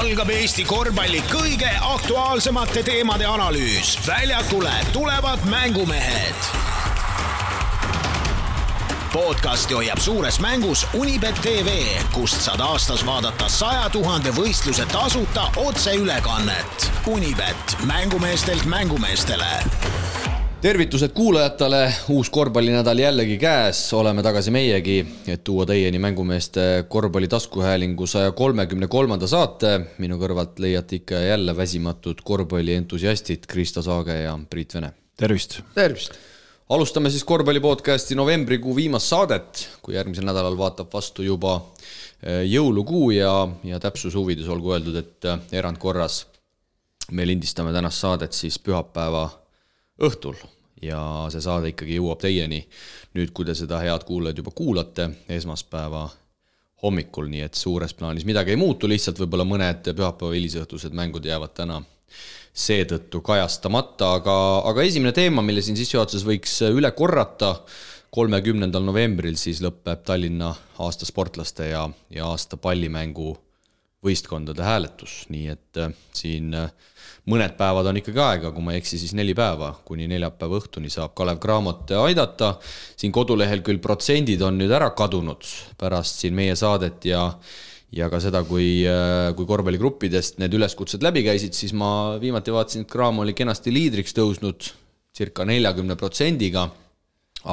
algab Eesti korvpalli kõige aktuaalsemate teemade analüüs. Väljakule tulevad mängumehed. Podcasti hoiab suures mängus Unibet TV, kust saad aastas vaadata 100 000 võistluse tasuta otseülekannet. Unibet, mängumeestelt mängumeestele. Tervitused kuulajatele, uus korvpallinädal jällegi käes, oleme tagasi meiegi, et tuua teieni mängumeeste korvpalli taskuhäälingu 133. saate. Minu kõrvalt leiate ikka jälle väsimatud korvpalli entusiastid Kristo Saage ja Priit Vene. Tervist! Tervist! Alustame siis korvpallipodcasti novembrikuu viimast saadet, kui järgmisel nädalal vaatab vastu juba jõulukuu ja täpsuse huvides olgu öeldud, et erandkorras me lindistame tänast saadet siis pühapäeva õhtul ja see saade ikkagi jõuab teieni nüüd, kui te seda head kuulajad juba kuulate esmaspäeva hommikul, nii et suures plaanis midagi ei muutu, lihtsalt võib-olla mõned pühapäeva hilisõhtused mängud jäävad täna seetõttu kajastamata, aga esimene teema, mille siin sissejuhatuses võiks üle korrata, 30. novembril siis lõpeb Tallinna aasta sportlaste ja aasta pallimängu võistkondade hääletus, nii et siin mõned päevad on ikkagi aega, kui ma ei eksi, siis 4 päeva, kuni neljapäeva õhtuni saab Kalev Cramot aidata. Siin kodulehel küll protsendid on nüüd ära kadunud pärast siin meie saadet ja ka seda, kui korvpalligruppidest need üleskutsed läbi käisid, siis ma viimati vaatasin, et Cram oli kenasti liidriks tõusnud circa 40%-ga,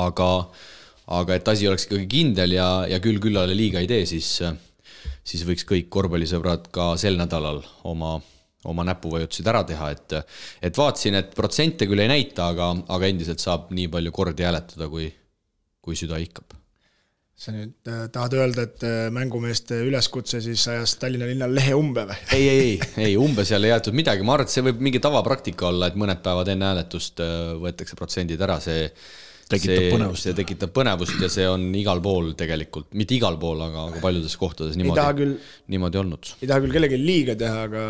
aga et asi oleks ikkagi kindel ja küllale liiga ei tee, siis võiks kõik korvpallisõbrad ka sel nädalal oma näpuvajutusid ära teha, et vaatasin, et protsente küll ei näita, aga endiselt saab nii palju kordi hääletada, kui süda ihkab. Sa nüüd tahad öelda, et mängumeeste üleskutse siis ajas Tallinna linnal lehe umbe või? Ei, umbe seal ei jäetud midagi. Ma arvan, et see võib mingi tavapraktika olla, et mõned päevad enne hääletust võetakse protsendid ära. See tekitab põnevust ja see on igal pool tegelikult, mitte igal pool, aga paljudes kohtades niimoodi olnud. Ei taha küll kellegi liiga teha, aga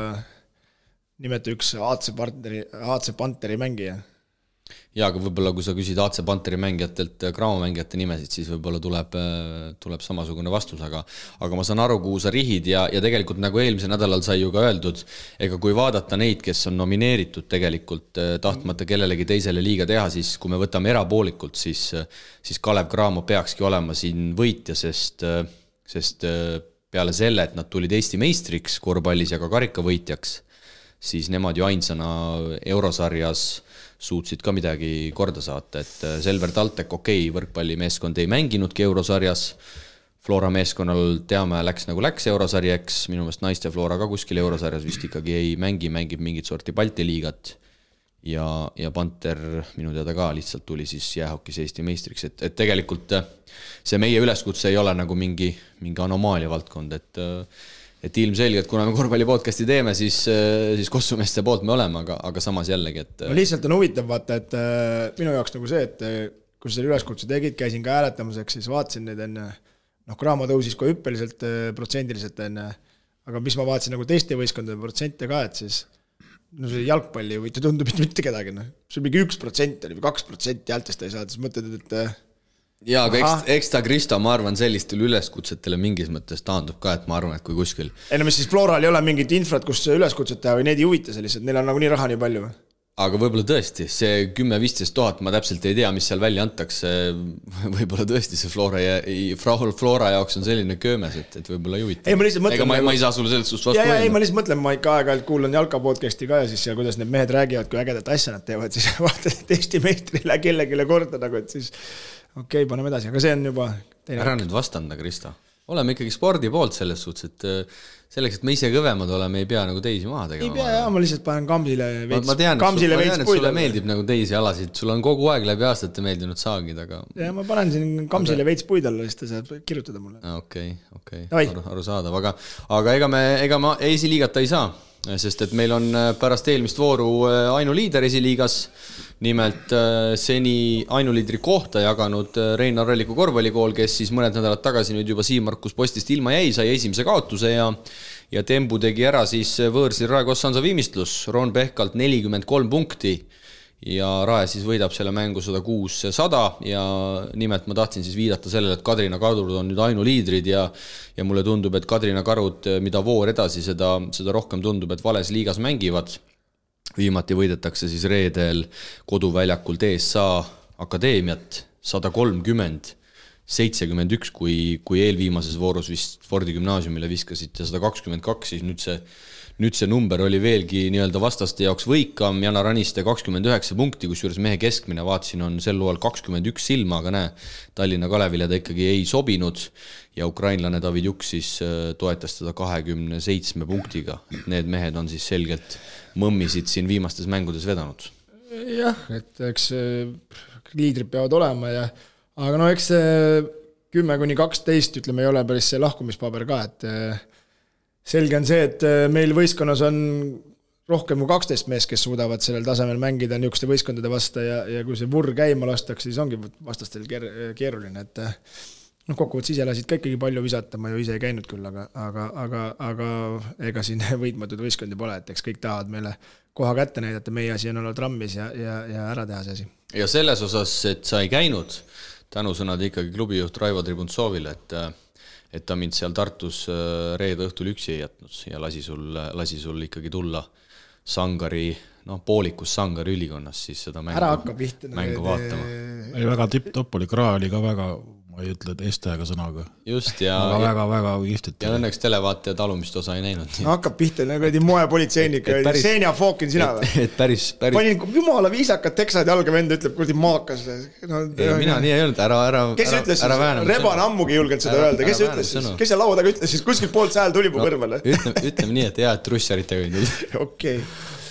nimeta üks AC Panteri mängija. Ja, aga võib-olla kui sa küsid AC Panteri mängijatelt Cramo mängijate nimesid, siis võib-olla tuleb samasugune vastus, aga ma saan aru, kuhu sa rihid ja tegelikult nagu eelmisel nädalal sai ju ka öeldud, ega kui vaadata neid, kes on nomineeritud tegelikult tahtmata kellelegi teisele liiga teha, siis kui me võtame erapoolikult, siis Kalev Cramo peakski olema siin võitja, sest peale selle, et nad tulid Eesti meistriks korvpallis ja ka karikavõitjaks, siis nemad ju ainsana eurosarjas suutsid ka midagi korda saata, et Selver Taltek, võrkpallimeeskond ei mänginudki eurosarjas, Flora meeskonnal teame läks nagu läks eurosarjaks, minu meelest naiste Flora ka kuskil eurosarjas vist ikkagi ei mängib mingit sorti Balti liigat ja Panter minu teada ka lihtsalt tuli siis jäähokis Eesti meistriks, et tegelikult see meie üleskutse ei ole nagu mingi anomaalia valdkond, et ilmselgelt, kuna me korvpallipodcasti teeme, siis kossumeeste poolt me oleme, aga samas jällegi, et... No lihtsalt on huvitav vaata, et minu jaoks nagu see, et kui selle üleskutse tegid, käisin ka hääletamiseks, siis vaatasin neid enne, Cramo tõusis ka hüppeliselt protsendiliselt enne, aga mis ma vaatasin nagu teiste võistkondade protsente ka, et siis see jalgpalli võite tundub mitte kedagi, see on mingi 1% või 2% häältest ei saada, siis mõtled, et... Jaa, aga eks ta Kristo, ma arvan, sellistele üleskutsetele mingis mõttes taandub ka, et ma arvan, et kui kuskil... Mis siis Floral ei ole mingit infrat, kus üleskutset teha või neid ei huvita sellised, neil on nagu nii raha nii palju või? Aga võib-olla tõesti, see 10-15 000, ma täpselt ei tea, mis seal välja antakse, võib-olla tõesti see Flora jaoks on selline köömes, et võib-olla ei huvita. Ega ma ei saa sulle sellest vastu öelda. Ma lihtsalt mõtlen, ma ikka aeg-ajalt kuulan jalkapodcasti ka ja siis kuidas need mehed räägivad, kui ägedat asja nad teevad, siis vaatad, et Eesti meistrile kellelegi korda nagu, et siis okei, paneme edasi, aga see on juba teine. Ära nüüd vastanda, Kristo. Oleme ikkagi spordi poolt selles suhtes, et selleks, et me ise kõvemad oleme, ei pea nagu teisi maha tegema. Ei pea, ma lihtsalt panen Kamsile veits ma tean, et sulle meeldib nagu teisi alasid, sul on kogu aeg läbi aastate meeldinud saagid, aga... Ja ma panen siin Kamsile veits puid alla, siis ta saab kirjutada mulle. Okei, aru saadav, aga ega ma esiliigata ei saa, sest et meil on pärast eelmist vooru ainuliider esiliigas, nimelt seni ainuliidri kohta jaganud Reinar Ralliku korvpallikool, kes siis mõned nädalad tagasi nüüd juba Siim-Markus postist ilma jäi, sai esimese kaotuse ja Tembu tegi ära siis võõrsil Raekoja Sansa viimistlus, Ron Pehkalt 43 punkti ja Rae siis võidab selle mängu 106-100 ja nimelt ma tahtsin siis viidata sellele, et Kadrina Karud on nüüd ainuliidrid ja mulle tundub, et Kadrina Karud, mida voor edasi, seda rohkem tundub, et vales liigas mängivad. Viimati võidetakse siis reedel koduväljakul TSA Akadeemiat 130-71, kui eelviimases voorus vist Fordi gümnaasiumile viskasite 122, siis nüüd see number oli veelgi nii-öelda vastaste jaoks võikam, Jana Raniste 29 punkti, kus juures mehe keskmine vaatsin on sel loal 21 silma, aga näe, Tallinna Kalevile ta ikkagi ei sobinud ja ukrainlane David Juk siis toetas teda 27 punktiga. Need mehed on siis selgelt mõmmisid siin viimastes mängudes vedanud. Jah, et eks liidrid peavad olema aga no eks 10-12 ütleme ei ole päris see lahkumispaber ka, et selge on see, et meil võistkonnas on rohkem kui 12 mees, kes suudavad sellel tasemel mängida niisuguste võistkondade vastu ja kui see vurr käima lastakse, siis ongi vastastel keeruline, et kokkuvõttes ise lasid ka ikkagi palju visata, ma ju ise ei käinud küll, aga ega siin võitmatud võistkondi pole, et eks kõik tahavad meile koha kätte näidata, meie asi on olla trammis ja ära teha see asi. Ja selles osas, et sa ei käinud, tänusõnad ikkagi klubijuht Raivo Tribuntsovile, et ta mind seal Tartus reede õhtul üksi ei jätnud ja lasi sul ikkagi tulla Sangari, poolikus Sangari ülikonnas siis seda mängu vaatama. Väga tipp-topp oli, Kraa oli ka väga, ma ei ütle, et eestajaga sõnaga. Just, ja väga kihvtit. Ja õnneks televaatajad alumist osa ei näinud. Hakkab pihta, nagu moepolitseinik, Senja Fookin sina või? Et päris... Panin jumala viisakad teksad jalga vend, ütleb, kurdi maakas. Mina nii ei olnud, ära kes ütles siis? Reban ammugi julgenud seda öelda. Kes ütles siis? Kes see laua taga ütles siis? Kuskil poolt sääl tuli mu kõrvale. Ütleme nii, et hea, et russaritega ei tulnud. Okei.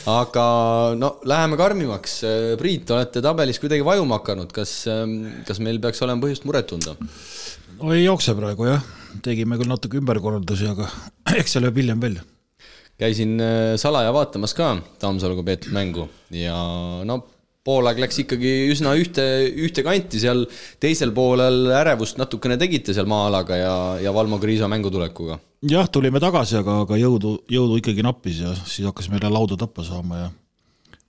Aga läheme karmimaks. Priit, olete tabelis kuidagi vajuma hakanud. Kas meil peaks olema põhjust muret tunda? No ei jookse praegu, jah. Tegime küll natuke ümberkorraldusi, aga eks see lööb hiljem välja. Käisin salaja vaatamas ka Tammsaluga peetud mängu ja poolaeg läks ikkagi üsna ühte kanti, seal teisel poolel ärevust natukene tegite seal maa-alaga ja Valmo Kriisa mängutulekuga. Jah, tulime tagasi, aga jõudu ikkagi nappis ja siis hakkas meile lauda tappa saama ja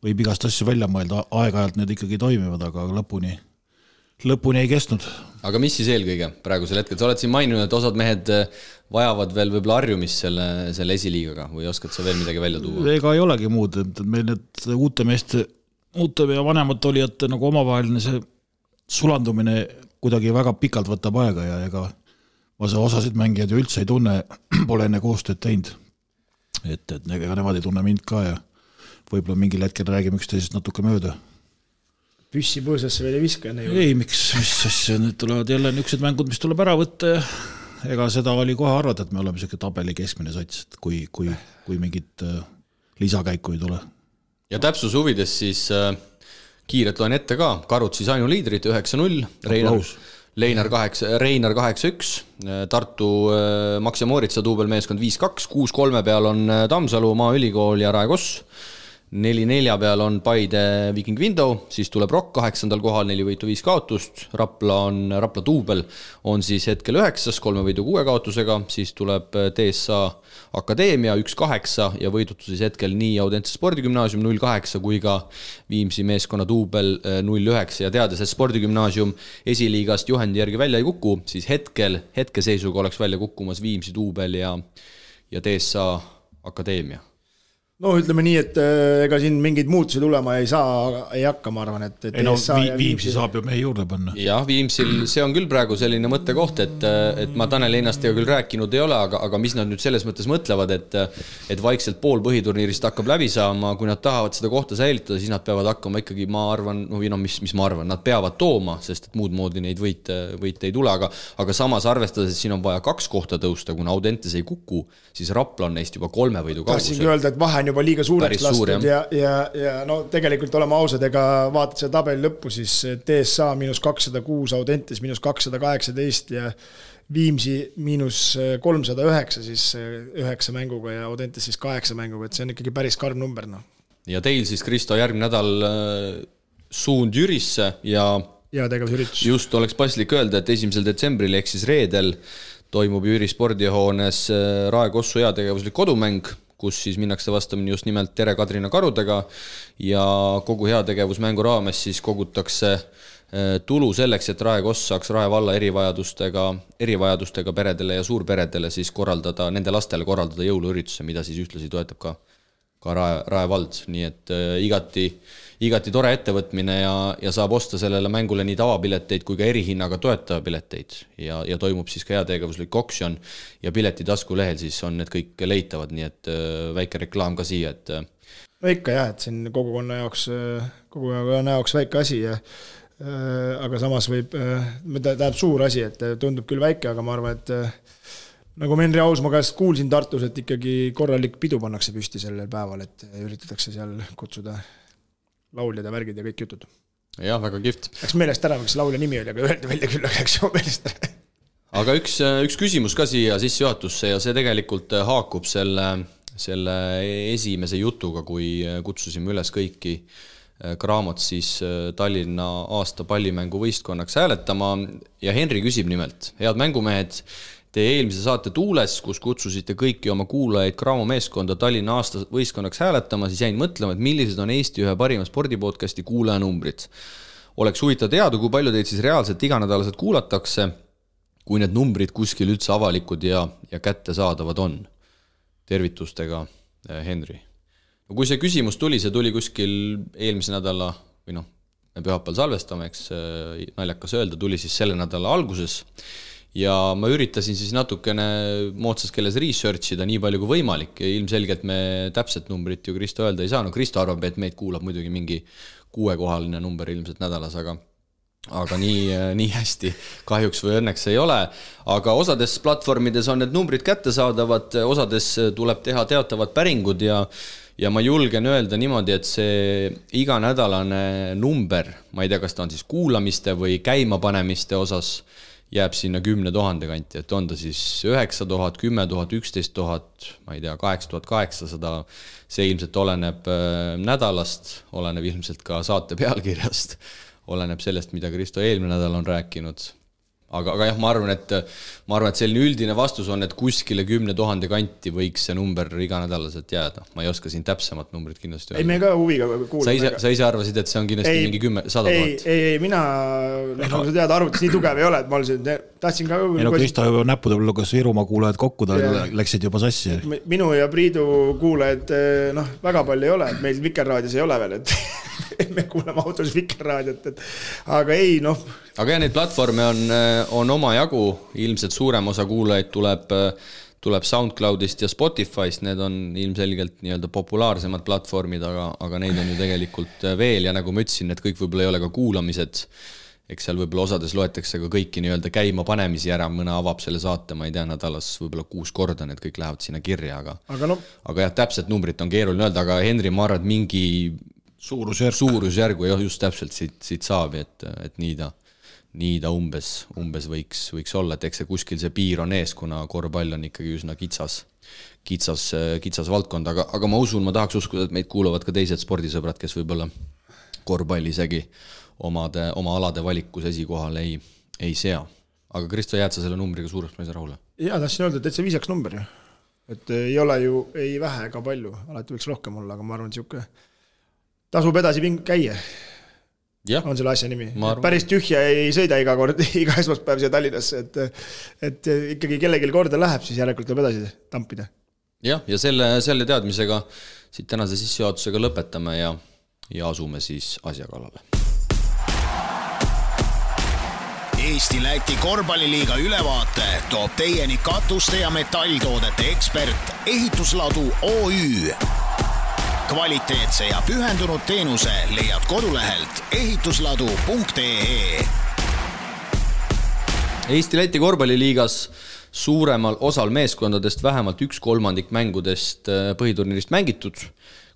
võib igast asju välja mõelda, aeg-ajalt need ikkagi toimivad, aga lõpuni ei kestnud. Aga mis siis eelkõige praegusel hetkel? Sa oled siin maininud, et osad mehed vajavad veel võib-olla harjumist selle esiliigaga või oskad sa veel midagi välja tuua? Ega ei olegi muud, et meil need uute ja vanemad olijate nagu omavaheline see sulandumine kuidagi väga pikalt võtab aega ja ega ma see osasid mängijad ju üldse ei tunne, pole enne koostööd teinud. Et ega nemad ei tunne mind ka ja võib-olla mingil hetkel räägime üksteisest natuke mööda. Püssi põõsasse veel ei viska? Ei, miks asja, nüüd tulevad jälle niisugused mängud, mis tuleb ära võtta ja ega seda oli kohe arvata, et me oleme selline tabeli keskmine sats, kui mingit lisakäiku ei tule. Ja täpsus huvides siis kiiret loen ette ka, Karud siis ainuliidrid 9-0, Reinar 8-1, Tartu Max ja Mooritsa duubelmeeskond 5-2, 6-3 peal on Tammsalu, Maaülikool ja Rae Koss, 4-4 peal on Paide Viking Window, siis tuleb Rock 8. kohal, 4 võitu 5 kaotust, Rapla duubel on siis hetkel 9, 3 võitu 6 kaotusega, siis tuleb TSA Akadeemia 1-8 ja võidutu siis hetkel nii Audentse spordigümnaasium 0-8 kui ka Viimsi meeskonna duubel 0-9 ja teades, et spordigümnaasium esiliigast juhendi järgi välja ei kuku, siis hetkeseisuga oleks välja kukkumas Viimsi duubel ja TSA Akadeemia. No ütleme nii, et ega siin mingeid muutusi tulema ei hakka, ma arvan, et Viimsi saab ju meie juurde panna. Jah, Viimsil see on küll praegu selline mõttekoht, et ma Tanel Einastega küll rääkinud ei ole, aga mis nad nüüd selles mõttes mõtlevad, et vaikselt pool põhiturniirist hakkab läbi saama, kui nad tahavad seda kohta säilitada, siis nad peavad hakkama ikkagi, ma arvan, mis ma arvan, nad peavad tooma, sest et muud moodi neid võite ei tule, aga samas arvestades, et siin on vaja 2 kohta tõusta, kuna Audentes ei kuku, siis Rapla on neist juba 3 võidu kaugusel. Tahtsingi öelda, et vahe on juba liiga suureks lastud ja no tegelikult oleme ausad, ega vaatad selle tabeli lõppu, siis TSA -206, Audentes -218 ja Viimsi -309, siis 9 mänguga ja Audentes siis 8 mänguga, et see on ikkagi päris karm number. No. Ja teil siis, Kristo, järgmine nädal suund Jürisse ja tegevusüritus. Just oleks paslik öelda, et 1. detsembril ehk siis reedel toimub Jüri spordihoones Rae Kossu heategevuslik kodumäng, kus siis minnakse vastamini just nimelt Tere Kadrina karudega ja kogu heategevusmängu raames siis kogutakse tulu selleks, et Rae Koss saaks Rae valla erivajadustega peredele ja suurperedele siis korraldada, nende lastele korraldada jõuluürituse, mida siis ühtlasi toetab ka Rae vald, nii et igati tore ettevõtmine ja saab osta sellele mängule nii tavapileteid kui ka erihinnaga toetajapileteid ja toimub siis ka heategevuslik oksjon ja piletitasku lehel siis on need kõik leitavad, nii et väike reklaam ka siia, et no ikka jah, et siin kogukonna jaoks väike asi ja aga samas tähendab suur asi, et tundub küll väike, aga ma arvan, et nagu ma Henri Ausmaa käest kuulsin Tartus, et ikkagi korralik pidu pannakse püsti sellel päeval, et üritatakse seal kutsuda lauljad ja värgid ja kõik jutud. Jah, väga kihvt. Läks meelest ära, miks laulja nimi oli, aga öeldi välja küll, läks ju meelest ära. Aga üks küsimus ka siia sissejuhatusse ja see tegelikult haakub selle esimese jutuga, kui kutsusime üles kõiki Graamot siis Tallinna aasta pallimängu võistkonnaks hääletama ja Henri küsib nimelt, head mängumehed, te eelmise saate Tuules, kus kutsusite kõiki oma kuulajaid Graamo meeskonda Tallinna aasta võistkonnaks hääletama, siis jäin mõtlema, et millised on Eesti ühe parima spordipodcasti kuulajanumbrid. Oleks huvitav teada, kui palju teid siis reaalselt iganädalaselt kuulatakse, kui need numbrid kuskil üldse avalikud ja kättesaadavad on. Tervitustega, Henri. Kui see küsimus tuli, see tuli kuskil eelmise nädala, või noh, me pühapäeval salvestame, eks naljakas öelda, tuli siis selle nädala alguses ja ma üritasin siis natukene moodsas keeles researchida nii palju kui võimalik ja ilmselgelt me täpset numbrit ju Kristo öelda ei saa, no Kristo arvab, et meid kuulab muidugi mingi 6-kohaline number ilmselt nädalas, aga nii hästi kahjuks või õnneks ei ole, aga osades platvormides on need numbrid kättesaadavad, osades tuleb teha teatavad päringud ja ma julgen öelda niimoodi, et see iganädalane number, ma ei tea, kas ta on siis kuulamiste või käimapanemiste osas, jääb sinna 10 000 kanti, et on ta siis 9000, 10 000, 11 000, ma ei tea, 8800, see ilmselt oleneb nädalast, oleneb ilmselt ka saate pealkirjast, oleneb sellest, mida Kristo eelmine nädal on rääkinud. Aga jah, ma arvan, et selline üldine vastus on, et kuskile 10 000 kanti võiks see number iganädalaselt jääda. Ma ei oska siin täpsemad numbrid kindlasti öelda. Ei, me ka huviga kuulame. Sa ise arvasid, et see on kindlasti mingi 100 000? Ei, mina, nagu sa tead, arvutis nii tugev ei ole, et ma tahtsin ka... Ei no Kristo juba näppude luges Virumaa kuulajad kokku, ta läksid juba sassi. Minu ja Priidu kuulajad väga palju ei ole, et meil Vikerraadios ei ole veel, et me kuulame autos Vikerraadiot, aga ei, Aga neid platvorme on oma jagu, ilmselt suurem osa kuulajaid tuleb SoundCloudist ja Spotify'st, need on ilmselgelt nii-öelda populaarsemad platvormid, aga neid on ju tegelikult veel ja nagu ma ütlesin, need kõik võib-olla ei ole ka kuulamised, eks seal võib-olla osades loetakse ka kõiki nii-öelda käima panemisi ära, mõne avab selle saate, ma ei tea, nädalas võib-olla 6 korda, need kõik lähevad sinna kirja, aga jah, täpselt numbrit on keeruline öelda, aga Henri, ma arvan, et mingi suurusjärgu just täpselt siit saab, et nii ta umbes võiks olla, et eks see kuskil see piir on ees, kuna korvpall on ikkagi üsna kitsas valdkond, aga ma usun, ma tahaks uskuda, et meid kuulavad ka teised spordisõbrad, kes võib-olla korvpalli isegi oma alade valikus esikohal ei sea. Aga Kristo, jääd sa selle numbriga suureks mõisa rahule? Jaa, tahtsin öelda, et see viisaks number ju. Et ei ole ju ei vähe ega palju, alati võiks rohkem olla, aga ma arvan, et tasub edasi käia. Ja, on selle asja nimi. Päris tühja ei sõida iga esmaspäev siia Tallinnasse, et ikkagi kellelgi korda läheb, siis järelikult tuleb edasi tampida. Ja selle teadmisega siit tänase sissejuhatusega lõpetame ja asume siis asja kallale. Eesti-Läti korvpalliliiga ülevaate toob teieni katuste ja metalltoodete ekspert Ehitusladu OÜ. Kvaliteetse ja pühendunud teenuse leiad kodulehelt ehitusladu.ee. Eesti-Läti korvpalliliigas suuremal osal meeskondadest vähemalt 1/3 mängudest põhiturniirist mängitud,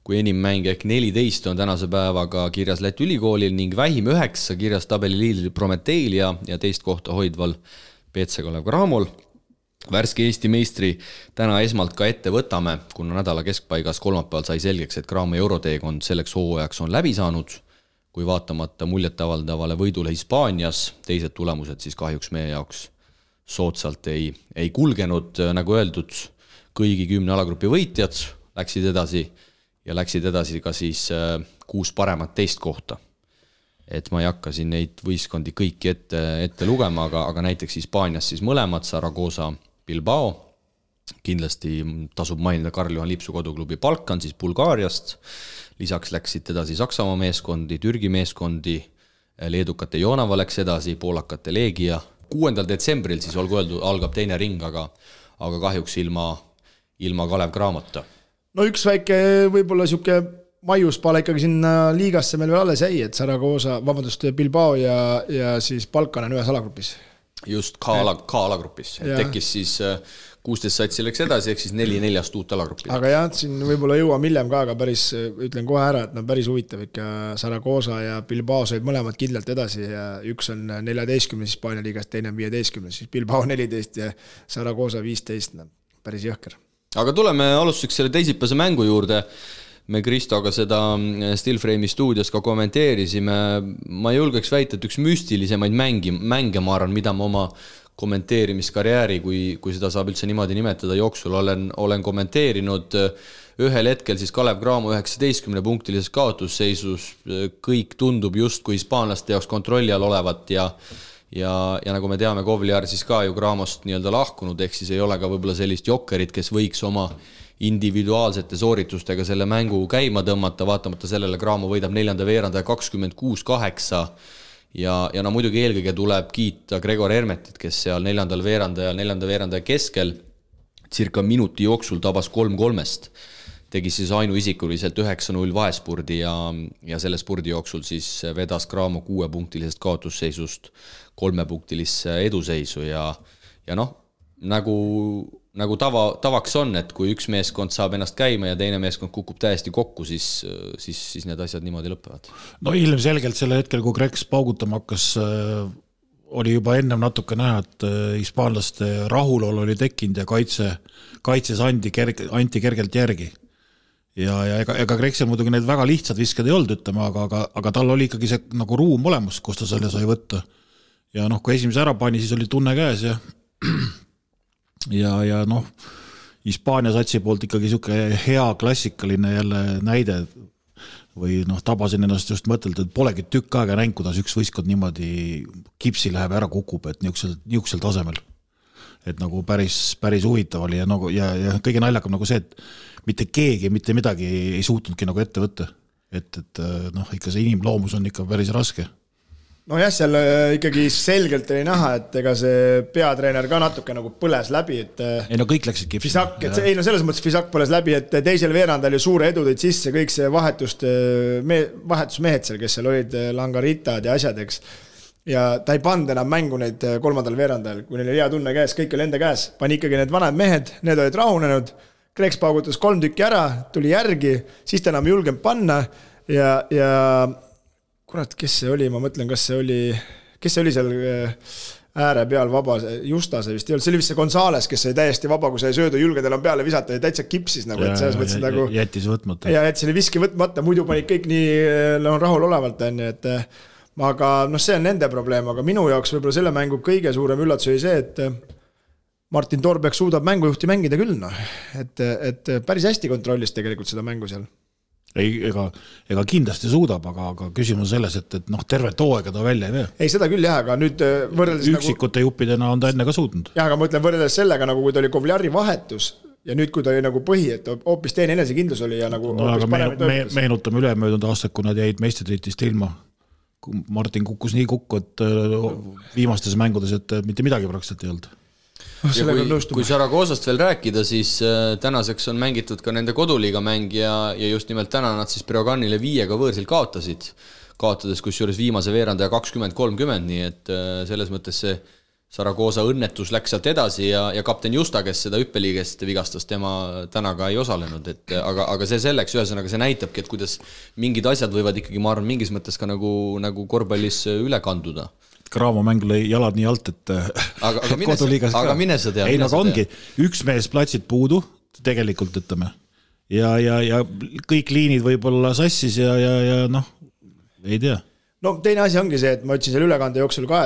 kui enim mänge ehk 14 on tänase päevaga kirjas Läti ülikoolil ning vähim 9 kirjas tabeli liidril Prometeil ja teist kohta hoidval PC Kalev Cramol. Värske Eesti meistri täna esmalt ka ette võtame, kuna nädala keskpaigas kolmapäeval sai selgeks, et Cramo euroteekond selleks hooajaks on läbi saanud, kui vaatamata muljetavaldavale võidule Hispaanias, teised tulemused siis kahjuks meie jaoks soodsalt ei kulgenud, nagu öeldud, kõigi 10 alagrupi võitjad, läksid edasi ja läksid edasi ka siis 6 paremat teist kohta. Et ma ei hakka siin neid võistkondi kõiki ette lugema, aga näiteks Hispaanias siis mõlemad, Zaragoza, Bilbao, kindlasti tasub mainida Karl-Juhan Lipsu koduklubi Balkan siis Bulgaariast, lisaks läksid edasi Saksamaa meeskondi, Türgi meeskondi, leedukate Jonava läks edasi, poolakate Leegia. 6. detsembril siis olgu öeldud, algab teine ring, aga kahjuks ilma Kalev Cramota. No üks väike võib-olla siuke maiuspaala ikkagi sinna liigasse meil veel alles jäi, et Zaragoza, Bilbao ja siis Balkan on ühes alagrupis. Just K-alagrupis. Tekkis siis 16 satsi läks edasi, ehk siis 4 uut alagruppi. Aga jah, siin võib-olla jõuam hiljem ka, aga päris, ütlen kohe ära, et päris huvitav ikka Zaragoza ja Bilbao said mõlemad kindlalt edasi ja üks on 14 Hispaania liigast, teine on 15, siis Bilbao 14 ja Zaragoza 15, päris jõhker. Aga tuleme alustuseks selle teisipäevase mängu juurde. Me Kristoga seda Stillframe'i stuudios ka kommenteerisime. Ma julgeks väita, et üks müstilisemaid mänge ma arvan, mida ma oma kommenteerimiskarjääri, kui seda saab üldse niimoodi nimetada, jooksul olen kommenteerinud. Ühel hetkel siis Kalev Cramo 19-punktilises kaotusseisus, kõik tundub just kui hispaanlaste jaoks kontrolli all olevat ja nagu me teame, Kovliar siis ka ju Cramost nii-öelda lahkunud, ehk siis ei ole ka võib-olla sellist jokkerit, kes võiks oma individuaalsete sooritustega selle mängu käima tõmmata, vaatamata sellele Cramo võidab 4. veerandaja 26-8 ja no muidugi eelkõige tuleb kiita Gregor Hermetit, kes seal 4. veerandaja keskel circa minuti jooksul tabas 3-3-st, tegi siis ainuisikuliselt 9-0 vaespurdi ja selle spurdi jooksul siis vedas Cramo 6-punktilisest kaotusseisust 3-punktilisse eduseisu ja noh, nagu tavaks on, et kui üks meeskond saab ennast käima ja teine meeskond kukub täiesti kokku, siis need asjad niimoodi lõpevad. No ilmselgelt selle hetkel, kui Kreks paugutama hakkas, oli juba ennem natuke näha, et hispaanlaste rahulol oli tekkinud ja kaitses anti kergelt järgi. Ja ega Kreksel muidugi need väga lihtsad viskad ei olnud, ütlema, aga tal oli ikkagi see nagu ruum olemas, kus ta selle sai võtta. Ja noh, kui esimese ära pani, siis oli tunne käes ja noh, Hispaania satsi poolt ikkagi siuke hea klassikaline jälle näide või noh, tabasin ennast just mõtelda, et polegi tükk aega näinud, kuidas üks võistkond niimoodi kipsi läheb ära kukub, et niuksel tasemel. Et nagu päris huvitav oli ja kõige naljakam nagu see, et mitte keegi, mitte midagi ei suutnudki nagu ette võtta. Et noh, ikka see inimloomus on ikka päris raske. No jah, seal ikkagi selgelt oli näha, et ega see peatreener ka natuke nagu põles läbi, et ei no kõik läksid kipsi. Ei no selles mõttes Fisak põles läbi, et teisel veerandal oli suure edu tõid sisse kõik see vahetusmehed seal, kes seal olid langaritad ja asjadeks. Ja ta ei pand enam mängu neid 3. veerandal, kui neil oli hea tunne käes, kõik oli enda käes. Pani ikkagi need vanad mehed, need olid rahunenud, Kreks paugutas 3 tükki ära, tuli järgi, siis ta enam julgenud panna ja kurat, kes see oli, ma mõtlen, kes see oli seal ääre peal vaba, Justase vist ei olnud, see oli vist see Gonzales, kes sai täiesti vaba, kui sai söödu julgedel on peale visata ja täitsa kipsis nagu, et selles mõttes nagu jättis võtmata. Ja jättis selle viski võtmata, muidu panid kõik nii rahul olevalt, et aga noh, see on nende probleem, aga minu jaoks võib-olla selle mängu kõige suurem üllatus oli see, et Martin Torbek suudab mängujuhti mängida küll, noh, et päris hästi kontrollis tegelikult seda mängu seal. Ega kindlasti suudab, aga küsimus selles, et noh, terve tooega ta välja ei vee. Ei, seda küll jah, aga nüüd võrreldes üksikute juppidena on ta enne ka suutnud. Jah, aga ma ütlen võrreldes sellega, nagu kui ta oli Kovliari vahetus ja nüüd, kui ta oli nagu põhi, et hoopis teine enesekindlus oli ja nagu no, aga meenutame ülemöödunud aastat, kui nad jäid meistritiitlist ilma. Martin kukkus nii kukku, et viimastes mängudes, et mitte midagi praktiliselt ei olnud. Ja kui Zaragozast veel rääkida, siis tänaseks on mängitud ka nende koduliiga mäng ja just nimelt täna nad siis Breoganile 5 võõrsil kaotades kusjuures viimase veerandaja 20-30, nii et selles mõttes see Zaragoza õnnetus läks sealt edasi ja kapten Justa, kes seda hüppeliigest vigastas, tema täna ka ei osalenud, aga see selleks, ühesõnaga see näitabki, et kuidas mingid asjad võivad ikkagi, ma arvan, mingis mõttes ka nagu korvpallis üle kanduda. Cramo mäng lõi jalad nii alt, et aga mine sa tea. Ei, nagu ongi, üks mees platsid puudu, tegelikult ütleme, ja kõik liinid võib olla sassis ja noh, ei tea. no teine asi ongi see, et ma ütlesin selle ülekande jooksul ka,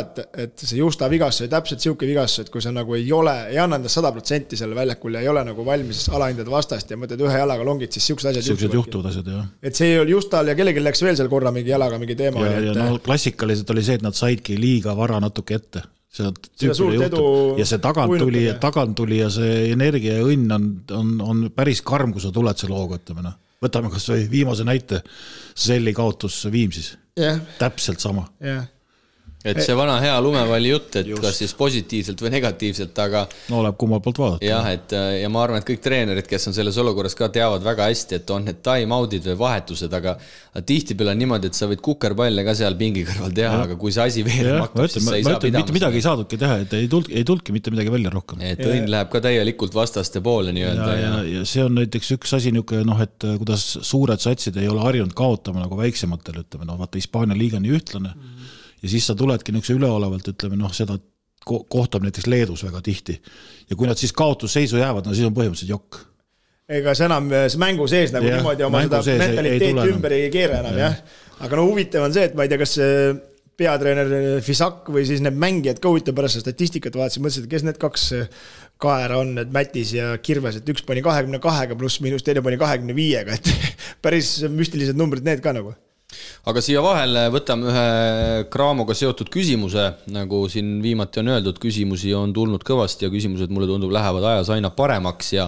et see Justa vigastus oli täpselt siuke vigastus, et kui sa nagu ei anna endast 100% selle väljakul ja ei ole nagu valmis alahindada vastast ja mõtled ühe jalaga longid, siis siuksed asjad juhtuvad asjad, jah. Et see ei olnud Justal ja kellelgi läks veel seal korra mingi jalaga mingi teema. Ja no klassikaliselt oli see, et nad saidki liiga vara natuke ette. Ja see tagant tuli ja see energia ja õnn on päris karm, kui sa tuled selle hooga, ütleme. Võtame kas või viimase näite, Selli kaotus Viimsis. Täpselt sama. Et see vana hea lumevalli jutt, et kas siis positiivselt või negatiivselt, aga no oleb kummal poolt vaadata. Jah, ja ma arvan, et kõik treenerid, kes on selles olukorras ka teavad väga hästi, et on need time-outid või vahetused, aga tihtipeale on niimoodi, et sa võid kukerpalle ka seal pingi kõrval teha, aga kui see asi veel maktub, siis sa ei saa pidama. Mitte midagi ei saadudki teha, et ei tulki mitte midagi välja rohkem. Et õnn läheb ka täielikult vastaste poole nii-öelda. Ja see on näiteks üks asi niisugune, et kuidas suured satsid ei ole harjunud kaotama nagu väiksematel, ütleme, vaata Hispaania liiga nii ühtlane. Ja siis sa tuledki niisuguse üleolevalt, ütleme, seda kohtab näiteks Leedus väga tihti. Ja kui nad siis kaotusseisu jäävad, no siis on põhimõtteliselt jokk. Ega see enam mängu sees nagu niimoodi oma seda mentaliteeti ümber ei keera enam, jah. Aga no huvitav on see, et ma ei tea, kas peatreener Fisak või siis need mängijad ka huvitav pärast statistikat vaatasin, mõtlesin, et kes need kaks kaera on, et Mätis ja Kirves, et üks pani 22 pluss miinus, teine pani 25-ga, et päris müstilised numbrid need ka nagu. Aga siia vahele võtame ühe Craamoga seotud küsimuse, nagu siin viimati on öeldud, küsimusi on tulnud kõvasti ja küsimused mulle tundub lähevad ajas aina paremaks ja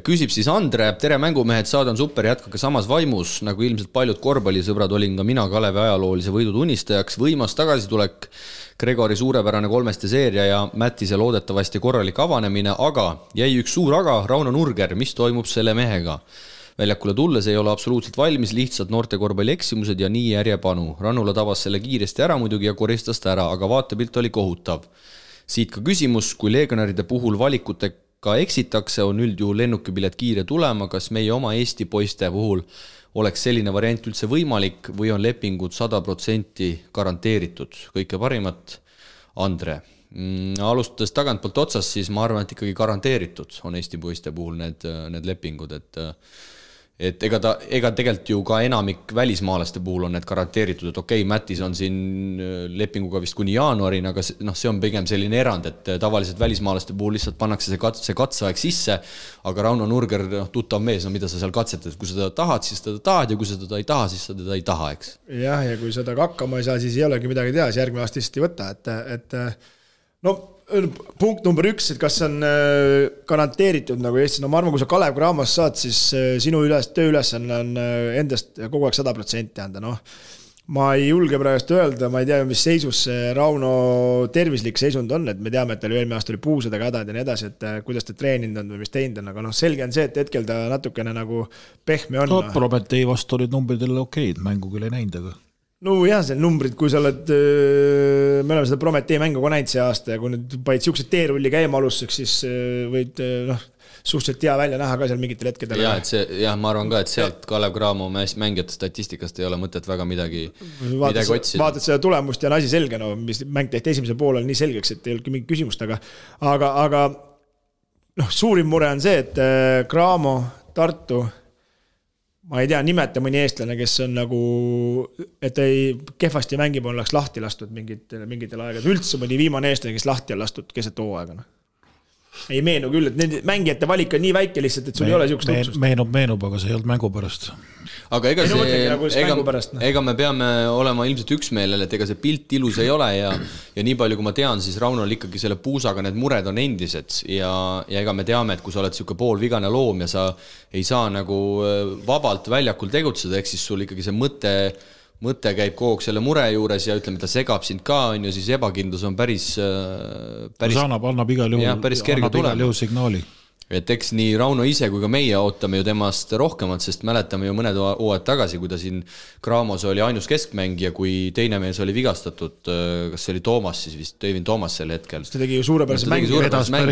küsib siis Andre, tere mängumehed, saade on super, jätkake samas vaimus, nagu ilmselt paljud korvpallisõbrad olin ka mina Kalevi ajaloolise võidu tunnistajaks, võimas tagasitulek, Gregori suurepärane 3 seeria ja Mättise loodetavasti korralik avanemine, aga jäi üks suur aga, Rauno Nurger, mis toimub selle mehega? Väljakule tulles ei ole absoluutselt valmis, lihtsalt noorte korvpalli eksimused ja nii järjepanu. Rannula tabas selle kiiresti ära muidugi ja koristas ta ära, aga vaatepilt oli kohutav. Siit ka küsimus, kui legionäride puhul valikutega eksitakse, on üldjuhul lennukipilet kiire tulema, kas meie oma Eesti poiste puhul oleks selline variant üldse võimalik või on lepingud 100% garanteeritud? Kõike parimat, Andre. Alustades tagantpoolt otsas, siis ma arvan, et ikkagi garanteeritud on Eesti poiste puhul need lepingud, et ega tegelikult ju ka enamik välismaalaste puhul on need garanteeritud, et okei, Mätis on siin lepinguga vist kuni jaanuarini, aga see on pigem selline erand, et tavaliselt välismaalaste puhul lihtsalt pannakse see katseaeg sisse, aga Rauno Nurger, tuttav mees, mida sa seal katsetad, kui sa teda tahad, siis teda tahad ja kui sa teda ei taha, siis sa teda ei taha, eks? Jah, ja kui seda hakkama ei saa, siis ei olegi midagi teha, siis järgmine aasta lihtsalt ei võta, et no punkt number 1, et kas on garanteeritud nagu Eestis, no ma arvan, kui sa Kalev Cramos saad, siis sinu tööülesanne on endast kogu aeg 100% anda, noh. Ma ei julge praegu öelda, ma ei tea, mis seisus Rauno tervislik seisund on, et me teame, et tal eelmine aasta oli puusadega hädad ja nii edasi, et kuidas ta treeninud on või mis teinud on, aga noh, selge on see, et hetkel ta natukene nagu pehme on. No, Prometee vastu olid numbridele okeid, mängu küll ei näinud, aga no jah, see numbrid, kui sa oled, me oleme seda Prometee mängu ka näinud see aasta ja kui nüüd panid siuksed teerulli käima alustuseks, siis võid suhteliselt hea välja näha ka seal mingitel hetkedel. Ma arvan ka, et sealt Kalev Cramo mängijate statistikast ei ole mõtet väga midagi otsida. Vaatad seda tulemust ja on asi selge, no mis mäng tehti esimesel poolel nii selgeks, et ei olnudki mingit küsimust, aga suurim mure on see, et Cramo, Tartu, ma ei tea, nimeta mõni eestlane, kes on nagu, et ei kehvasti mängib, on lahti lastud mingitel aegad. Üldse mõni viimane eestlane, kes lahti on lastud keset hooaega. Ei meenu küll, et need mängijate valik on nii väike lihtsalt, et sul ei ole siukest otsust. Meenub, aga see ei olnud mängu pärast. Aga ega me peame olema ilmselt üksmeelel, et ega see pilt ilus ei ole ja nii palju, kui ma tean, siis Raunol ikkagi selle puusaga need mured on endised ja ega me teame, et kui sa oled siuke poolvigane loom ja sa ei saa nagu vabalt väljakul tegutseda, ehk siis sul ikkagi see mõte käib kogu selle mure juures ja ütleme, ta segab sind ka, on ju, siis ebakindlus on päris annab igal juhul signaali. Et eks nii Rauno ise kui ka meie ootame ju temast rohkemat, sest mäletame ju mõned hooajad tagasi, kui ta siin Cramos oli ainus keskmängija, kui teine mees oli vigastatud, kas see oli Toomas siis vist, Tøivin Toomas sel hetkel. Ta tegi ju suurepärast mängi,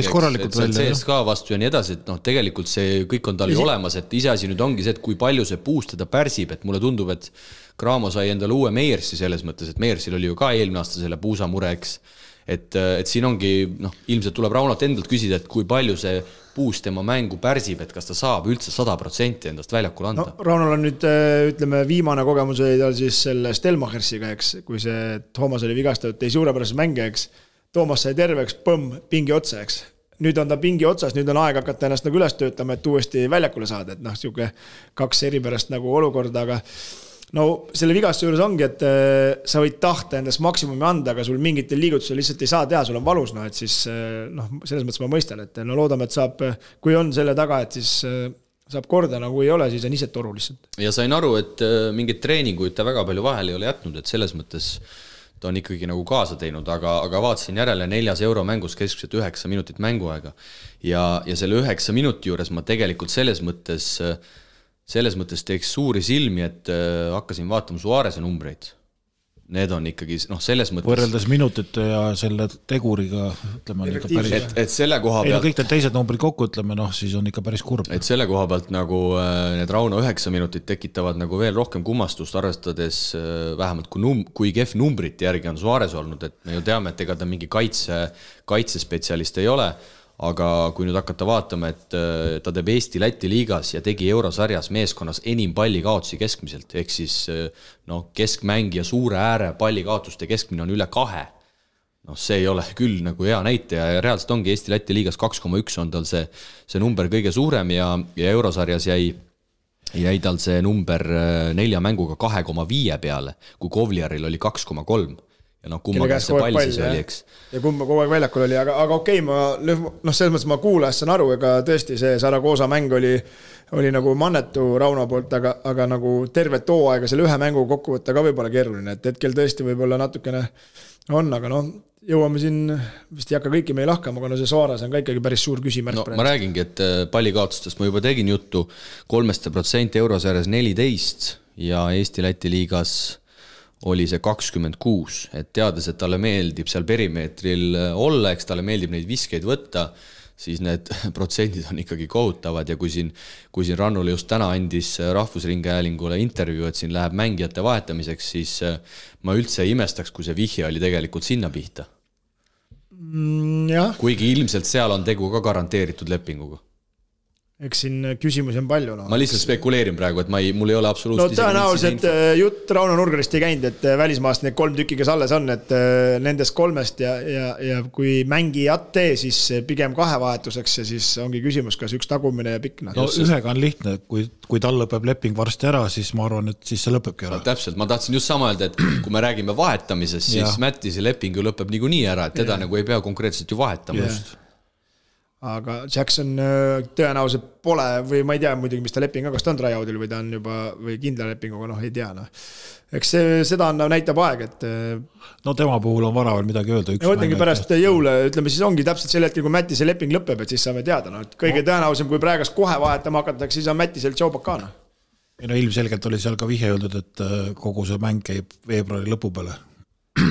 CSK vastu ja nii edasi, et tegelikult see kõik on tal ju olemas, et iseasi nüüd ongi see, et kui palju see puust teda pärsib, et mulle tundub, et Cramo sai endale uue Meiersi selles mõttes, et Meiersil oli ju ka eelmine aasta selle puusamure, eks. et siin ongi, ilmselt tuleb Raunalt endalt küsida, et kui palju see puus tema mängu pärsib, et kas ta saab üldse 100% endast väljakule anda. No, Raunal on nüüd, ütleme, viimane kogemus oli tal siis selle Stelmachersiga, eks, kui see Toomas oli vigastatud, tei suurepärases mänge, eks. Toomas sai terveks, pingi otsa, eks. Nüüd on ta pingi otsas, nüüd on aeg hakata ennast nagu üles töötama, et uuesti väljakule saada, et siuke 2 eripärast nagu olukorda, aga no selle vigastuse juures ongi, et sa võid tahta endast maksimumi anda, aga sul mingitel liigutusel lihtsalt ei saa teha, sul on valus, et siis selles mõttes ma mõistan, et loodame, et saab, kui on selle taga, et siis saab korda, nagu ei ole, siis on ise toru lihtsalt. Ja sain aru, et mingid treeninguid ta väga palju vahel ei ole jätnud, et selles mõttes ta on ikkagi nagu kaasa teinud, aga vaatasin järele 4 euro mängus keskselt 9 minutit mänguaega ja selle 9 minuti juures ma tegelikult selles mõttes teeks suuri silmi, et hakkasin vaatama Suarese numbreid. Need on ikkagi, selles mõttes... Võrreldes minutite ja selle teguriga, ütleme, et selle koha pealt... kõik need teised numbrid kokku, ütleme, siis on ikka päris kurb. Et selle koha pealt nagu need Rauno 9 minutit tekitavad nagu veel rohkem kummastust, arvestades vähemalt kui kehv numbrite järgi on Suarez olnud, et me ju teame, et ega ta mingi kaitsespetsialist ei ole, aga kui nüüd hakata vaatama, et ta teeb Eesti-Läti liigas ja tegi eurosarjas meeskonnas enim pallikaotusi keskmiselt, ehk siis keskmängija suure ääre pallikaotuste keskmine on üle 2. See ei ole küll nagu hea näitaja ja reaalselt ongi Eesti-Läti liigas 2,1 on tal see number kõige suurem ja eurosarjas jäi tal see number 4 mänguga 2,5 peale, kui Kovliaril oli 2,3. Ja kumma käest see pall siis oli, eks. Ja kumma kogu aeg väljakul oli, aga okei, selles mõttes ma kuulas, saan aru, ega tõesti see Saragosa mäng oli nagu mannetu Rauno poolt, aga nagu tervet hooaega selle ühe mängu kokku võtta ka võib-olla keeruline, et hetkel tõesti võib-olla natukene on, aga jõuame siin, vist ei hakka kõiki meil lahkama, aga see Suarez on ka ikkagi päris suur küsimärk. Ma räägingi, et pallikaotustest ma juba tegin juttu, 3% eurosarjas 14 ja Eesti-Läti liigas oli see 26, et teades, et talle meeldib seal perimeetril olla, eks talle meeldib neid viskeid võtta, siis need protsendid on ikkagi kohutavad ja kui siin Rannule just täna andis Rahvusringhäälingule intervjuu, et siin läheb mängijate vahetamiseks, siis ma üldse ei imestaks, kui see vihje oli tegelikult sinna pihta. Kuigi ilmselt seal on tegu ka garanteeritud lepinguga. Eks siin küsimusi on palju. Ma lihtsalt spekuleerin praegu, et mul ei ole absoluutselt... tõenäoliselt jutt Rauno Nurgarist ei käinud, et välismaast need 3 tükki, kes alles on, et nendest 3 ja kui mängijat tee, siis pigem 2 vahetuseks ja siis ongi küsimus, kas üks tagumine ja pikk. Ühega on lihtne, kui tal lõpeb leping varsti ära, siis ma arvan, et siis see lõpebki ära. Täpselt, ma tahtsin just sama öelda, et kui me räägime vahetamisest, siis Mättise leping ju lõpeb niikuinii ära, et teda nagu ei pea konkreetselt ju vahetama just. Aga Jackson tõenäoliselt pole või ma ei tea muidugi, mis ta leping on, kas ta on tryout'il või ta on juba või kindla lepinguga, ei tea. Eks seda näitab aeg, et... tema puhul on vara veel midagi öelda. Mõtlengi pärast jõule, ütleme siis ongi täpselt sel hetkel, kui Mättise leping lõpeb, et siis saame teada. Kõige tõenäolisem, kui praegast kohe vahetama hakatakse, siis on Mättisel Tšaubakana. Ilmselgelt oli seal ka vihje öeldud, et kogu see mäng käib veebruari lõpu peale.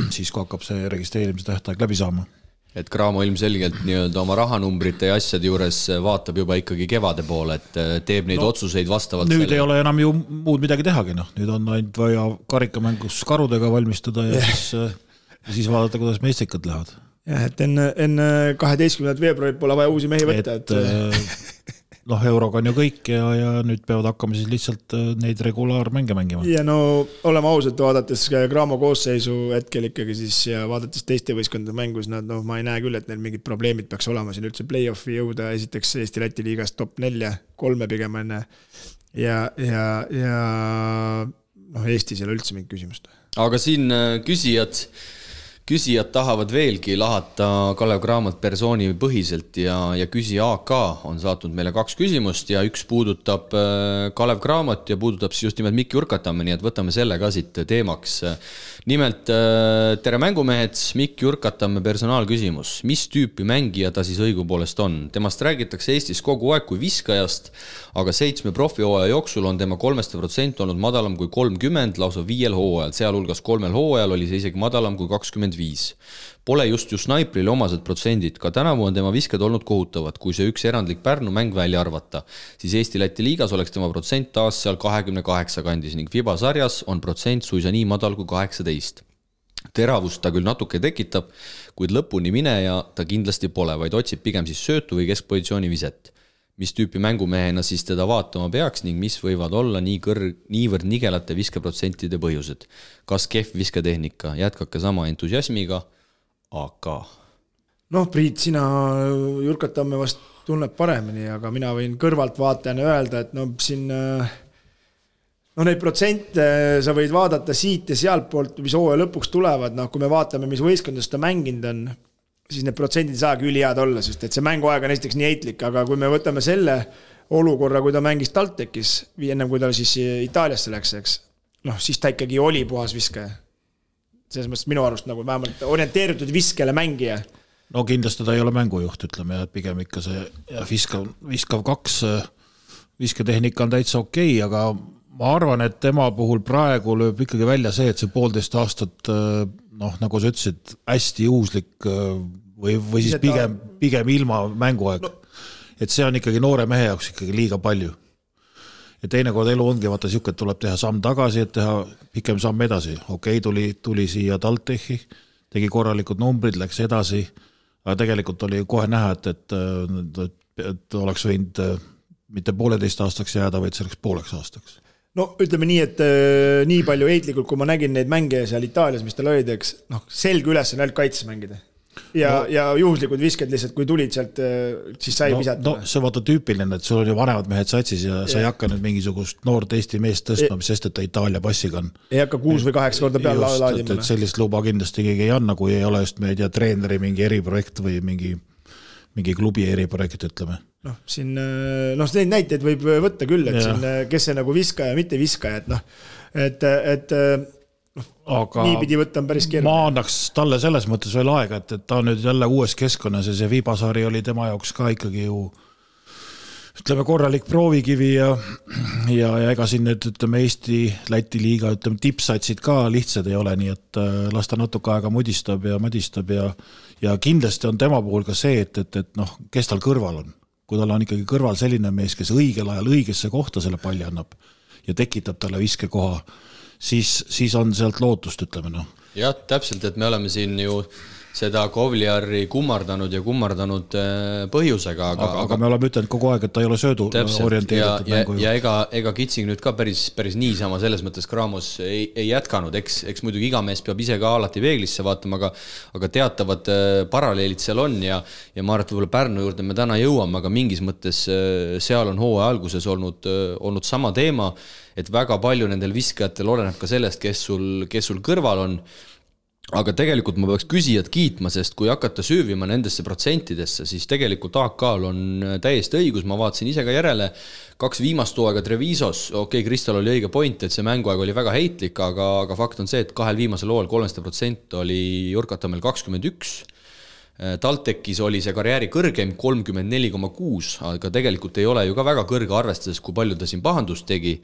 Siis kui hakkab see registreerimise tähtaeg läbi saama. Et Graamo ilmselgelt oma rahanumbrite ja asjade juures vaatab juba ikkagi kevade poole, et teeb neid otsuseid vastavalt nüüd selle. Ei ole enam ju muud midagi tehagi, nüüd on ainult vaja karikamängus karudega valmistada ja siis vaadata, kuidas meistrikad lähevad. Jah, et enne 12. veebruarit pole vaja uusi mehi võtta. Euroga on ju kõik ja nüüd peavad hakkama siis lihtsalt neid regulaarmänge mängima. Ja oleme ausalt, vaadates Graamo koosseisu hetkel ikkagi siis ja vaadates teiste võistkondade mängus, ma ei näe küll, et neil mingid probleemid peaks olema siin üldse play-offi jõuda, esiteks Eesti-Läti liigas top 4, 3 pigem enne ja Eestis ei ole üldse mingit küsimust. Aga siin küsijad tahavad veelgi lahata Kalev Cramot persooni põhiselt ja küsija AK on saatnud meile 2 küsimust ja üks puudutab Kalev Cramot ja puudutab siis just nimelt Mikk Jurkatamme, nii et võtame selle ka siit teemaks. Nimelt, tere mängumehed, Mikk Jurkatamme personaalküsimus. Mis tüüpi mängija ta siis õigupoolest on? Temast räägitakse Eestis kogu aeg kui viskajast, aga 7 profihooaja jooksul on tema 3% olnud madalam kui 30, lausa 5 hooajal, sealhulgas 3 hooajal oli see isegi madalam kui 25. Pole just snaiprile omased protsendid, ka tänavu on tema visked olnud kohutavad, kui see üks erandlik Pärnu mäng välja arvata, siis Eesti-Läti liigas oleks tema protsent taas seal 28 kandis ning FIBA sarjas on protsent suisa nii madal kui 18. teravust ta küll natuke tekitab, kuid lõpuni mineja ta kindlasti pole, vaid otsib pigem siis söötu või keskpositsiooni viset. Mis tüüpi mängumehena siis teda vaatama peaks ning mis võivad olla niivõrd nigelate viskeprotsentide põhjused. Kas kehv visketehnika, jätkake sama entusiasmiga, aga... Priit, sina Jurkatamme vast tunneb paremini, aga mina võin kõrvalt vaatajana öelda, et siin... neid protsente sa võid vaadata siit ja sealt poolt, mis hooaja lõpuks tulevad, kui me vaatame, mis võistkondades ta mänginud on, siis need protsendid saagi ülihead olla, sest et see mänguaeg on esiteks nii heitlik, aga kui me võtame selle olukorra, kui ta mängis TalTechis, ennem kui ta siis Itaaliasse läks, eks, siis ta ikkagi oli puhas viskaja. Selles mõttes minu arust vähemalt orienteeritud viskele mängija. No kindlasti ta ei ole mängujuht, ütleme, ja pigem ikka see viskav 2 visketehnika on täitsa okei, aga ma arvan, et tema puhul praegu lööb ikkagi välja see, et see 1,5 aastat, nagu sa ütlesid, hästi juhuslik või siis pigem ilma mänguaeg. Et see on ikkagi noore mehe jaoks ikkagi liiga palju. Ja teinekord elu ongi, vaata siuke, et tuleb teha samm tagasi, et teha pikem samm edasi. Okei, tuli siia TalTechi, tegi korralikud numbrid, läks edasi, aga tegelikult oli kohe näha, et oleks võinud mitte 1,5 aastaks jääda, vaid selleks 1,5 aastaks. Ütleme nii, et nii palju heitlikult, kui ma nägin neid mänge seal Itaalias, mis tal olid, eks, selge üles on ainult kaitses mängida. Ja juhuslikud visked lihtsalt, kui tulid sealt, siis sai visata. See on vaata tüüpiline, et sul on ju vanemad mehed satsis ja sa ei hakka nüüd mingisugust noort Eesti meest tõstma, mis sest, et ta Itaalia passiga on. Ei hakka 6 või 8 korda peal laadima. Et sellist luba kindlasti keegi ei anna, kui ei ole just meid ja treeneri mingi eriprojekt või mingi klubi eriprojekt, ütleme. Neid näiteid võib võtta küll, et siin, kes see viskaja, mitte viskaja, et nii pidi võtta on päris keeruline. Ma annaks talle selles mõttes veel aega, et ta on nüüd jälle uues keskkonnas ja see Viibasari oli tema jaoks ka ikkagi ju ütleme korralik proovikivi ja ega siin nüüd ütleme Eesti, Läti liiga ütleme tipsatsid ka lihtsad ei ole, nii et las ta natuke aega mudistab ja madistab ja kindlasti on tema puhul ka see, et kes tal kõrval on. Kui tal on ikkagi kõrval selline mees, kes õigel ajal õigesse kohta selle palli annab ja tekitab talle viskekoha, siis on sealt lootust, ütleme. Jah, täpselt, et me oleme siin ju seda Kovliari kummardanud põhjusega. Aga me oleme ütelnud kogu aeg, et ta ei ole söödu orienteeritud mängu. Ja ega Kitsing nüüd ka päris niisama selles mõttes Kramos ei jätkanud. Eks muidugi iga mees peab ise ka alati peeglisse vaatama, aga teatavad paralleelid seal on ja ma arvan, et võib-olla Pärnu juurde me täna jõuame, aga mingis mõttes seal on hooaja alguses olnud sama teema, et väga palju nendel viskajatel oleneb ka sellest, kes sul kõrval on. Aga tegelikult ma peaks küsijad kiitma, sest kui hakata süüvima nendesse protsentidesse, siis tegelikult AK-l on täiesti õigus, ma vaatasin ise ka järele 2 viimast hooaega Trevisos, Kristal oli õige point, et see mänguaeg oli väga heitlik, aga fakt on see, et 2 viimasel hooajal 3% oli Jurkatamel 21, TalTechis oli see karjääri kõrgem 34,6, aga tegelikult ei ole ju ka väga kõrge arvestades, kui palju ta siin pahandust tegi.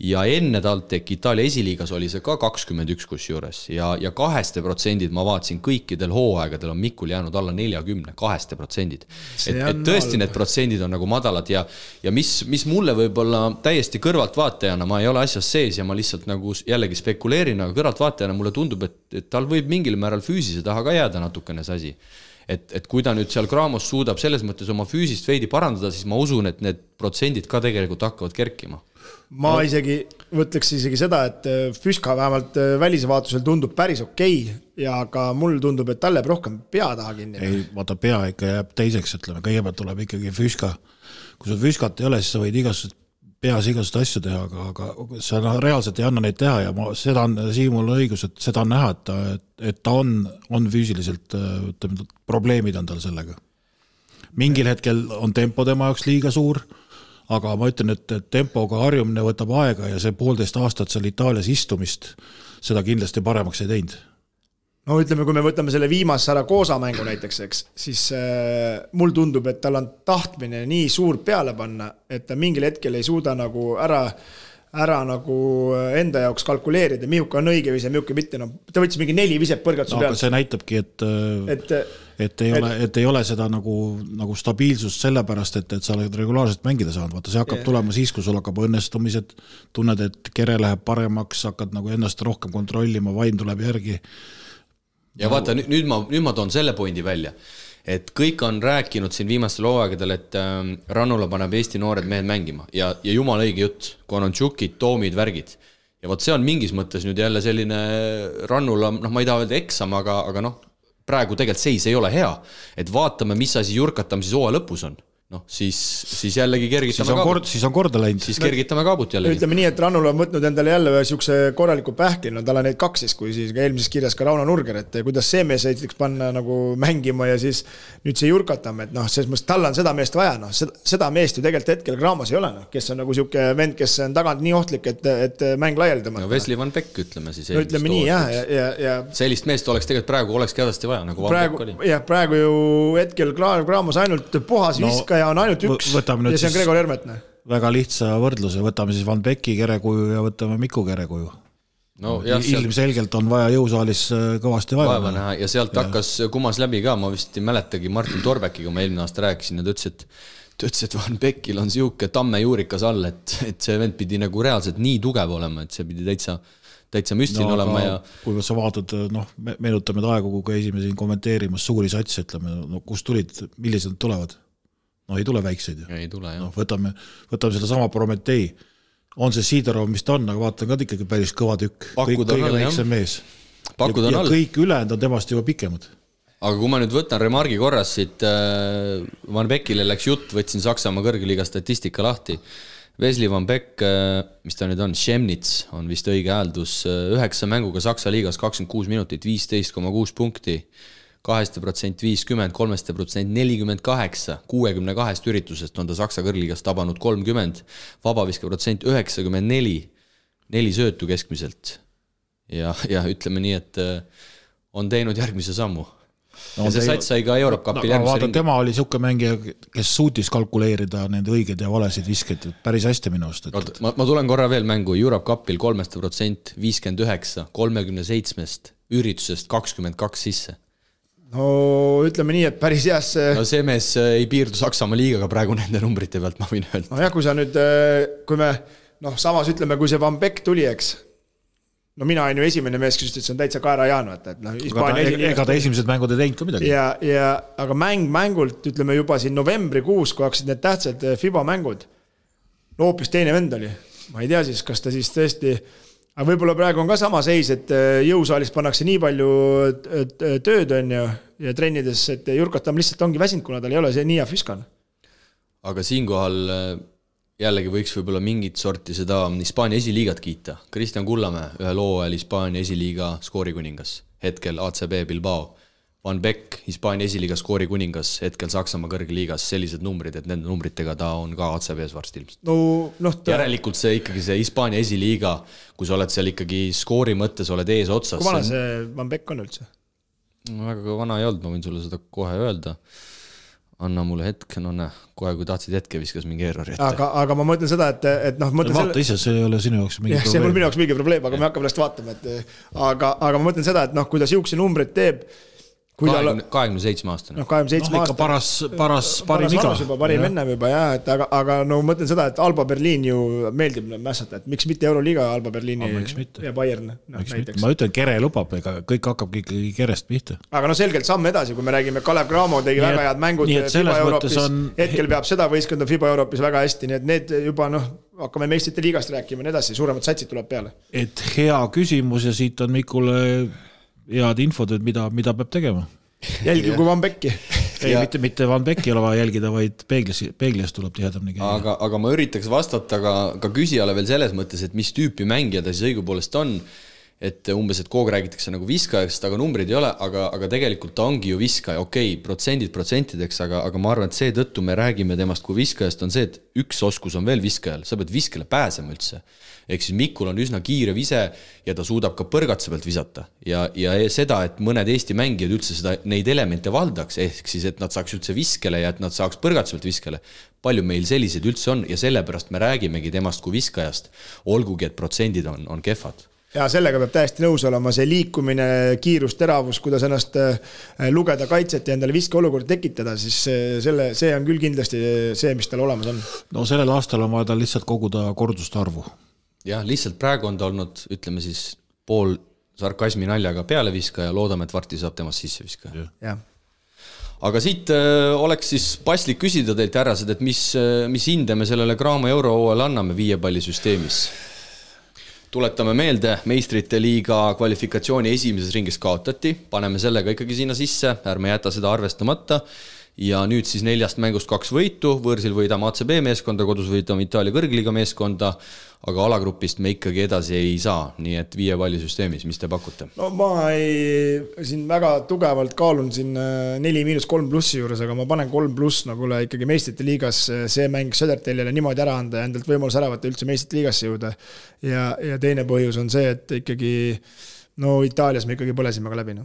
Ja enne TalTech Itaalia esiliigas oli see ka 21 kusjuures ja 2% ma vaatasin kõikidel hooaegadel on Mikul jäänud alla 40, 2%. Et tõesti need protsendid on nagu madalad ja mis mulle võib-olla täiesti kõrvalt vaatajana, ma ei ole asjas sees ja ma lihtsalt nagu jällegi spekuleerin, aga kõrvalt vaatajana mulle tundub, et tal võib mingil määral füüsise taha ka jääda natukene see asi. Et kui ta nüüd seal Kramos suudab selles mõttes oma füüsist veidi parandada, siis ma usun, et need protsendid ka tegelikult hakkavad kerkima. Ma võtleks isegi seda, et Füska vähemalt välisvaatusel tundub päris okei ja ka mul tundub, et talle rohkem pea taha kinni. Ei, vaata pea ikka jääb teiseks, ütleme, kõigepealt tuleb ikkagi Füska. Kui sul Füskat ei ole, siis sa võid peas igasugust asju teha, aga sa reaalselt ei anna neid teha ja seda on Siimul õigus, et seda on näha, et ta on füüsiliselt, ütleme, probleemid on tal sellega. Mingil hetkel on tempo tema jaoks liiga suur, aga ma ütlen, et tempoga harjumine võtab aega ja see 1,5 aastat seal Itaalias istumist seda kindlasti paremaks ei teinud. No ütleme, kui me võtame selle viimase Saragosa mängu näiteks, eks, siis mul tundub, et tal on tahtmine nii suur peale panna, et ta mingil hetkel ei suuda nagu ära nagu enda jaoks kalkuleerida, mihuka on õige vise, mihuka mitte. No, ta võttis mingi 4 viset põrgatuse peale. Aga see näitabki, et ei ole seda nagu stabiilsust sellepärast, et sa oled regulaarselt mängida saanud. Vaata, see hakkab tulema siis, kui sul hakkab õnnestumised, tunned, et kere läheb paremaks, hakkad nagu ennast rohkem kontrollima, vaim tuleb järgi. ja vaata, nüüd ma toon selle pointi välja, et kõik on rääkinud siin viimastel hooaegadel, et Rannula paneb Eesti noored mehed mängima ja jumal õige jutt, Konontšukid, Toomid, värgid. Ja võt see on mingis mõttes nüüd jälle selline Rannula, ma ei taha öelda eksam, aga praegu tegelikult seis ei ole hea, et vaatame, mis asi Jurkatam siis hooaja lõpus on. Siis jällegi kergitame kaabut. Siis on korda läinud. Siis kergitame kaabut jällegi. Ütleme nii, et Rannul on võtnud endale jälle siukse korraliku pähkli, tal on neid 2 siis, kui siis eelmises kirjas ka Rauno Nurger, et kuidas see mees võiks panna nagu mängima ja siis nüüd see Jurkatam, et selles mõttes tal on seda meest vaja, seda meest ju tegelikult hetkel Graamos ei ole, kes on nagu siuke vend, kes on tagant nii ohtlik, et mäng laialdama. No Wesley Van Beck, ütleme siis. No ütleme nii, ja sellist meest oleks tegelikult praegu olekski hädasti vaja, nagu Van Beck oli. Jah, praegu ju hetkel Graamos ainult puhas viska ja on ainult üks ja see on Gregor Hermetne. Väga lihtsa võrdluse, võtame siis Van Becki kerekuju ja võtame Miku kerekuju. Ilmselgelt on vaja jõusaalis kõvasti vaeva näha. Ja sealt hakkas kumas läbi ka, ma vist ei mäletagi Martin Torbekiga, ma eelmine aasta rääkisin ja ta ütles, et Van Beckil on siuke tamme juurikas all, et see vend pidi nagu reaalselt nii tugev olema, et see pidi täitsa müstiline olema. Ja kui sa vaatad, meenutame aegu, kui käisime siin kommenteerimas suuri satsi, ütleme, kus tulid, millised nad tulevad? Ei tule väikseid. Ei tule, jah. Võtame seda sama Prometei. On see Sidorov, mis ta on, aga vaatan ka ikkagi päris kõva tükk. Kõige väiksem mees. Ja kõik ülejäänud on temast juba pikemad. Aga kui ma nüüd võtan remargi korras siit, Van Beckile läks jutt, võtsin Saksamaa kõrgliiga statistika lahti. Wesley Van Beck, mis ta nüüd on, Chemnitz on vist õige hääldus, 9 mänguga Saksa liigas 26 minutit, 15,6 punkti. 2% 50, 3% 48, 62 üritusest on ta Saksa kõrgliigas tabanud 30, vabaviske protsent 94, 4 söötu keskmiselt. Ja ütleme nii, et on teinud järgmise sammu. Ja see sats sai ka Europe Cupil järgmise ringi. Tema oli siuke mängija, kes suutis kalkuleerida nende õiged ja valesid viskeid päris hästi minu arust. Ma tulen korra veel mängu Europe Cupil 3% 59, 37 üritusest 22 sisse. No ütleme nii, et päris heas see mees ei piirdu Saksamaa liigaga praegu nende numbrite pealt, ma võin öelda. No jah, kui sa nüüd, kui me samas ütleme, kui see Van Beck tuli, eks, mina olen ju esimene mees, kes ütles, et see on täitsa Kaera Jaanu, ega ta esimesed mängud ei teinud ka midagi. Aga mängult, ütleme juba siin novembrikuus, kui hakkasid need tähtsad FIBA mängud, hoopis teine vend oli. Ma ei tea siis, kas ta siis tõesti. Aga võib-olla praegu on ka sama seis, et jõusaalis pannakse nii palju tööd on ja trennides, et Jurkatam lihtsalt ongi väsinud, kuna tal ei ole see nii hea füskan. Aga siinkohal jällegi võiks võib-olla mingit sorti seda Hispaania esiliigat kiita. Kristjan Kullamäe, ühe loo ajal Hispaania esiliiga skoorikuningas, hetkel ACB Bilbao. Van Beck, Hispaania esiliiga skoorikuningas, hetkel Saksamaa kõrgliigas, sellised numbrid, et nende numbritega ta on ka ACB-s varsti ilmselt. Järelikult see ikkagi see Hispaania esiliiga, kui sa oled seal ikkagi skoori mõttes, oled ees otsas. Kui vana see Van Beck on üldse? Väga vana ei olnud, ma võin sulle seda kohe öelda. Anna mulle hetke, kohe kui tahtsid hetke viskas mingi errori ette. Aga ma mõtlen seda, et vaata ise, see ei ole sinu jaoks mingi probleem. See on minu jaoks mingi probleem, aga me hakkame läst vaatama. Aga ma mõtlen seda, et kui ta siukse numbrid teeb 27 aastane. 27 ikka paras parim iga. Parim ennem juba, jah. Aga mõtlen seda, et Alba Berliin ju meeldib mässata, et miks mitte Euroliiga Alba Berliini ja Bayern näiteks. Ma ütlen, Kere lubab, ega kõik hakkab ikkagi Kerest pihta. Aga selgelt samm edasi, kui me räägime Kalev Cramo tegi väga head mängud FIBA Euroopis. Hetkel peab seda võistkonda FIBA Euroopis väga hästi, nii et need juba hakkame meistrite liigast rääkima ja edasi, suuremad satsid tuleb peale. Et hea küsimus ja siit on Mikule head infod, et mida peab tegema. Jälgi kui Van Becki. Ei, mitte Van Becki ole vaja jälgida, vaid peeglis tuleb tihedamini käia. Aga ma üritaks vastata ka küsijale veel selles mõttes, et mis tüüpi mängija ta siis õigupoolest on, et umbes, et kogu räägitakse nagu viskajast, aga numbrid ei ole, aga tegelikult ta ongi ju viskaja, protsentideks, aga ma arvan, et see tõttu me räägime temast kui viskajast on see, et üks oskus on veel viskajal, sa pead viskele pääsema üldse. Ehk siis Mikul on üsna kiire vise ja ta suudab ka põrgatuse pealt visata. Ja seda, et mõned Eesti mängijad üldse neid elemente valdaks, ehk siis, et nad saaks üldse viskele ja et nad saaks põrgatuse pealt viskele. Palju meil sellised üldse on ja sellepärast me räägimegi temast kui viskajast, olgugi, et protsendid on kehvad. Ja sellega peab täiesti nõus olema see liikumine, kiirus, teravus, kuidas ennast lugeda kaitset ja endale viske olukord tekitada, siis see on küll kindlasti see, mis tal olemas on. No sellel aastal on vaja tal lihtsalt koguda korduste arvu. Jah, lihtsalt praegu on ta olnud, ütleme siis, pool sarkasmi naljaga pealeviskaja, loodame, et varti saab temast sisse viskaja. Jah. Aga siit oleks siis paslik küsida teilt härrased, et mis hinde me sellele Graamo Eurohooajale anname 5 palli süsteemis. Tuletame meelde, meistrite liiga kvalifikatsiooni esimeses ringis kaotati, paneme sellega ikkagi sinna sisse, ärme jäta seda arvestamata. Ja nüüd siis 4 mängust 2 võitu, võõrsil võidame ACB meeskonda, kodus võidame Itaalia kõrgliiga meeskonda, aga alagrupist me ikkagi edasi ei saa, nii et 5 palli süsteemis, mis te pakute? No ma siin väga tugevalt kaalun siin 4-3+ juures, aga ma panen 3+, nagu ikkagi meistrite liigas see mäng Södertellile niimoodi ära anda ja endalt võimalus ära võtta üldse meistrite liigasse jõuda. Ja teine põhjus on see, et ikkagi Itaalias me ikkagi põlesime ka läbi.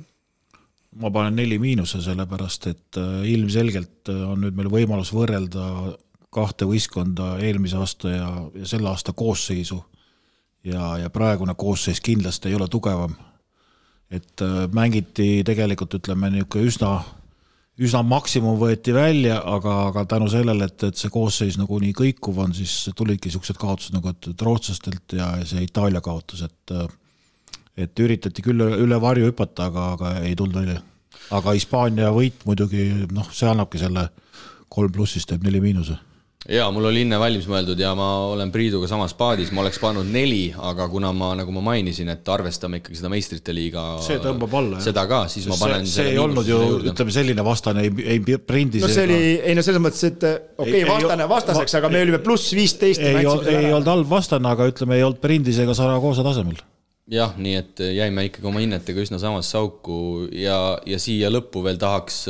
Ma panen 4-, sellepärast, et ilmselgelt on nüüd meil võimalus võrrelda 2 võistkonda eelmise aasta ja selle aasta koosseisu ja praegune koosseis kindlasti ei ole tugevam. Et mängiti tegelikult, ütleme, üsna maksimum võeti välja, aga tänu sellele, et see koosseis nagu nii kõikuv on, siis tulidki siuksed kaotused nagu rootslastelt ja see Itaalia kaotus, et üritati küll üle varju hüpata, aga ei tulnud välja. Aga Hispaania võit muidugi, see annabki selle 3+, teeb 4-. Jaa, mul oli inne valmis mõeldud ja ma olen Priiduga samas paadis, ma oleks pannud 4, aga kuna nagu ma mainisin, et arvestame ikkagi seda meistrite liiga see tõmbab alla, seda ka, siis ma panen see ei olnud ju, ütleme, selline vastane ei prindi. No see oli, selles mõttes, et vastaseks, aga me olime +15. Ei olnud halb vastane, aga ütleme, ei olnud prindis ega Saragoosa tasemel. Jah, nii et jäime ikkagi oma hinnetega üsna samas sauku ja siia lõppu veel tahaks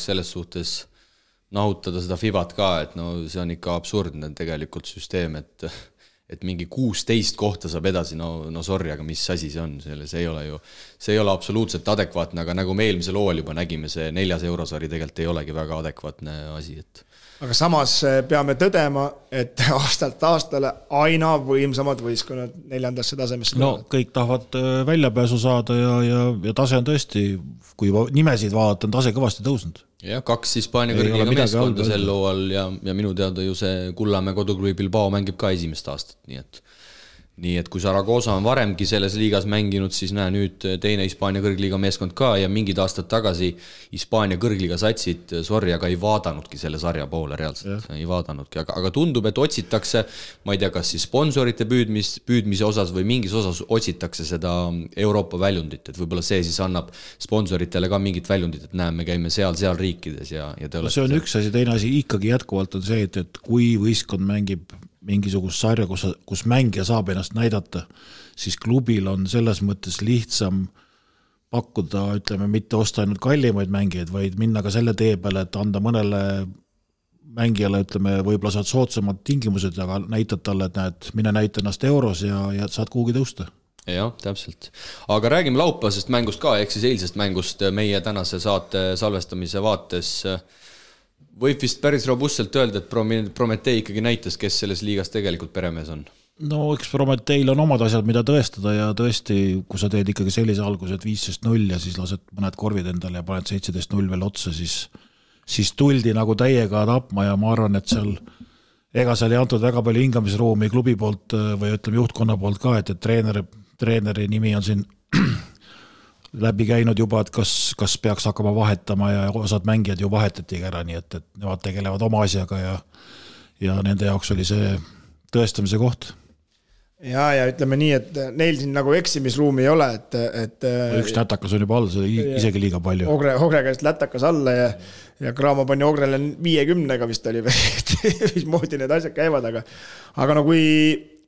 selles suhtes nahutada seda Fibat ka, et see on ikka absurdne tegelikult süsteem, et mingi 16 kohta saab edasi, sorry, aga mis asi see on, see ei ole absoluutselt adekvaatne, aga nagu me eelmisel hooajal juba nägime, see 4. eurosari tegelikult ei olegi väga adekvaatne asi, et aga samas peame tõdema, et aastalt aastale aina võimsamad võistkonnad 4. tasemesse. Kõik tahavad väljapääsu saada ja tase on tõesti, kui nimesid vaadata, on tase kõvasti tõusnud. Ja 2 Hispaania kõrgliiga meeskonda sel hooajal ja minu teada ju see Kullamäe koduklubi Bilbao mängib ka esimest aastat, nii et kui Saragoosa on varemgi selles liigas mänginud, siis nüüd teine Hispaania kõrgliiga meeskond ka ja mingid aastad tagasi Hispaania kõrgliiga satsid, sorry, aga ei vaadanudki selle sarja poole reaalselt, ei vaadanudki, aga tundub, et otsitakse, ma ei tea, kas siis sponsorite püüdmise osas või mingis osas otsitakse seda Euroopa väljundit, et võib-olla see siis annab sponsoritele ka mingit väljundit, et näeme, käime seal riikides ja see on üks asi, teine asi ikkagi jätkuvalt on see, et kui võistkond mängib mingisugust sarja, kus mängija saab ennast näidata, siis klubil on selles mõttes lihtsam pakkuda, ütleme, mitte osta ainult kallimaid mängijaid, vaid minna ka selle tee peale, et anda mõnele mängijale, ütleme, võib-olla saad soodsamad tingimused, aga näitad talle, et näed, mine näita ennast euros ja saad kuhugi tõusta. Jah, täpselt. Aga räägime laupäevasest mängust ka, ehk siis eilsest mängust meie tänase saate salvestamise vaates. Võib vist päris robustselt öelda, et Prometee ikkagi näitas, kes selles liigas tegelikult peremees on? Eks Prometeil on omad asjad, mida tõestada ja tõesti, kui sa teed ikkagi sellise alguse, et 15-0 ja siis lased mõned korvid endale ja paned 17-0 veel otsa, siis tuldi nagu täiega tapma ja ma arvan, et seal ei antud väga palju hingamisruumi klubi poolt või ütleme juhtkonna poolt ka, et treeneri nimi on siin läbi käinud juba, et kas peaks hakkama vahetama ja osad mängijad ju vahetatigi ära, nii et nemad tegelevad oma asjaga ja nende jaoks oli see tõestamise koht. Ja ütleme nii, et neil siin nagu eksimisruumi ei ole, et üks lätakas on juba all, see isegi liiga palju. Ogre käest lätakas alla ja Graamo pani Ogrele 50-ga vist oli, mis moodi need asjad käivad, aga no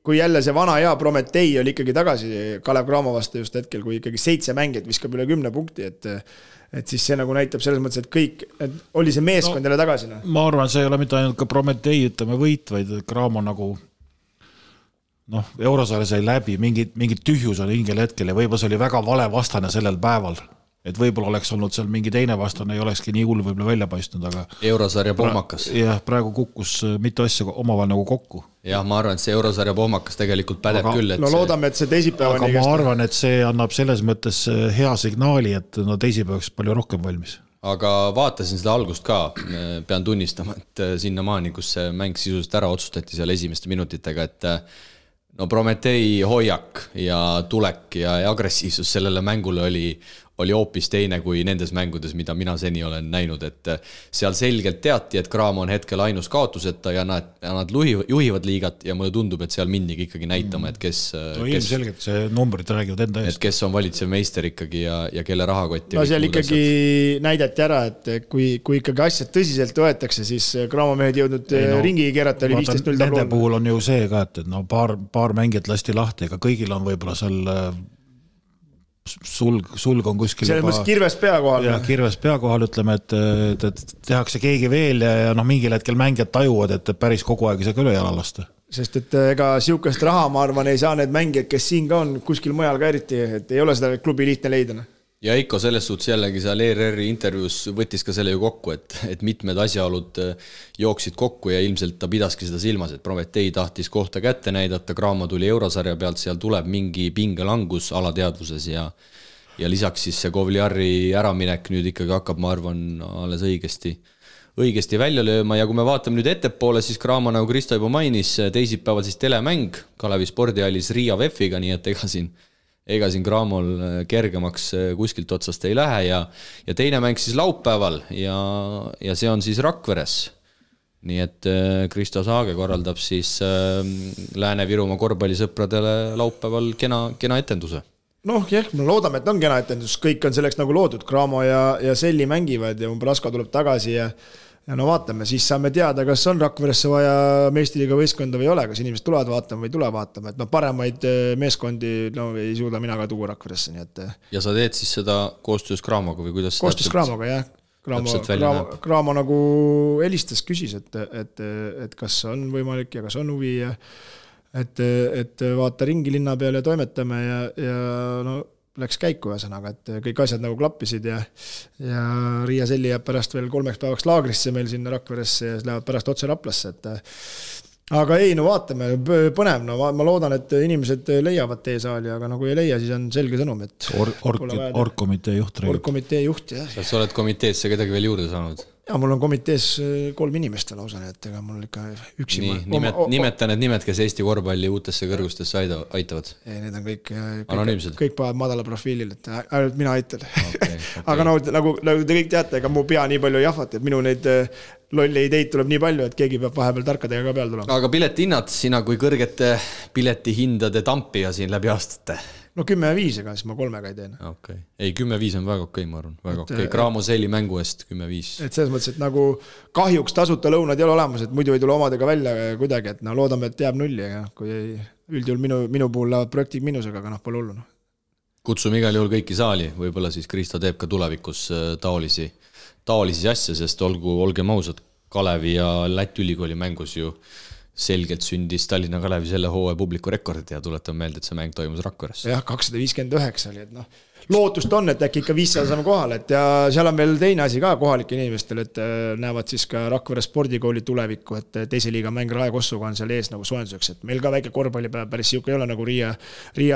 kui jälle see vana hea Prometei oli ikkagi tagasi Kalev Cramo vastu just hetkel, kui ikkagi 7 mängijat viskab üle 10 punkti, et siis see nagu näitab selles mõttes, et kõik, et oli see meeskond jälle tagasi. Ma arvan, see ei ole mitte ainult ka Prometei, ütleme võit, vaid Cramo nagu Eurosaare sai läbi, mingid tühjus on hingel hetkel ja võib-olla see oli väga vale vastane sellel päeval. Et võib-olla oleks olnud seal mingi teine vastane, ei olekski nii hull võib-olla välja paistnud, aga Eurosarja pohmakas. Jah, praegu kukkus mitu asja omavahel nagu kokku. Jah, ma arvan, et see Eurosarja pohmakas tegelikult pädeb küll. No loodame, et see teisipäeva aga ma arvan, et see annab selles mõttes hea signaali, et teisipäevaks palju rohkem valmis. Aga vaatasin seda algust ka, pean tunnistama, et sinnamaani, kus see mäng sisuliselt ära otsustati seal esimeste minutitega, et no Prometee hoiak ja tulek ja agressiivsus sellele mängule oli hoopis teine kui nendes mängudes, mida mina seni olen näinud, et seal selgelt teati, et Cramo on hetkel ainus kaotuseta ja nad juhivad liigat ja mulle tundub, et seal mindigi ikkagi näitama, et kes ilmselgelt see numbrid räägivad enda eest. Et kes on valitsev meister ikkagi ja kelle rahakott. No seal ikkagi näidati ära, et kui ikkagi asjad tõsiselt võetakse, siis Cramo mehed jõudnud ringi keerata, oli 15-0 tabloon. Nende puhul on ju see ka, et no paar mängijat lasti lahti, ega kõigil on võib-olla seal sulg on kuskil selles mõttes kirves pea kohal. Ja kirves pea kohal, ütleme, et tehakse keegi veel ja mingil hetkel mängijad tajuvad, et päris kogu aeg ei saa ka üle jala lasta. Sest et ega siukest raha, ma arvan, ei saa need mängijad, kes siin ka on, kuskil mujal ka eriti, et ei ole seda klubi lihtne leida. Ja Eiko selles suhtes jällegi seal ERR-i intervjuus võttis ka selle ju kokku, et mitmed asjaolud jooksid kokku ja ilmselt ta pidaski seda silmas, et Prometee tahtis kohta kätte näidata, Cramo tuli eurosarja pealt, seal tuleb mingi pingelangus alateadvuses ja lisaks siis see Kovliari äraminek nüüd ikkagi hakkab, ma arvan, alles õigesti välja lööma ja kui me vaatame nüüd ettepoole, siis Cramo, nagu Kristo juba mainis, teisipäeval siis telemäng Kalevi spordihallis Riia VEF-iga, nii et ega siin Cramol kergemaks kuskilt otsast ei lähe ja teine mäng siis laupäeval ja see on siis Rakveres. Nii et Kristo Saage korraldab siis Lääne-Virumaa korvpallisõpradele laupäeval kena etenduse. Noh, me loodame, et on kena etendus, kõik on selleks nagu loodud, Cramo ja Selli mängivad ja Umbrasko tuleb tagasi ja no vaatame, siis saame teada, kas on Rakveresse vaja meistriliiga võistkonda või ei ole, kas inimesed tulevad vaatama või tule vaatama, et paremaid meeskondi ei suuda mina ka tuua Rakveresse, nii et. Ja sa teed siis seda koostöös Cramoga või kuidas? Koostöös Cramoga, jah. Cramo nagu helistas, küsis, et kas on võimalik ja kas on huvi ja et vaata ringi linna peale ja toimetame ja no läks käiku ühesõnaga, et kõik asjad nagu klappisid ja Riia Selli jääb pärast veel 3 päevaks laagrisse meil sinna Rakveresse ja lähevad pärast otse Raplasse, aga ei, no vaatame, põnev, no ma loodan, et inimesed leiavad teesaali, aga nagu ei leia, siis on selge sõnum, et Orgkomitee juht. Orgkomitee juht, jah. Kas sa oled komiteesse kedagi veel juurde saanud? Ja mul on komitees 3 inimest lausa, et ega mul ikka üksi. Nimeta need nimed, kes Eesti korvpalli uutesse kõrgustesse aitavad. Ei, need on anonüümsed. Kõik paavad madala profiilil, et ainult mina aitan. Okay. Aga nagu te kõik teate, ega mu pea nii palju jahvat, et minu neid lolli ideid tuleb nii palju, et keegi peab vahepeal tarkadega ka peal tulema. Aga piletihinnad, sina kui kõrgete piletihindade tampija siin läbi aastate? No 10-5, ega siis ma 3 ei teen. Okay. Ei, 10-5 on väga okei, ma arvan. Väga okei. Cramo Selli mängu eest 10-5. Et selles mõttes, et nagu kahjuks tasuta lõunad ei ole olemas, et muidu ei tule omadega välja kuidagi, et no loodame, et jääb nulli, aga kui üldjuhul minu puhul lähevad projektid miinusega, aga pole hullu. Kutsume igal juhul kõiki saali, võib-olla siis Kristo teeb ka tulevikus taolisi asja, sest olgem ausad, Kalevi ja Läti ülikooli mängus ju selgelt sündis Tallinna Kalevi selle hooaja publiku rekord ja tuletan meelde, et see mäng toimus Rakveres. Jah, 259 oli, et lootust on, et äkki ikka 500 saame kohale, et ja seal on veel teine asi ka kohalike inimestel, et näevad siis ka Rakvere spordikooli tulevikku, et teise liiga mäng Rae Kossuga on seal ees nagu soojenduseks, et meil ka väike korvpallipäev päris siuke ei ole nagu Riia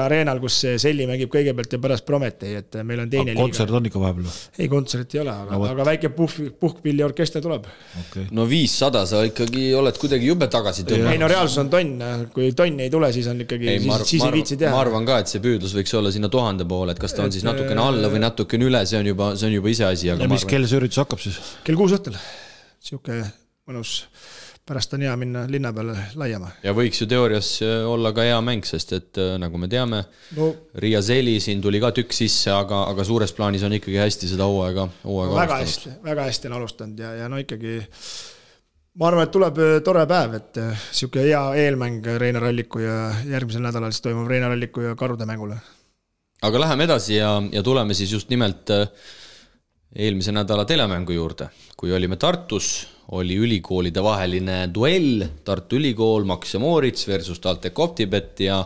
Areenal, kus Selli mängib kõigepealt ja pärast Prometee, et meil on teine liiga. Kontsert on ikka vahepeal? Ei, kontsert ei ole, aga väike puhkpilliorkester tuleb. Okay. No 500 sa ikkagi oled kuidagi jube tagasi tõmba. Ei, no reaalsus on tonn, kui tonn ei tule, siis on ikkagi, siis ei viitsi teha. Ma arvan ka, et see püüdlus võiks olla sinna 1000 poole, et kas ta on siis natukene alla või natukene üle, see on juba ise asi. Ja mis kell see üritus hakkab siis? Kell 6 õhtul. Siuke mõnus, pärast on hea minna linna peale laiema. Ja võiks ju teoorias olla ka hea mäng, sest et nagu me teame, Riia Selli siin tuli ka tükk sisse, aga suures plaanis on ikkagi hästi seda hooaega väga hästi on alustanud ja no ikkagi ma arvan, et tuleb tore päev, et siuke hea eelmäng Reina Ralliku ja järgmisel nädalal siis toimub Reina Ralliku ja Karude mängule. Aga läheme edasi ja tuleme siis just nimelt eelmise nädala telemängu juurde. Kui olime Tartus, oli ülikoolide vaheline duell, Tartu Ülikool, Max ja Moritz versus TalTech Optibet ja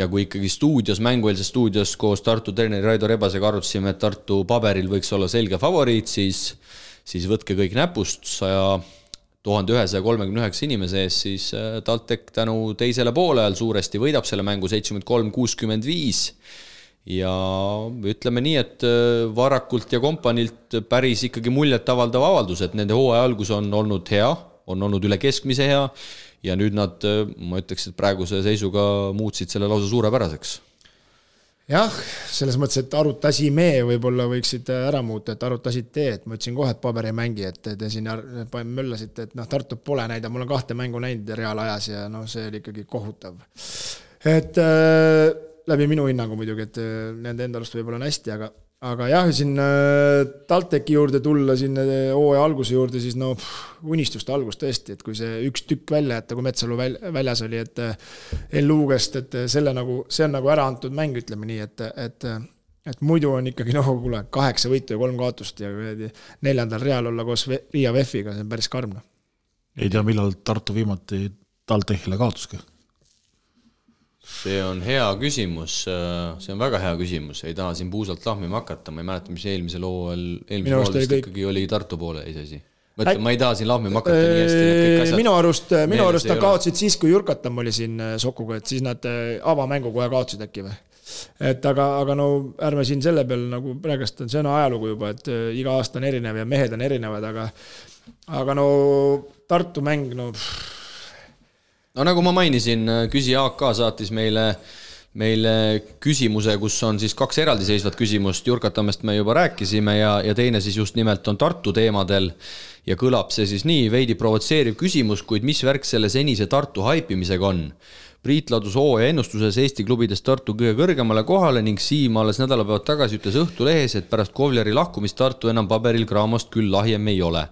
kui ikkagi mängueelses stuudios koos Tartu treeneri Raido Rebasega arutasime, et Tartu paberil võiks olla selge favoriit, siis võtke kõik näpust 1139 inimese ees, siis TalTech tänu teisele poole ajal suuresti võidab selle mängu 73-65 ja ütleme nii, et Varakult ja kompanilt päris ikkagi muljet avaldav avaldus, et nende hooaja algus on olnud hea, on olnud üle keskmise hea ja nüüd nad, ma ütleks, et praeguse seisuga muutsid selle lausa suurepäraseks. Jah, selles mõttes, et arutasime võib-olla võiksid ära muuta, et arutasid et ma ütlesin kohe, et paber ei mängi, et te siin möllasite, et Tartu pole näida, mul on 2 mängu näinud reaalajas ja see oli ikkagi kohutav. Et läbi minu hinnangu muidugi, et nende endalust võib-olla on hästi, aga jah, siin TalTechi juurde tulla, siin hooaja alguse juurde, siis unistuste algus tõesti, et kui see üks tükk välja jätta, kui Metsalu väljas oli, et L-Luugest, et see on nagu ära antud mäng, ütleme nii, et muidu on ikkagi 8 võitu ja 3 kaotust ja 4. real olla koos Riia VEF-iga, see on päris karm. Ei tea, millal Tartu viimati TalTechile kaotuski? See on hea küsimus, see on väga hea küsimus, ei taha siin puusalt lahmima hakata, ma ei mäleta, mis eelmisel hooajal vist ikkagi oli Tartu poole eisasi. Ma ei taha siin lahmima hakata nii hästi. Minu arust ta kaotsid siis, kui Jurkatam oli siin Sokuga, et siis nad avamängu kohe kaotsid äkki või. Et aga ärme siin selle peal nagu praegust on see ajalugu juba, et iga aasta on erinev ja mehed on erinevad, aga Tartu mäng, No nagu ma mainisin, küsija AK saatis meile küsimuse, kus on siis 2 eraldiseisvat küsimust. Jurkatamest me juba rääkisime ja teine siis just nimelt on Tartu teemadel ja kõlab see siis nii, veidi provotseeriv küsimus, kuid mis värk selle senise Tartu haipimisega on? Priit ladus hooaja ennustuses Eesti klubidest Tartu kõige kõrgemale kohale ning Siim alles nädalapäevad tagasi ütles Õhtulehes, et pärast Kovleri lahkumist Tartu enam paberil Craamost küll lahjem ei ole.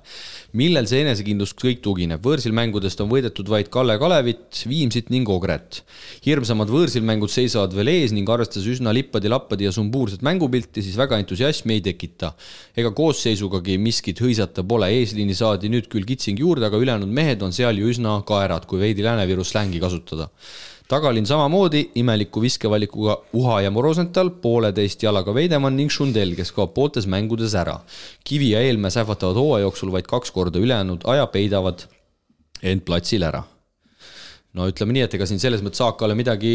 Millel see enesekindlus kõik tugineb? Võõrsilmängudest on võidetud vaid Kalle Kalevit, Viimsit ning Ogret. Hirmsamad võõrsilmängud seisavad veel ees ning arvestades üsna lippadi ja sumbuurset mängupilti, siis väga entusiasmi ei tekita. Ega koosseisugagi miskit hõisata pole. Eesliini saadi nüüd küll kitsing juurde, aga ülejäänud mehed on seal ju üsna kaerad, kui veidi Lääne-Viru slängi kasutada. Tagalin samamoodi imeliku viskevalikuga Uha ja Morosental, 1,5 jalaga Veidemann ning Šundel, kes kaob pooltes mängudes ära. Kivi ja Eelmäe sähvatavad hooaja jooksul vaid 2 korda ülejäänud aja peidavad end platsil ära. No ütleme nii, et ega siin selles mõttes Saakale midagi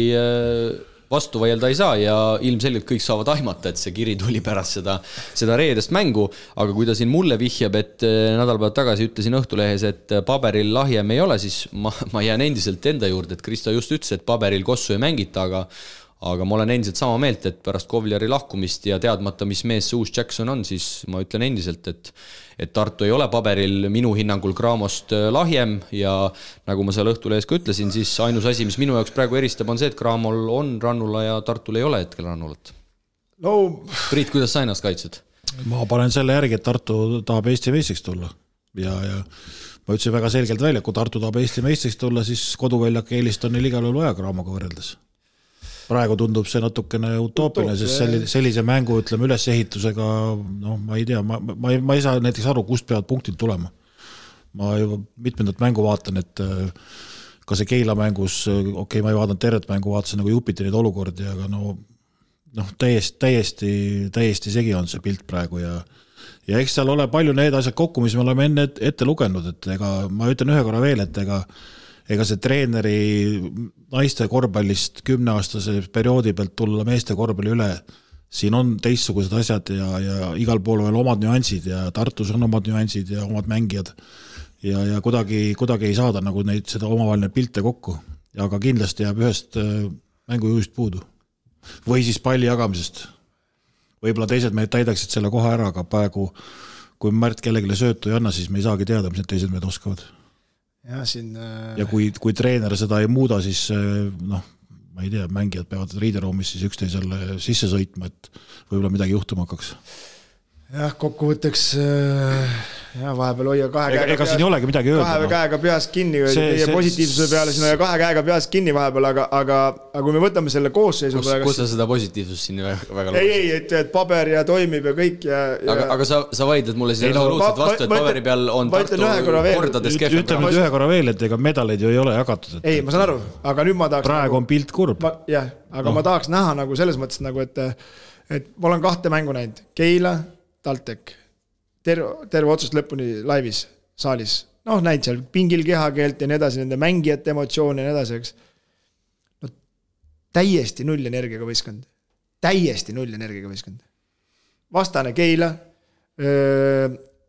vastu vaielda ei saa ja ilmselgelt kõik saavad aimata, et see kiri tuli pärast seda reedest mängu, aga kui ta siin mulle vihjab, et nädalpäevad tagasi ütlesin Õhtulehes, et paberil lahjem ei ole, siis ma jään endiselt enda juurde, et Kristo just ütles, et paberil kossu ei mängita, aga ma olen endiselt sama meelt, et pärast Kovleri lahkumist ja teadmata, mis mees see uus Jackson on, siis ma ütlen endiselt, et Tartu ei ole paberil minu hinnangul Craamost lahjem ja nagu ma seal Õhtulehes ka ütlesin, siis ainus asi, mis minu jaoks praegu eristab, on see, et Craamol on rannula ja Tartul ei ole hetkel rannulat. Priit, kuidas sa ennast kaitsed? Ma panen selle järgi, et Tartu tahab Eesti meistriks tulla ja ma ütlesin väga selgelt välja, kui Tartu tahab Eesti meistriks tulla, siis koduväljak eelist on neil igal juhul vaja Craamoga võrreldes. Praegu tundub see natukene utoopiline, sest sellise mängu, ütleme, ülesehitusega, ma ei tea, ma ei saa näiteks aru, kust peavad punktid tulema. Ma juba mitmendat mängu vaatan, et ka see Keila mängus, ma ei vaadanud tervet mängu, vaatasin nagu jupiti neid olukordi, aga täiesti segi on see pilt praegu ja eks seal ole palju need asjad kokku, mis me oleme enne ette lugenud, et ma ütlen ühe korra veel, et ega see treeneri naiste korvpallist 10-aastase perioodi pealt tulla meeste korvpalli üle, siin on teistsugused asjad ja igal pool veel omad nüansid ja Tartus on omad nüansid ja omad mängijad ja kuidagi ei saada nagu seda omavaheline pilte kokku. Aga kindlasti jääb ühest mängujuhist puudu. Või siis palli jagamisest. Võib-olla teised mehed täidaksid selle koha ära, aga praegu, kui Märt kellelegi söötu ei anna, siis me ei saagi teada, mis need teised mehed oskavad. Ja kui treener seda ei muuda, siis ma ei tea, mängijad peavad riideruumis siis üksteisele sisse sõitma, et võib-olla midagi juhtuma hakkaks. Jah, kokkuvõtteks vahepeal hoia ega siin ei olegi midagi öelda. Kahe käega peas kinni teie positiivsuse peale, siin hoia 2 käega peas kinni vahepeal, aga kui me võtame selle koosseisu kus sa seda positiivsust siin väga ei, et paber ja toimib ja kõik aga sa vaidled mulle siin absoluutselt vastu, et paberi peal on Tartu kordades kehvem. Ütleme ühe korra veel, et ega medaleid ju ei ole jagatud. Ei, ma saan aru, aga nüüd ma tahaks praegu on pilt kurb. Jah, aga ma tahaks näha nagu selles mõttes, et ma olen 2 mängu näinud. Keila, TalTech, terve otsust lõpuni laivis, saalis. Näid seal pingil kehakeelt ja nii edasi, nende mängijate emotsioone ja nii edasi, eks. Täiesti null energiaga võistkond. Vastane Keila,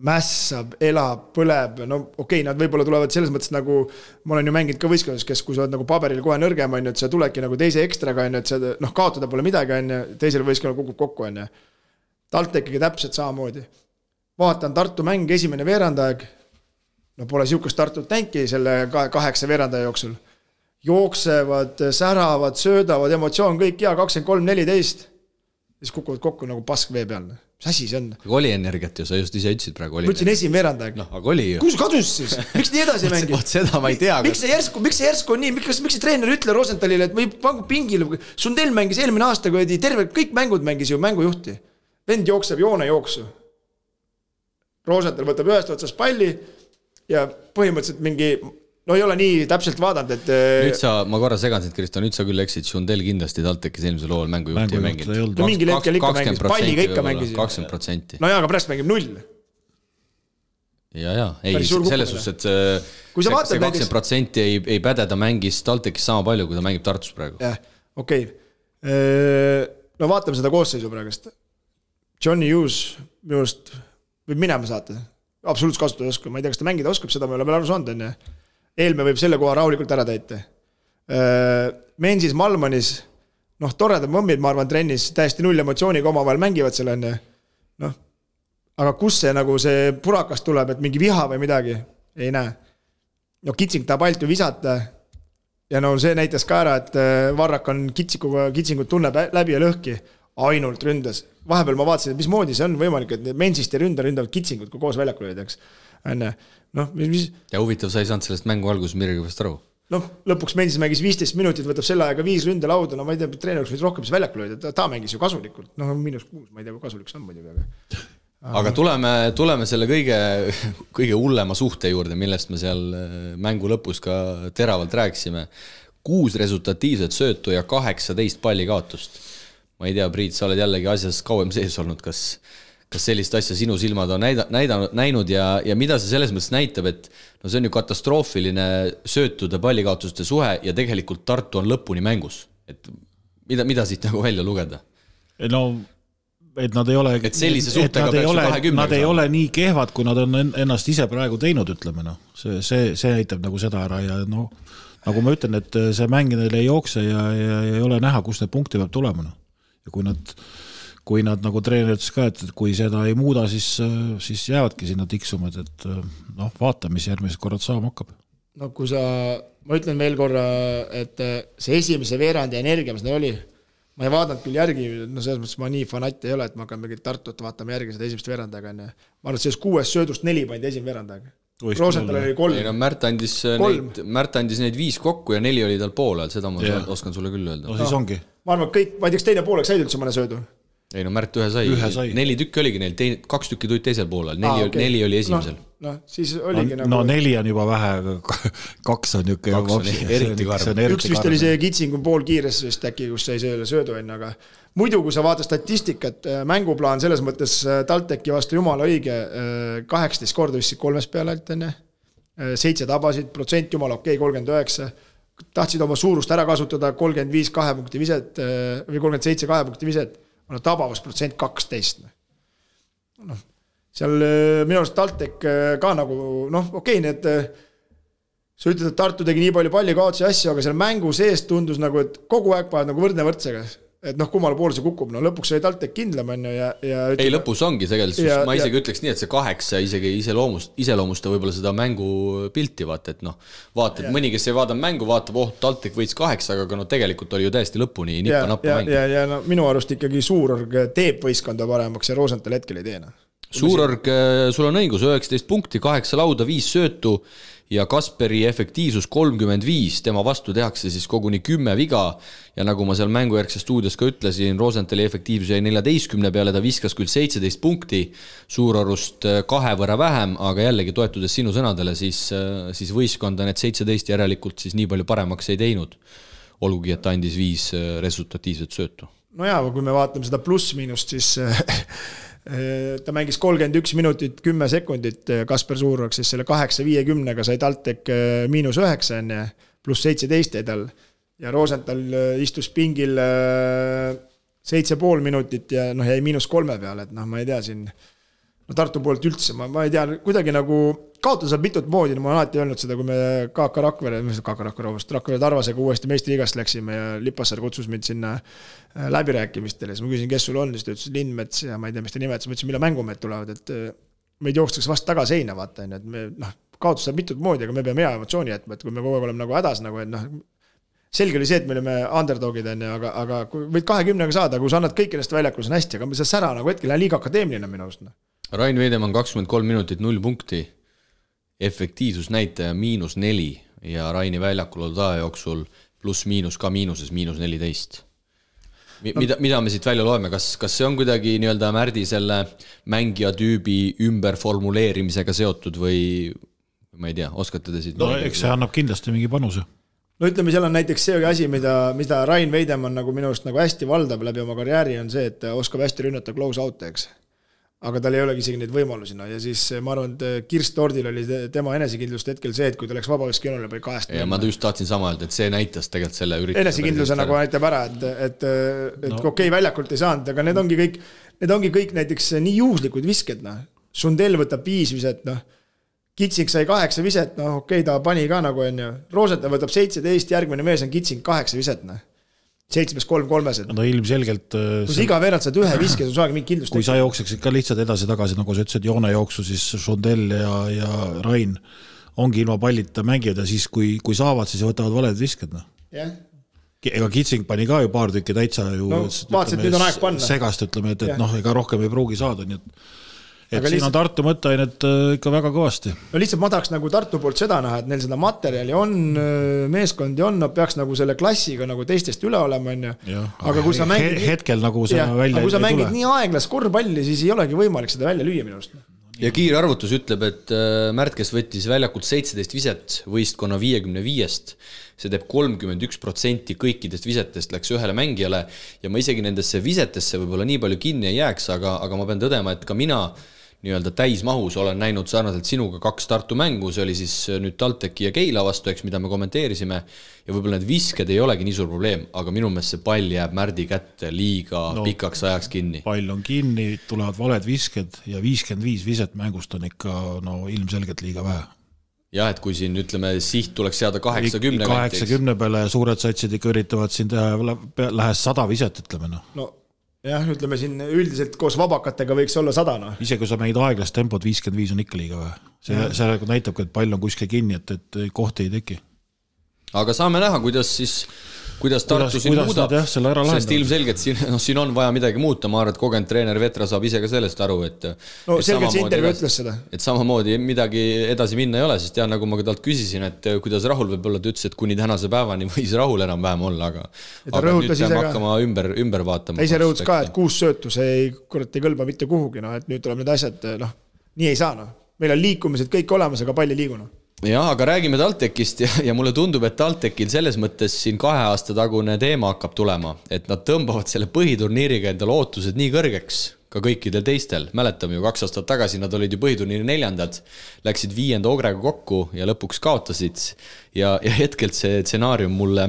mässab, elab, põleb, no okei, nad võib-olla tulevad selles mõttes nagu, ma olen ju mänginud ka võistkondades, kes kui sa oled nagu paberil kohe nõrgem, on ju, et sa tuledki nagu teise ekstraga, on ju, et sa kaotada pole midagi, on ju, teisel võistkonnal kukub kokku, on ju. TalTechiga täpselt samamoodi. Vaatan Tartu mäng esimene veerandaeg, no pole siukest Tartut tänki selle 8 veerandaja jooksul. Jooksevad, säravad, söödavad, emotsioon kõik ja 23-14, siis kukuvad kokku nagu pask vee peal. Mis asi see on? Aga oli energiat ju, sa just ise ütlesid praegu. Ma ütlesin esimene veerandaeg. No, aga oli ju. Kus kadus siis? Miks nii edasi mängib? Seda ma ei tea. Miks see järsku on nii? Miks see treener ütle Rosenthalile, et või pangu pingile? Sundell mängis eelmine aasta, kui terve kõik mängud mängis ju mängujuhti. Vend jookseb joone jooksu. Rosenthal võtab ühest otsast palli ja põhimõtteliselt mingi, no ei ole nii täpselt vaadanud, et... Nüüd ma korra segan sind, Kristo, nüüd sa küll eksid, Sundell kindlasti TalTechis eelmisel lool mängujuhti ja mängid. No mingil hetkel ikka mängis, palliga ikka mängis. 20%. No jaa, aga pärast mängib 0. Ja, ei, selles suhtes, et kui sa see 20% ei pädeda mängis TalTechis sama palju, kui ta mängib Tartus praegu. Jah, okei. No vaatame seda koosseisu praegust. Johnny Hughes minust võib minema saata. Absoluutselt kasutada oskab. Ma ei tea, kas ta mängida oskab, seda ma ei ole veel aru saanud. Enne. Eelme võib selle koha rahulikult ära täita. Mensis Malmanis, noh, toredad mõmmid, ma arvan, trennis täiesti 0 emotsiooniga oma vahel mängivad selle enne. Noh, aga kus see nagu see purakas tuleb, et mingi viha või midagi? Ei näe. No Kitsing tahab alt ju visata. Ja no see näitas ka ära, et Varrak on Kitsingut tunneb läbi ja lõhki. Ainult ründas. Vahepeal ma vaatasin, et mis moodi see on võimalik, et Mensist ja ründavad Kitsingut, kui koos väljakul olid, eks. No, ja huvitav, sa ei saanud sellest mängu alguses midagi vast aru. No, lõpuks Mensis mängis 15 minutit, võtab selle aega 5 ründelauda, no ma ei tea, treeneriks võid rohkem väljakul olid, ta mängis ju kasulikult. No, -6, ma ei tea, kui kasulik see on muidugi. Aga tuleme selle kõige hullema suhte juurde, millest me seal mängu lõpus ka teravalt rääkisime. 6 resultatiivset söötu ja 18 palli kaotust. Ma ei tea, Priit, sa oled jällegi asjas kauem sees olnud, kas sellist asja sinu silmad on näinud ja mida see selles mõttes näitab, et no see on ju katastroofiline söötude pallikaotuste suhe ja tegelikult Tartu on lõpuni mängus. Et mida siit nagu välja lugeda? No, et nad ei ole, et sellise suhtega peaks ju 20. Nad ei ole nii kehvad, kui nad on ennast ise praegu teinud, ütleme. No. See näitab nagu seda ära ja no, nagu ma ütlen, et see mängidel ei jookse ja ei ole näha, kus need punkti peab tulema. No. Ja kui nad nagu treener ütles ka, et kui seda ei muuda, siis jäävadki sinna tiksumad, et noh, vaata, mis järgmised korrad saama hakkab. No kui ma ütlen veel korra, et see esimese veerandi energia, mis neil oli, ma ei vaadanud küll järgi, no selles mõttes ma nii fanat ei ole, et ma hakkan mingit Tartut vaatama järgi seda esimest veerandaga. Ma arvan, et selles 6 söödust 4 pandi esimene veerandaga. Rosenthal oli 3. Ei, no Märt andis neid 5 kokku ja 4 oli tal poole, seda ma oskan sulle küll öelda. No siis ongi. Ma arvan, kõik, ma ei teaks teine pooleks said üldse mõne söödu. Ei no Märt ühe sai. 4 tükki oligi neil, 2 tükki tulid teisel poolel, 4 oli esimesel. No, siis oligi nagu... No 4 on juba vähe, 2 on niuke... 2 on eriti karm. Üks vist oli see Kitsingu pool kiires vist äkki, kus sai selle söödu enne, aga muidu, kui sa vaatad statistikat, mänguplaan selles mõttes TalTechi vastu jumala õige, 18 korda vist 3 peale alt enne, 7 tabasid, protsent jumala okei, 39, tahtsid oma suurust ära kasutada, 35 2 punkti viset või 37 2 punkti viset, on tabavus protsent 12. No, seal minu arust TalTech ka nagu, noh, okei, need, sa ütled, et Tartu tegi nii palju palli kaotsi asju, aga seal mängu sees tundus nagu, et kogu aeg paad nagu võrdne võrdsega. Et noh, kummale poole see kukub, no lõpuks oli TalTech kindlam on ja ei, lõpus ongi tegelikult, ma isegi ütleks nii, et see 8 isegi iseloomusta võib-olla seda mängu pilti, vaata, et noh, vaata, et mõni, kes ei vaada mängu, vaatab, TalTech võits 8, aga no tegelikult oli ju täiesti lõpuni nippa-nappa mäng. Ja no, minu arust ikkagi Suurorg teeb võistkonda paremaks ja Rosenthal hetkel ei teena. Suurorg, sul on õigus, 19 punkti, 8 lauda, 5 söötu ja Kasperi efektiivsus 35, tema vastu tehakse siis koguni 10 viga ja nagu ma seal mängujärgses stuudios ka ütlesin, Rosenthali efektiivsus jäi 14 peale, ta viskas küll 17 punkti, Suurorust 2 võrra vähem, aga jällegi toetudes sinu sõnadele, siis võistkonda need 17 järelikult siis nii palju paremaks ei teinud, olgugi, et ta andis 5 resultatiivset söötu. No jaa, kui me vaatame seda pluss-miinust, siis ta mängis 31 minutit 10 sekundit Kasper Suurorg, siis selle 8-50-ga sai TalTech -9 enne, pluss 17 edal ja Rosenthal istus pingil 7,5 minutit ja noh, jäi -3 peale, et noh, ma ei tea siin no Tartu poolt üldse, ma ei tea, kuidagi nagu kaotada saab mitut moodi, ma olen alati öelnud seda, kui me Rakvere Tarvasega uuesti meistriliigast läksime ja Lipassaar kutsus mind sinna läbirääkimistele, siis ma küsin, kes sul on, siis ta ütles Lindmets ja ma ei tea, mis ta nimetas, ma ütlesin, mille mängumehed tulevad, et meid jookstakse vast taga seina, vaata, et me, kaotus saab mitut moodi, aga me peame hea emotsiooni jätma, et kui me kogu aeg oleme nagu hädas, nagu, et selge oli see, et me olime underdogid, aga kui võid 20-ga saada, kui sa annad kõik ennast väljakul, see on hästi, aga see sära nagu hetkel on liiga akadeemiline minu arust. Rain Veidemann 23 minutit 0 punkti, efektiivsusnäitaja -4 ja Raini väljakul olnud aja jooksul pluss-miinus ka miinuses -14. Mida me siit välja loeme, kas see on kuidagi nii-öelda Märdi selle mängija tüübi ümberformuleerimisega seotud või ma ei tea, oskate te siit? No eks see annab kindlasti mingi panuse. No ütleme, seal on näiteks see asi, mida Rain Veidemann nagu minu arust nagu hästi valdab läbi oma karjääri on see, et oskab hästi rünnata close out, eks. Aga tal ei olegi isegi neid võimalusi. Ja siis ma arvan, et Kirst Tordil oli tema enesekindlust hetkel see, et kui ta läks vabaviskejoonerile või 2. Ja ma just tahtsin sama öelda, et see näitas tegelikult selle ürituse. Enesekindluse nagu näitab ära, et okei, väljakult ei saanud, aga need ongi kõik näiteks nii juhuslikud visked. Sundel võtab 5 viset, Kitsing sai 8 viset, okei, ta pani ka nagu enne. Rooseta võtab 17, järgmine mees on Kitsing 8 viset, 7-3-3-sed. No ilmselgelt... Kui sa iga veerand saad ühe viske, sul saagi mingi kindlust. Kui sa jookseksid ka lihtsalt edasi-tagasi, nagu sa ütlesid, joone jooksu, siis Sundel ja Rain ongi ilma pallita mängijad ja siis kui saavad, siis võtavad valed visked. Jah. Ega Kitsing pani ka ju paar tükki täitsa ju... No, vaatasid, nüüd on aeg panna. Segast, ütleme, et ega rohkem ei pruugi saada, nii et siin on Tartu mõtteainet ikka väga kõvasti. No lihtsalt ma tahaks nagu Tartu poolt seda näha, et neil seda materjali on, meeskondi on, nad peaks nagu selle klassiga nagu teistest üle olema. Aga kui sa mängid... Hetkel nagu see välja kui sa mängid nii aeglas korvpalli, siis ei olegi võimalik seda välja lüüa minu arust. Ja kiire arvutus ütleb, et Märt, kes võttis väljakult 17 viset võistkonna 55-st, see teeb 31% kõikidest visetest läks ühele mängijale ja ma isegi nendesse visetesse võib-olla nii palju kinni ei jääks, aga ma pean tõdema, et ka mina nii-öelda täismahus olen näinud sarnaselt sinuga 2 Tartu mängu, see oli siis nüüd TalTechi ja Keila vastu, eks, mida me kommenteerisime ja võib-olla need visked ei olegi nii suur probleem, aga minu meelest see pall jääb Märdi kätte liiga pikaks ajaks kinni. Pall on kinni, tulevad valed visked ja 55 viset mängust on ikka ilmselgelt liiga vähe. Jah, et kui siin ütleme, siht tuleks seada 80 80 peale suured satsid ikka üritavad siin teha, lähes 100 viset, ütleme. Jah, ütleme siin üldiselt koos vabakatega võiks olla 100. Ise kui sa mängid aeglast tempot, 55 on ikka liiga vähe. See näitab, et pall on kuskil kinni, et kohti ei teki. Aga saame näha, kuidas Tartu siin muudab, sest ilmselgelt siin on vaja midagi muuta, ma arvan, et kogenud treener Vetra saab ise ka sellest aru, et selgelt see intervjuu ütles seda. Et samamoodi midagi edasi minna ei ole, sest nagu ma ka talt küsisin, et kuidas Rahul võib olla, ta ütles, et kuni tänase päevani võis Rahul enam vähem olla, aga nüüd peame hakkama ümber vaatama. Ta ise rõhutas ka, et 6 söötu, see ei kõlba mitte kuhugi, et nüüd tuleb need asjad, nii ei saa. Meil on liikumised kõik olemas, aga palju liiguna. Jah, aga räägime TalTechist ja mulle tundub, et TalTechil selles mõttes siin 2 aasta tagune teema hakkab tulema, et nad tõmbavad selle põhiturniiriga endale ootused nii kõrgeks ka kõikidel teistel. Mäletame ju 2 aastat tagasi nad olid ju põhiturniiri 4, läksid 5. Ogrega kokku ja lõpuks kaotasid ja hetkelt see stsenaarium mulle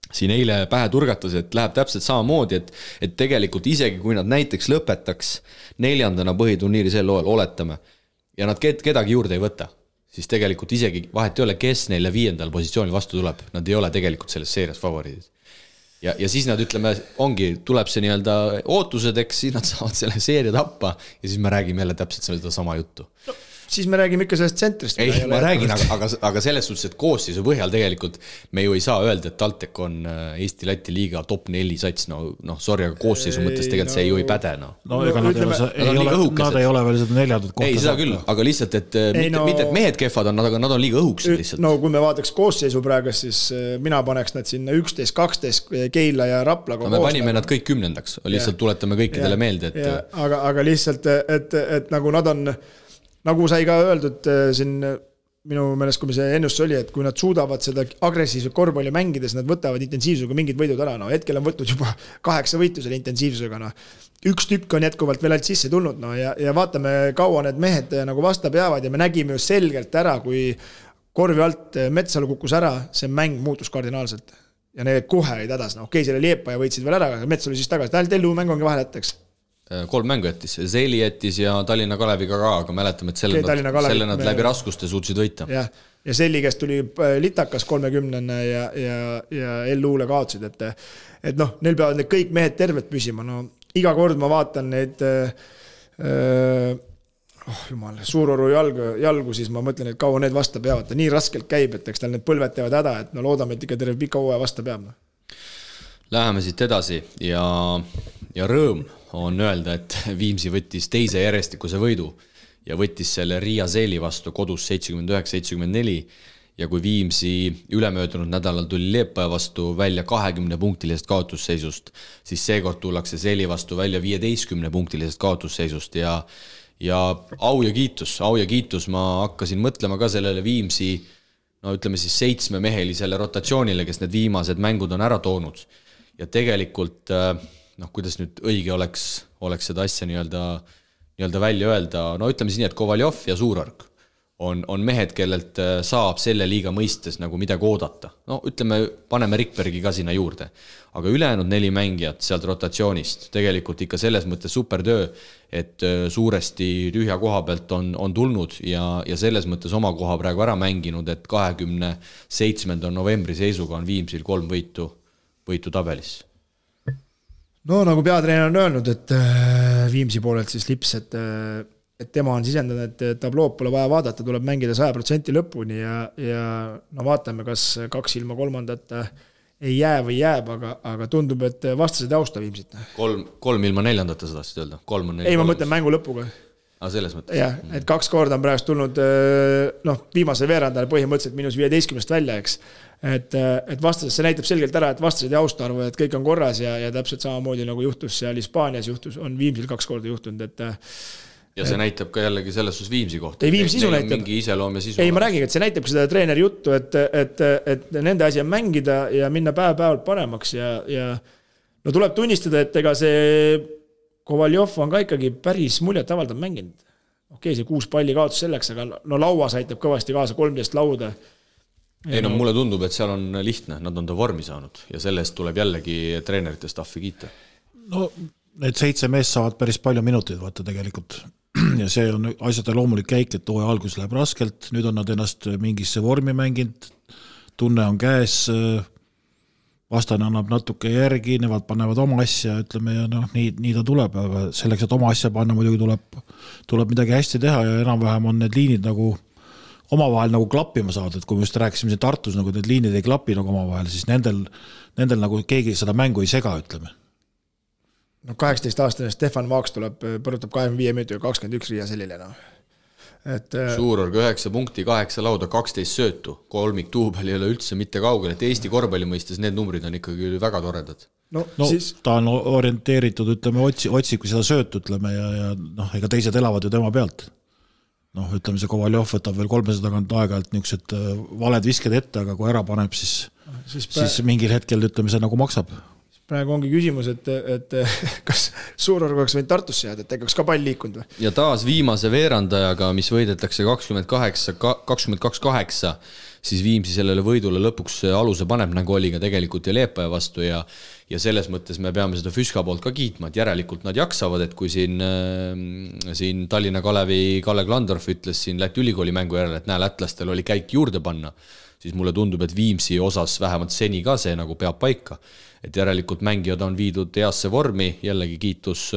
siin eile pähe turgatas, et läheb täpselt samamoodi, et tegelikult isegi kui nad näiteks lõpetaks 4. põhiturniiri sel loel, oletame, ja nad kedagi juurde ei võta, siis tegelikult isegi vahet ei ole, kes neile 5. positsiooni vastu tuleb. Nad ei ole tegelikult selles seerias favoriidid. Ja siis nad ütleme, tuleb see nii-öelda ootused, eks siis nad saavad selle seeria tappa ja siis me räägime jälle täpselt seda sama juttu. Siis me räägime ikka sellest tsentrist. Ei, ma räägin, aga selles suhtes, et koosseisu põhjal tegelikult me ju ei saa öelda, et TalTech on Eesti-Läti liiga top 4 sats. Sorry, aga koosseisu mõttes tegelikult see ju ei päde. Ega nad ei ole veel seda 4. kohta. Ei, seda küll, aga lihtsalt, et mitte et mehed kehvad on, aga nad on liiga õhuksed lihtsalt. No kui me vaataks koosseisu praegu, siis mina paneks nad sinna 11, 12 Keila ja Rapla. Me panime nad kõik 10. Lihtsalt tuletame kõikidele meelde. Aga lihtsalt, et nagu nad on... Nagu sai ka öeldud siin minu meelest, kui see ennustus oli, et kui nad suudavad seda agressiivset korvpalli mängides, nad võtavad intensiivsusega mingid võidud ära. Hetkel on võtnud juba 8 võitu selle intensiivsusega. Üks tükk on jätkuvalt veel alt sisse tulnud ja vaatame, kaua need mehed nagu vastab jäävad ja me nägime ju selgelt ära, kui korvi alt Metsalu kukkus ära, see mäng muutus kardinaalselt. Ja need kohe olid hädas. Okei, selle Liepa ja võitsid veel ära, aga Metsalu siis tagasi. Tellu mäng ongi vahel jätteks. 3 mängu jättis, Zeli jättis ja Tallinna Kaleviga ka, aga mäletame, et selle nad läbi raskuste suutsid võita. Ja Zeli, kes tuli litakas 30 ja L-uule kaotsid, et noh, neil peavad need kõik mehed terved püsima, no iga kord ma vaatan neid jumal, Suuroru jalgu, siis ma mõtlen, et kaua need vasta peavad, ta nii raskelt käib, et eks tal need põlved teevad häda, et no loodame, et ikka terve pika hooaja vasta peab. Läheme siit edasi ja rõõm on öelda, et Viimsi võttis teise järjestikuse võidu ja võttis selle Riia Zeli vastu kodus 79-74 ja kui Viimsi ülemöödunud nädalal tuli Liepaja vastu välja 20-punktilisest kaotusseisust, siis seekord tullakse Zeli vastu välja 15-punktilisest kaotusseisust ja au ja kiitus, ma hakkasin mõtlema ka sellele Viimsi, no ütleme siis 7-mehelisele rotatsioonile, kes need viimased mängud on ära toonud. Ja tegelikult, noh, kuidas nüüd õige oleks seda asja nii-öelda välja öelda, no ütleme siis nii, et Kovaljov ja Suurorg on mehed, kellelt saab selle liiga mõistes nagu midagi oodata. No ütleme, paneme Rikbergi ka sinna juurde. Aga ülejäänud 4 mängijat sealt rotatsioonist, tegelikult ikka selles mõttes supertöö, et suuresti tühja koha pealt on tulnud ja selles mõttes oma koha praegu ära mänginud, et 27. novembri seisuga on Viimsil 3 võitu tabelis. No nagu peatreener on öelnud, et Viimsi poolelt siis Lips, et tema on sisendanud, et tablood pole vaja vaadata, tuleb mängida 100% lõpuni ja no vaatame, kas 2 ilma 3. ei jää või jääb, aga tundub, et vastased austa Viimsit. 3 ilma 4. sa tahtsid öelda? Ei, ma mõtlen mängu lõpuga. Selles mõttes. Jah, et 2 korda on praegust tulnud viimase veerandale põhimõtteliselt -15 välja, eks. Et vastased, see näitab selgelt ära, et vastased ei austa arvu, et kõik on korras ja täpselt samamoodi nagu juhtus seal Hispaanias on Viimsil 2 korda juhtunud, et ja see näitab ka jällegi selles sus Viimsi kohta. Ei, Viimsi sisu näitab. Mingi iseloom ja sisu. Ei, ma räägin, et see näitab seda treeneri juttu, et nende asi on mängida ja minna päev-päevalt paremaks ja no tuleb tunnistada, et ega see Kovaljov on ka ikkagi päris muljet avaldab mänginud. Okei, see 6 palli kaotus selleks, aga no lauas aitab kõvasti kaasa 13 lauda. Ei, no mulle tundub, et seal on lihtne, nad on ta vormi saanud ja sellest tuleb jällegi treenerite staffi kiita. No need 7 meest saavad päris palju minuteid vaata tegelikult ja see on asjade loomulik käik, et hooaja algus läheb raskelt, nüüd on nad ennast mingisse vormi mänginud, tunne on käes, vastane annab natuke järgi, nemad panevad oma asja, ütleme, ja noh, nii ta tuleb, aga selleks, et oma asja panna, muidugi tuleb midagi hästi teha ja enam-vähem on need liinid nagu omavahel nagu klappima saada, et kui me just rääkisime siin Tartus, nagu need liinid ei klapi nagu omavahel, siis nendel nagu keegi seda mängu ei sega, ütleme. No 18-aastane Stefan Vaaks põrutab 25 minutit 21 Riia Selile. No. Suurorg 9 punkti, 8 lauda, 12 söötu, kolmik duubel ei ole üldse mitte kaugel, et Eesti korvpalli mõistes need numbrid on ikkagi väga toredad. No siis... ta on orienteeritud, ütleme, otsib seda söötu, ütleme, ja noh, ega teised elavad ju tema pealt. Noh, ütleme, see Kovaljov võtab veel 300 tagant aeg-ajalt niisugused valed visked ette, aga kui ära paneb, siis mingil hetkel, ütleme, see nagu maksab. Praegu ongi küsimus, et kas Suurorg oleks võinud Tartusse jääda, et tegaks ka pall liikunud või? Ja taas viimase veerandajaga, mis võidetakse 22-8, siis Viimsi sellele võidule lõpuks aluse paneb, nagu oli ka tegelikult ja Liepaja vastu ja selles mõttes me peame seda Füska poolt ka kiitma, et järelikult nad jaksavad, et kui siin Tallinna Kalevi Kalle Klandorf ütles siin Läti ülikooli mängu järele, et lätlastel oli käik juurde panna, siis mulle tundub, et Viimsi osas vähemalt seni ka see nagu peab paika. Et järelikult mängijad on viidud heasse vormi, jällegi kiitus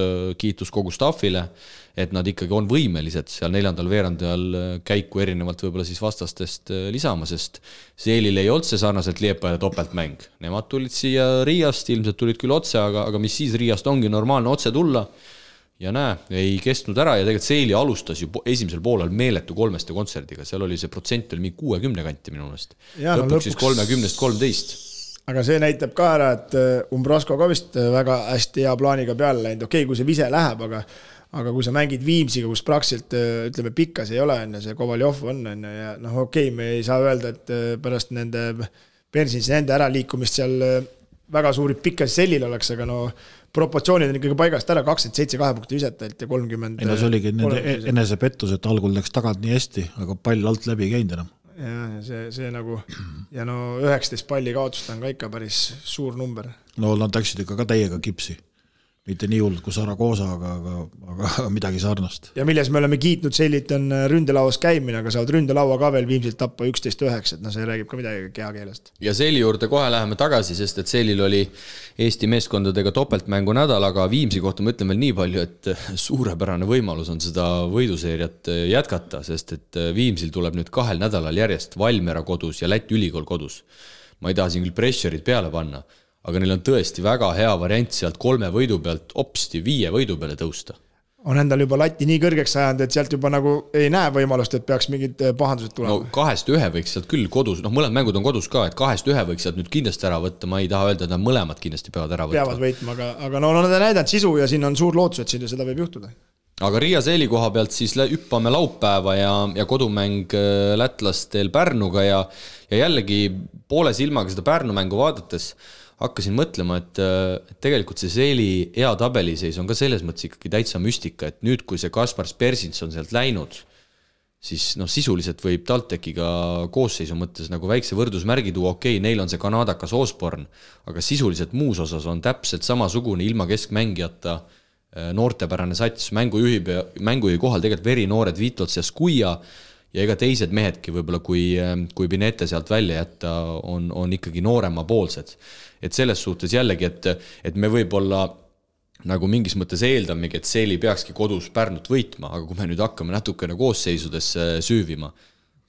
kogu staffile, et nad ikkagi on võimelised seal 4. veerandajal käiku erinevalt võib-olla siis vastastest lisama, sest Seelil ei olnud see sarnaselt Liepaja topeltmäng. Nemad tulid siia Riiast, ilmselt tulid küll otse, aga mis siis Riiast ongi normaalne otse tulla ja ei kestnud ära ja tegelikult Seeli alustas ju esimesel poolel meeletu 3 kontserdiga, seal oli see protsent oli mingi 60 kanti minu meelest. Lõpuks siis 30-13. Aga see näitab ka ära, et Umbrasko ka vist väga hästi hea plaaniga peale läinud. Okei, kui see vise läheb, aga kui sa mängid Viimsiga, kus praktiliselt, ütleme, pikkas ei ole, see Kovaljov on, ja okei, me ei saa öelda, et pärast nende äraliikumist seal väga suuri pikkas sellil oleks, aga proportsioonid on ikkagi paigast ära, 27 2 punkti visetelt ja 30. See oligi nende enesepettus, et algul läks tagant nii hästi, aga pall alt läbi ei käinud enam. Ja see nagu, ja 19 palli kaotust on ka ikka päris suur number. No nad läksid ikka ka täiega kipsi. mitte nii hullult kui Saragosa, aga midagi sarnast. Ja milles me oleme kiitnud Sellit on ründelauas käimine, aga saavad ründelaua ka veel Viimsilt tappa 11-9, et see räägib ka midagi kehakeelest. Ja Selli juurde kohe läheme tagasi, sest et Sellil oli Eesti meeskondadega topeltmängu nädal, aga Viimsi kohta ma ütlen veel nii palju, et suurepärane võimalus on seda võiduseeriat jätkata, sest et Viimsil tuleb nüüd 2 nädalal järjest Valmiera kodus ja Läti ülikool kodus. Ma ei taha siin küll pressure'id peale panna, aga neil on tõesti väga hea variant sealt 3 võidu pealt opsti 5 võidu peale tõusta. On endal juba lati nii kõrgeks sajand, et sealt juba nagu ei näe võimalust, et peaks mingid pahandused tulema. No 2-1 võiks sealt küll kodus, mõlemad mängud on kodus ka, et 2-1 võiks sealt nüüd kindlasti ära võtta, ma ei taha öelda, et nad mõlemad kindlasti peavad ära võtta. Peavad võitma, aga nad on näidanud sisu ja siin on suur lootus, et seda võib juhtuda. Aga Riia Seeli koha pealt siis hüppame laupäeva ja kodumäng lätlastel Pärnuga ja jällegi poole silmaga seda Pärnu mängu vaadates hakkasin mõtlema, et tegelikult see Seeli hea tabeliseis on ka selles mõttes ikkagi täitsa müstika, et nüüd, kui see Kaspar Spersins on sealt läinud, siis sisuliselt võib TalTechiga koosseisu mõttes nagu väikse võrdusmärgi tuua, okei, neil on see kanadakas Osborn, aga sisuliselt muus osas on täpselt samasugune ilma keskmängijata noortepärane sats, mängujuhi kohal tegelikult verinoored Vitots ja Skuia ja ega teised mehedki võib-olla, kui Pinete sealt välja jätta, on ikkagi noorema poolsed. Et selles suhtes jällegi, et me võib-olla nagu mingis mõttes eeldamegi, et Seeli peakski kodus Pärnut võitma, aga kui me nüüd hakkame natukene koosseisudesse süüvima,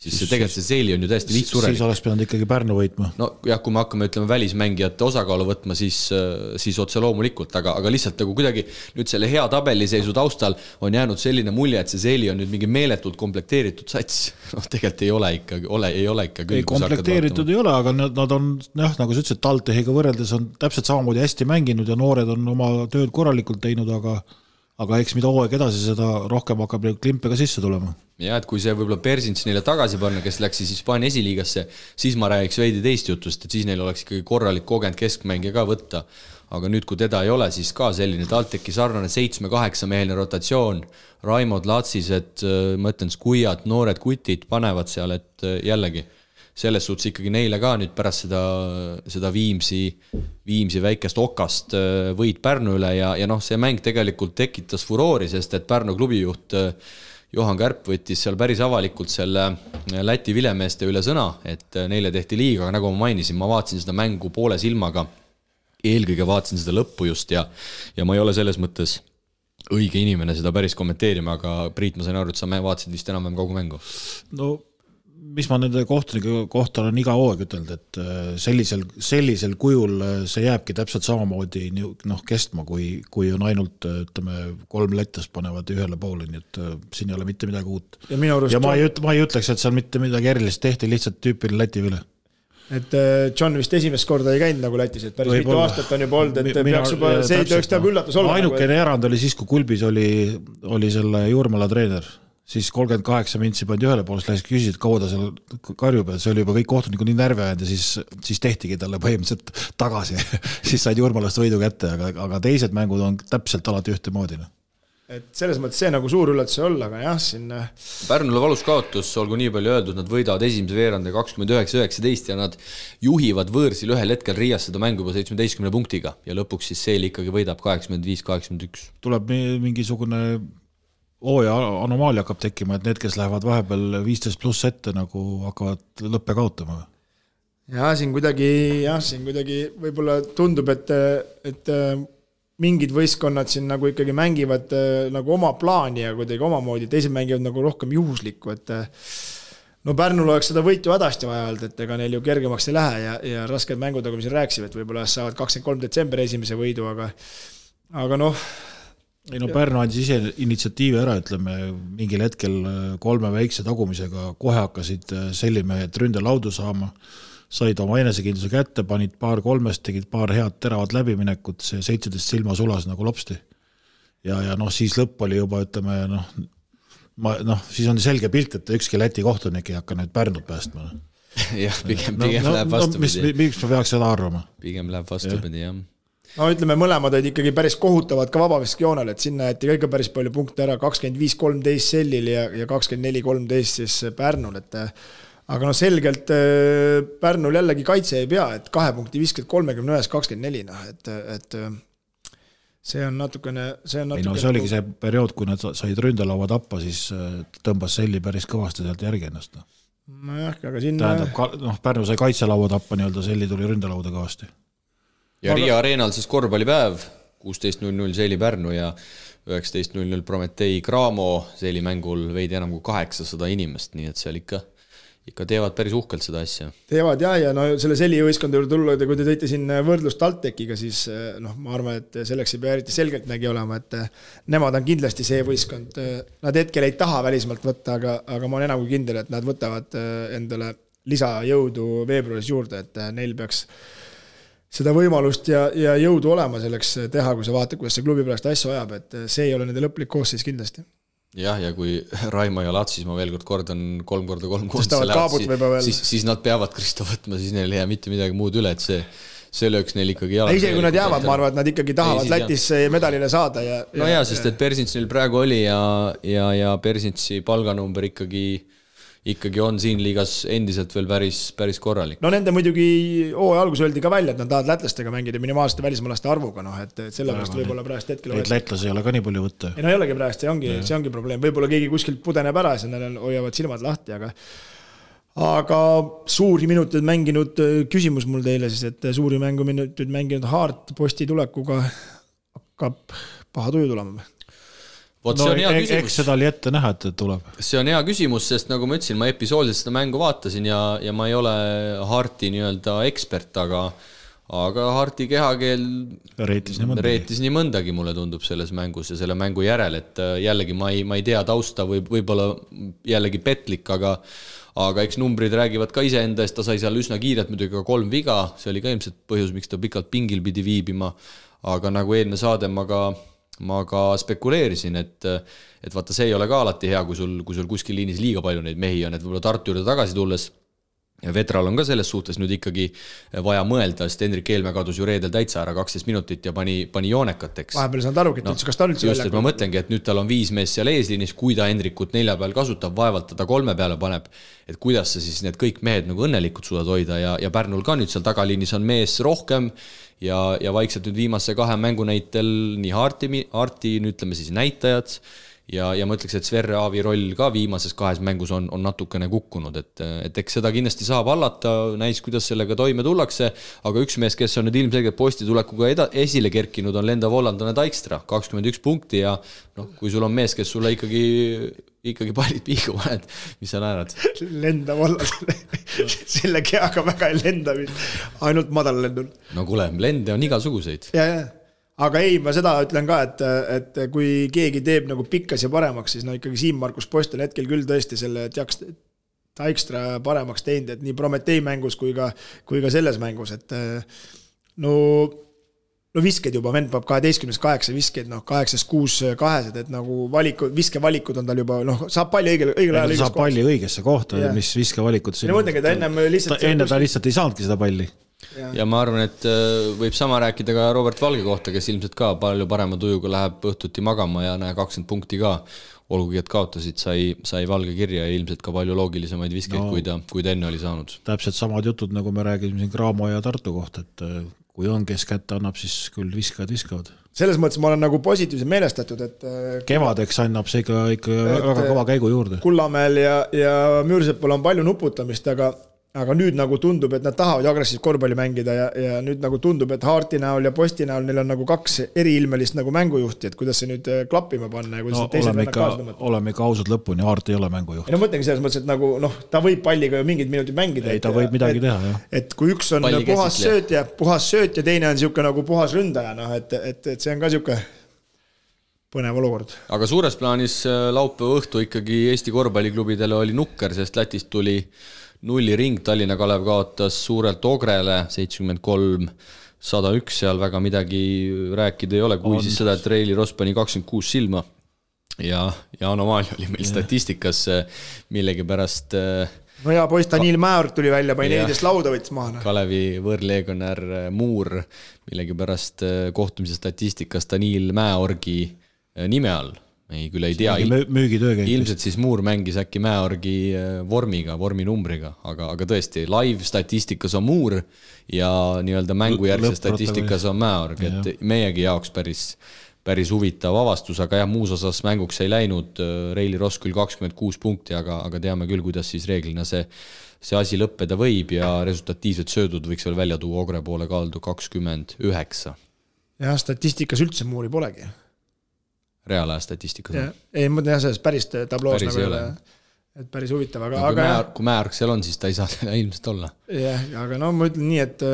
siis tegelikult see Seeli on ju täiesti lihtsurelik. Siis oleks pidanud ikkagi Pärnu võitma. No jah, kui me hakkame ütlema välismängijate osakaalu võtma, siis otse loomulikult, aga lihtsalt nagu kuidagi nüüd selle hea tabeliseisu taustal on jäänud selline mulje, et see Seeli on nüüd mingi meeletult komplekteeritud sats. Tegelikult ei ole ikka küll. Ei komplekteeritud ei ole, aga nad on, nagu sa ütlesid, TalTechiga võrreldes on täpselt samamoodi hästi mänginud ja noored on oma tööd korralikult teinud, aga eks mida hooaeg edasi, seda rohkem hakkab klimpe ka sisse tulema. Ja et kui see võib-olla Persins neile tagasi panna, kes läks siis Hispaania esiliigasse, siis ma räägiks veidi teist jutust, et siis neil oleks ikkagi korralik kogenud keskmängija ka võtta. Aga nüüd, kui teda ei ole, siis ka selline TalTechi sarnane 7-8 meheline rotatsioon, Raimod Latsised, ma ütlen Skuiat, noored kutid panevad seal, et jällegi selles suhtes ikkagi neile ka nüüd pärast seda Viimsi väikest okast võit Pärnu üle ja see mäng tegelikult tekitas furoori, sest et Pärnu klubijuht Johan Kärp võttis seal päris avalikult selle Läti vilemeeste üle sõna, et neile tehti liiga, aga nagu ma mainisin, ma vaatasin seda mängu poole silmaga, eelkõige vaatasin seda lõppu just ja ma ei ole selles mõttes õige inimene seda päris kommenteerima, aga Priit, ma sain aru, et sa vaatasid vist enam kogu mängu. No mis ma nende kohtunike kohta olen iga hooaeg ütelnud, et sellisel kujul see jääbki täpselt samamoodi kestma, kui on ainult 3 lettast panevad ühele poole, nii et siin ei ole mitte midagi uut. Ja ma ei ütleks, et seal mitte midagi erilist tehti, lihtsalt tüüpiline Läti vile. Et John vist esimest korda ei käinud nagu Lätis, et päris mitu aastat on juba olnud, et peaks juba see tööks teab üllatus olla. Ainukene erand oli siis, kui Kulbis oli selle Juurmala treener, siis 38 mintsi pandi ühele poolest, lähes küsisid, kaua ta seal karjub, et see oli juba kõik kohtunikud nii närvi ajanud ja siis tehtigi talle põhimõtteliselt tagasi. Siis said Juurmalast võidu kätte, aga teised mängud on täpselt alati ühtemoodi. Et selles mõttes see nagu suur üllatus ei olla, aga jah, siin Pärnule valus kaotus, olgu nii palju öeldud, nad võidavad esimese veerande 29-19 ja nad juhivad võõrsil ühel hetkel Riias seda mängu juba 17 punktiga ja lõpuks siis Seeli ikkagi võidab 85-81. Tuleb mingisugune hooaja anomaalia hakkab tekkima, et need, kes lähevad vahepeal 15 pluss ette, nagu hakkavad lõppe kaotama. Ja siin kuidagi võib-olla tundub, et mingid võistkonnad siin nagu ikkagi mängivad nagu oma plaani ja kuidagi omamoodi, teised mängivad nagu rohkem juhuslikku, et Pärnul oleks seda võitu hädasti vaja olnud, et ega neil ju kergemaks ei lähe ja rasked mängud, nagu me siin rääksime, et võib-olla saavad 23. detsember esimese võidu, aga Pärnu andis ise initsiatiivi ära, ütleme, mingil hetkel 3 väikse tagumisega kohe hakkasid sellimehed ründelaudu saama, said oma enesekindluse kätte, panid paar 3, tegid paar head teravat läbiminekut, see 17 silma sulas nagu lopsti. Ja siis lõpp oli juba, ütleme, siis on selge pilt, et ükski Läti kohtunik ei hakka nüüd Pärnut päästma. Jah, pigem läheb vastupidi. Miks ma peaks seda arvama? Pigem läheb vastupidi, jah. Ütleme, mõlemad olid ikkagi päris kohutavad ka vabaviskjoonel, et sinna jäeti kõige päris palju punkte ära, 25-13 Sellil ja 24-13 siis Pärnul, et aga selgelt Pärnul jällegi kaitse ei pea, et 2 punkti viskad 31-24, et see on natukene ei no see oligi see periood, kui nad said ründelaua tappa, siis tõmbas Selli päris kõvasti sealt järgi ennast. Nojah, aga siin tähendab, Pärnu sai kaitselaua tappa, nii-öelda Selli tuli ründelauda kõvasti. Ja Riia Areenal siis korvpallipäev, 16.00 Selli Pärnu ja 19.00 Prometei Cramo, Selli mängul veidi enam kui 800 inimest, nii et seal ikka teevad päris uhkelt seda asja. Teevad ja no selle Selli võistkond juurde tulla, kui te tõite siin võrdlust TalTechiga, siis ma arvan, et selleks ei pea eriti selgelt nägi olema, et nemad on kindlasti see võistkond. Nad hetkel ei taha välismalt võtta, aga ma olen enam kui kindel, et nad võtavad endale lisajõudu veebruaris juurde, et neil peaks seda võimalust ja jõudu olema selleks teha, kui sa vaatad, kuidas see klubi pärast asju ajab, et see ei ole nende lõplik koosseis kindlasti. Jah, ja kui Raimo ja Latsis, ma veel kordan 3x3 siis nad peavad Kristo võtma, siis neil ei jää mitte midagi muud üle, et see lööks neil ikkagi jalad. Isegi kui nad jäävad, ma arvan, et nad ikkagi tahavad Lätis medalile saada. No jaa, sest et Persins neil praegu oli ja Persinsi palganumber ikkagi on siin liigas endiselt veel päris korralik. No nende muidugi alguses öeldi ka välja, et nad tahavad lätlastega mängida minimaalsete välismaalaste arvuga, et sellepärast võib-olla praegust hetkel neid lätlasi ei ole ka nii palju võtta. Ei no ei olegi praegust, see ongi probleem. Võib-olla keegi kuskilt pudeneb ära ja neil hoiavad silmad lahti, aga suuri minuteid mänginud küsimus mul teile siis, et suuri mänguminuteid mänginud Haart Posti tulekuga hakkab paha tuju tulema. Võt, see on hea küsimus. Eks seda oli ette näha, et tuleb. See on hea küsimus, sest nagu ma ütlesin, ma episoodiliselt seda mängu vaatasin ja ma ei ole Harti nii-öelda ekspert, aga Harti kehakeel reetis nii mõndagi, mulle tundub selles mängus ja selle mängu järel, et jällegi ma ei tea tausta, võib-olla jällegi petlik, aga eks numbrid räägivad ka iseenda eest, ta sai seal üsna kiirelt muidugi ka 3 viga, see oli ka ilmselt põhjus, miks ta pikalt pingil pidi viibima, aga nagu eelne saade ma ka spekuleerisin, et vaata, see ei ole ka alati hea, kui sul kuskil liinis liiga palju neid mehi on, et võib-olla Tartu juurde tagasi tulles ja Vetral on ka selles suhtes nüüd ikkagi vaja mõelda, sest Hendrik Eelmäe kadus ju reedel täitsa ära 12 minutit ja pani joonekateks. Vahepeal saanud aru, kas ta üldse just, et ma mõtlengi, et nüüd tal on 5 mees seal eesliinis, kui ta Hendrikut 4 peal kasutab, vaevalt ta 3 peale paneb, et kuidas sa siis need kõik mehed nagu õnnelikult suudad hoida ja Pärnul ka nüüd seal tagaliinis on mees rohkem ja vaikselt nüüd viimase 2 mängu näitel nii Harti ütleme siis näitajad ja ma ütleks, et Sverre Aavi roll ka viimases 2 mängus on natukene kukkunud, et eks seda kindlasti saab allata, näis, kuidas sellega toime tullakse, aga üks mees, kes on nüüd ilmselgelt Posti tulekuga esile kerkinud, on lendav hollandlane Dijkstra, 21 punkti ja kui sul on mees, kes sulle ikkagi pallid piigu paned, mis sa naerad? Lendav hollandlane, selle keaga väga ei lenda, ainult madal lendul. No kuule, lende on igasuguseid. Ja. Aga ei, ma seda ütlen ka, et kui keegi teeb nagu pikkas ja paremaks, siis ikkagi Siim-Markus Post on hetkel küll tõesti selle Dijkstra paremaks teinud, et nii Prometei mängus kui ka selles mängus, et no visked juba, vend peab 12-8 viskeid, 8-6 kahesed, et nagu viskevalikud on tal juba, saab palli õigel ajal saab palli õigesse kohta, mis viskevalikud ja mõtlengi, et enne ta lihtsalt ei saanudki seda palli. Ja ma arvan, et võib sama rääkida ka Robert Valge kohta, kes ilmselt ka palju parema tujuga läheb õhtuti magama ja 20 punkti ka, olgugi et kaotasid, sai Valge kirja ja ilmselt ka palju loogilisemaid viskeid, kui ta enne oli saanud. Täpselt samad jutud, nagu me räägime siin Cramo ja Tartu kohta, et kui on, kes kätte annab, siis küll viskavad. Selles mõttes ma olen nagu positiivselt meelestatud, et kevadeks annab see ikka väga kõva käigu juurde. Kullamäel ja Müürsepul on palju nuputamist, aga nüüd nagu tundub, et nad tahavad agressiivselt korvpalli mängida ja nüüd nagu tundub, et Harti näol ja Posti näol neil on nagu 2 eriilmelist nagu mängujuhti, et kuidas see nüüd klappima panna ja kuidas teised vennad kaasa tõmmata. Oleme ikka ausad lõpuni, Hart ei ole mängujuht. Ja mõtlengi selles mõttes, et nagu ta võib palliga ju mingid minutid mängida. Ei, ta võib midagi teha, jah. Et kui üks on puhas sööt ja teine on siuke nagu puhas ründaja, et see on ka siuke põnev olukord. Aga suures plaanis laupäeva õhtu ikkagi Eesti korvpalliklubidele oli nukker, sest Lätist tuli 0 ring, Tallinna Kalev kaotas suurelt Ogrele 73-101, seal väga midagi rääkida ei ole, kui siis seda, et Reili Ross pani 26 silma ja anomaalia oli meil statistikas millegi pärast. No ja poiss Daniil Määr tuli välja, pani 14 lauda võttis maha. Kalevi võõrleegionär Muur millegi pärast kohtumise statistikas Daniil Mäeorgi nime all ei küll ei tea, müügitöö käib. Ilmselt siis Muur mängis äkki Mäeorgi vorminumbriga, aga tõesti, live statistikas on Muur ja nii-öelda mängujärgse statistikas on Mäeorg, et meiegi jaoks päris huvitav avastus, aga jah, muus osas mänguks ei läinud, Reili Ross küll 26 punkti, aga teame küll, kuidas siis reeglina see asi lõppeda võib ja resultatiivsed söödud võiks veel välja tuua Ogre poole kaldu 29. Jah, statistikas üldse Muuri polegi. Reaalaja statistikas. Ei, ma tean sellest päris tabloos päris nagu et päris huvitav, aga kui Mäeorg seal on, siis ta ei saa ilmselt olla. Jah, aga no ma ütlen nii, et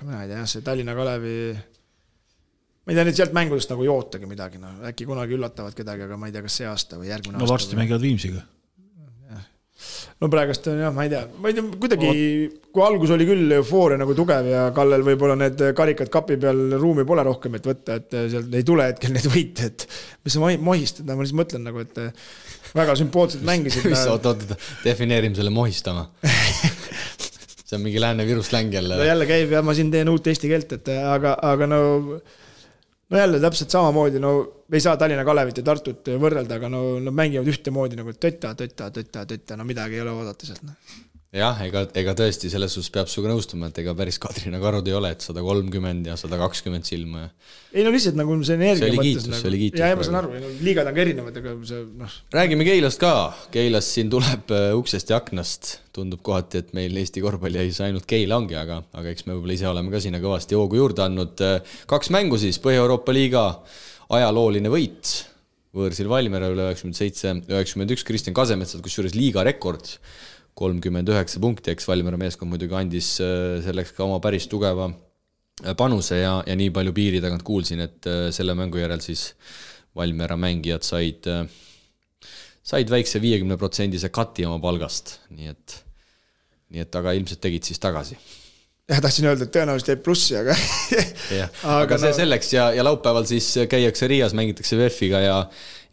ma ei tea, see Tallinna Kalevi ma ei tea nüüd sealt mängudest nagu jootagi midagi, no äkki kunagi üllatavad kedagi, aga ma ei tea, kas see aasta või järgmine aasta. No varsti mängivad Viimsiga. No praegust on jah, ma ei tea, kuidagi kui algus oli küll eufooria nagu tugev ja Kallel võib-olla need karikad kapi peal ruumi pole rohkem, et võtta, et sealt ei tule hetkel need võite, et mis sa mohistad, ma lihtsalt mõtlen nagu, et väga sümpaatselt mängisid. Oot, defineerime selle mohistama. See on mingi Lääne-Viru släng jälle. No jälle käib ja ma siin teen uut eesti keelt, et aga no jälle täpselt samamoodi, no ei saa Tallinna Kalevit ja Tartut võrrelda, aga no mängivad ühtemoodi nagu tötta, no midagi ei ole oodata sealt. Jah, ega tõesti selles suhtes peab suga nõustuma, et ega päris Kadrina Karud ei ole, et 130 ja 120 silma. Ei no lihtsalt nagu see energia mõttes. See oli kiitus. Ja ma saan aru, liigad on ka erinevad, aga see Räägime Keilast ka. Keilas siin tuleb uksest ja aknast. Tundub kohati, et meil Eesti korvpalli ei saa ainult Keila ongi, aga eks me võib-olla ise oleme ka sinna kõvasti hoogu juurde andnud. 2 mängu siis, Põhja-Euroopa liiga ajalooline võit. Võõrsil Valmiera üle 97-91, Kristjan Kasemetsad, kus juures liiga rekord 39 punkti, eks Valmiera meeskond muidugi andis selleks ka oma päris tugeva panuse ja nii palju piiri tagant kuulsin, et selle mängu järel siis Valmiera mängijad said väikse 50% kati oma palgast, nii et aga ilmselt tegid siis tagasi. Ja tahtsin öelda, et tõenäoliselt jäi plussi, aga see selleks ja laupäeval siis käiakse Riias, mängitakse VEF-iga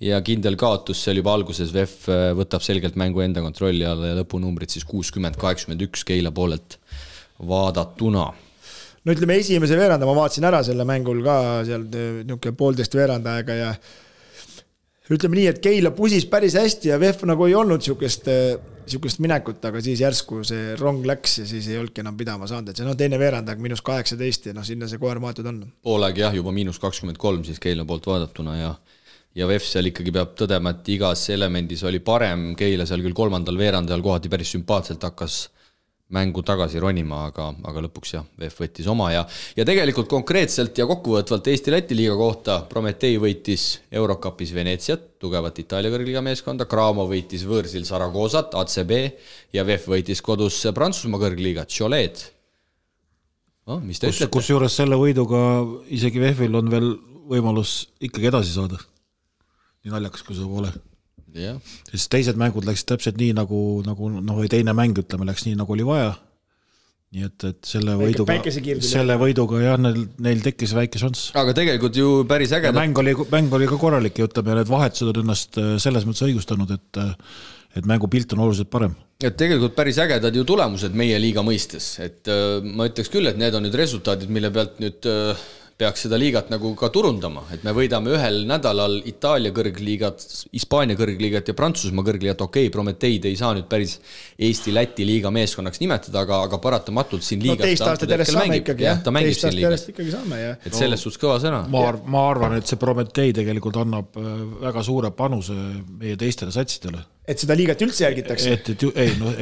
ja kindel kaotus seal juba alguses VEF võtab selgelt mängu enda kontrolli alla ja lõpunumbrid siis 60-81 Keila poolelt vaadatuna. No ütleme esimese veeranda, ma vaatasin ära selle mängul ka seal niuke 1,5 veeranda aega ja ütleme nii, et Keila pusis päris hästi ja VEF nagu ei olnud siukest minekut, aga siis järsku see rong läks ja siis ei olnudki enam pidama saanud, et see teine veerand aeg -18 ja sinna see koer maatud on. Poolaeg jah, juba -23 siis Keila poolt vaadatuna ja VEF seal ikkagi peab tõdema, et igas elemendis oli parem, Keila seal küll 3. veerandajal kohati päris sümpaatselt hakkas mängu tagasi ronima, aga lõpuks jah, VEF võttis oma ja tegelikult konkreetselt ja kokkuvõtvalt Eesti-Läti liiga kohta Prometei võitis Eurocupis Venetsiat, tugevat Itaalia kõrgliiga meeskonda, Cramo võitis võõrsil Saragosat, ACB ja VEF võitis kodus Prantsusmaa kõrgliiga Cholet. Mis te ütlete? Kus juures selle võiduga isegi VEF-il on veel võimalus ikkagi edasi saada. Nii naljakas, kui see pole. Yeah. Siis teised mängud läksid täpselt nii nagu või teine mäng ütleme läks nii nagu oli vaja. Nii et selle võiduga jah, neil tekkis väike šanss. Aga tegelikult ju päris äge. Mäng oli ka korralik ja ütleme, need vahetused on ennast selles mõttes õigustanud, et mängu pilt on oluliselt parem. Et tegelikult päris ägedad ju tulemused meie liiga mõistes. Et ma ütleks küll, et need on nüüd resultaadid, mille pealt nüüd peaks seda liigat nagu ka turundama, et me võidame ühel nädalal Itaalia kõrgliigat, Hispaania kõrgliigat ja Prantsusmaa kõrgliigat, Prometeid ei saa nüüd päris Eesti-Läti liiga meeskonnaks nimetada, aga paratamatult siin liigat teist aastat järjest saame ikkagi, jah. Teist aastat järjest ikkagi saame, jah. Et selles suhtes kõva sõna. Ma arvan, et see Prometei tegelikult annab väga suure panuse meie teistele satsidele. Et seda liigat üldse jälgitakse?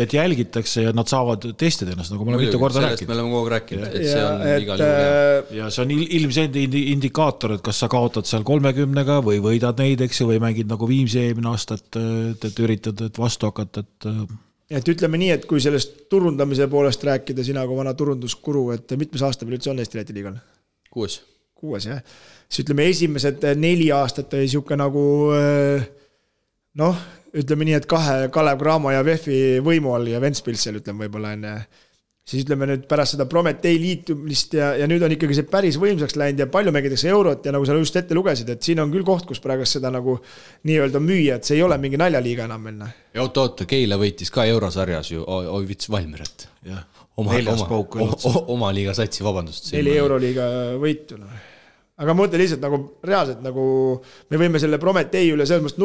Et jälgitakse ja nad saavad testida ennast, nagu me oleme mitu korda rääkinud. Sellest me oleme kogu rääkinud, et see on igal juhul. Ja see on ilmselt indikaator, et kas sa kaotad seal 30-ga või võidad neid, eks, või mängid nagu Viimsi eelmine aasta, et üritad vastu hakata. Et ütleme nii, et kui sellest turundamise poolest rääkida sina kui vana turunduskuru, et mitmes aasta veel üldse on Eesti-Läti liigal? 6, jah. Siis ütleme esimesed 4 aastat oli siuke nagu ütleme nii, et 2 Kalev Cramo ja VEF-i võimu all ja Ventspilsel ütleme võib-olla enne. Siis ütleme nüüd pärast seda Prometei liitumist ja nüüd on ikkagi see päris võimsaks läinud ja palju mängitakse eurot ja nagu sa just ette lugesid, et siin on küll koht, kus praegust seda nagu nii-öelda müüa, et see ei ole mingi naljaliiga enam minna. Ja oota, Keila võitis ka eurosarjas ju, võitis Valmieret. Oma liiga satsi, vabandust. 4 euroliiga võitu. aga ma mõtlen lihtsalt nagu reaalselt nagu me võime selle Prometee üle selles mõttes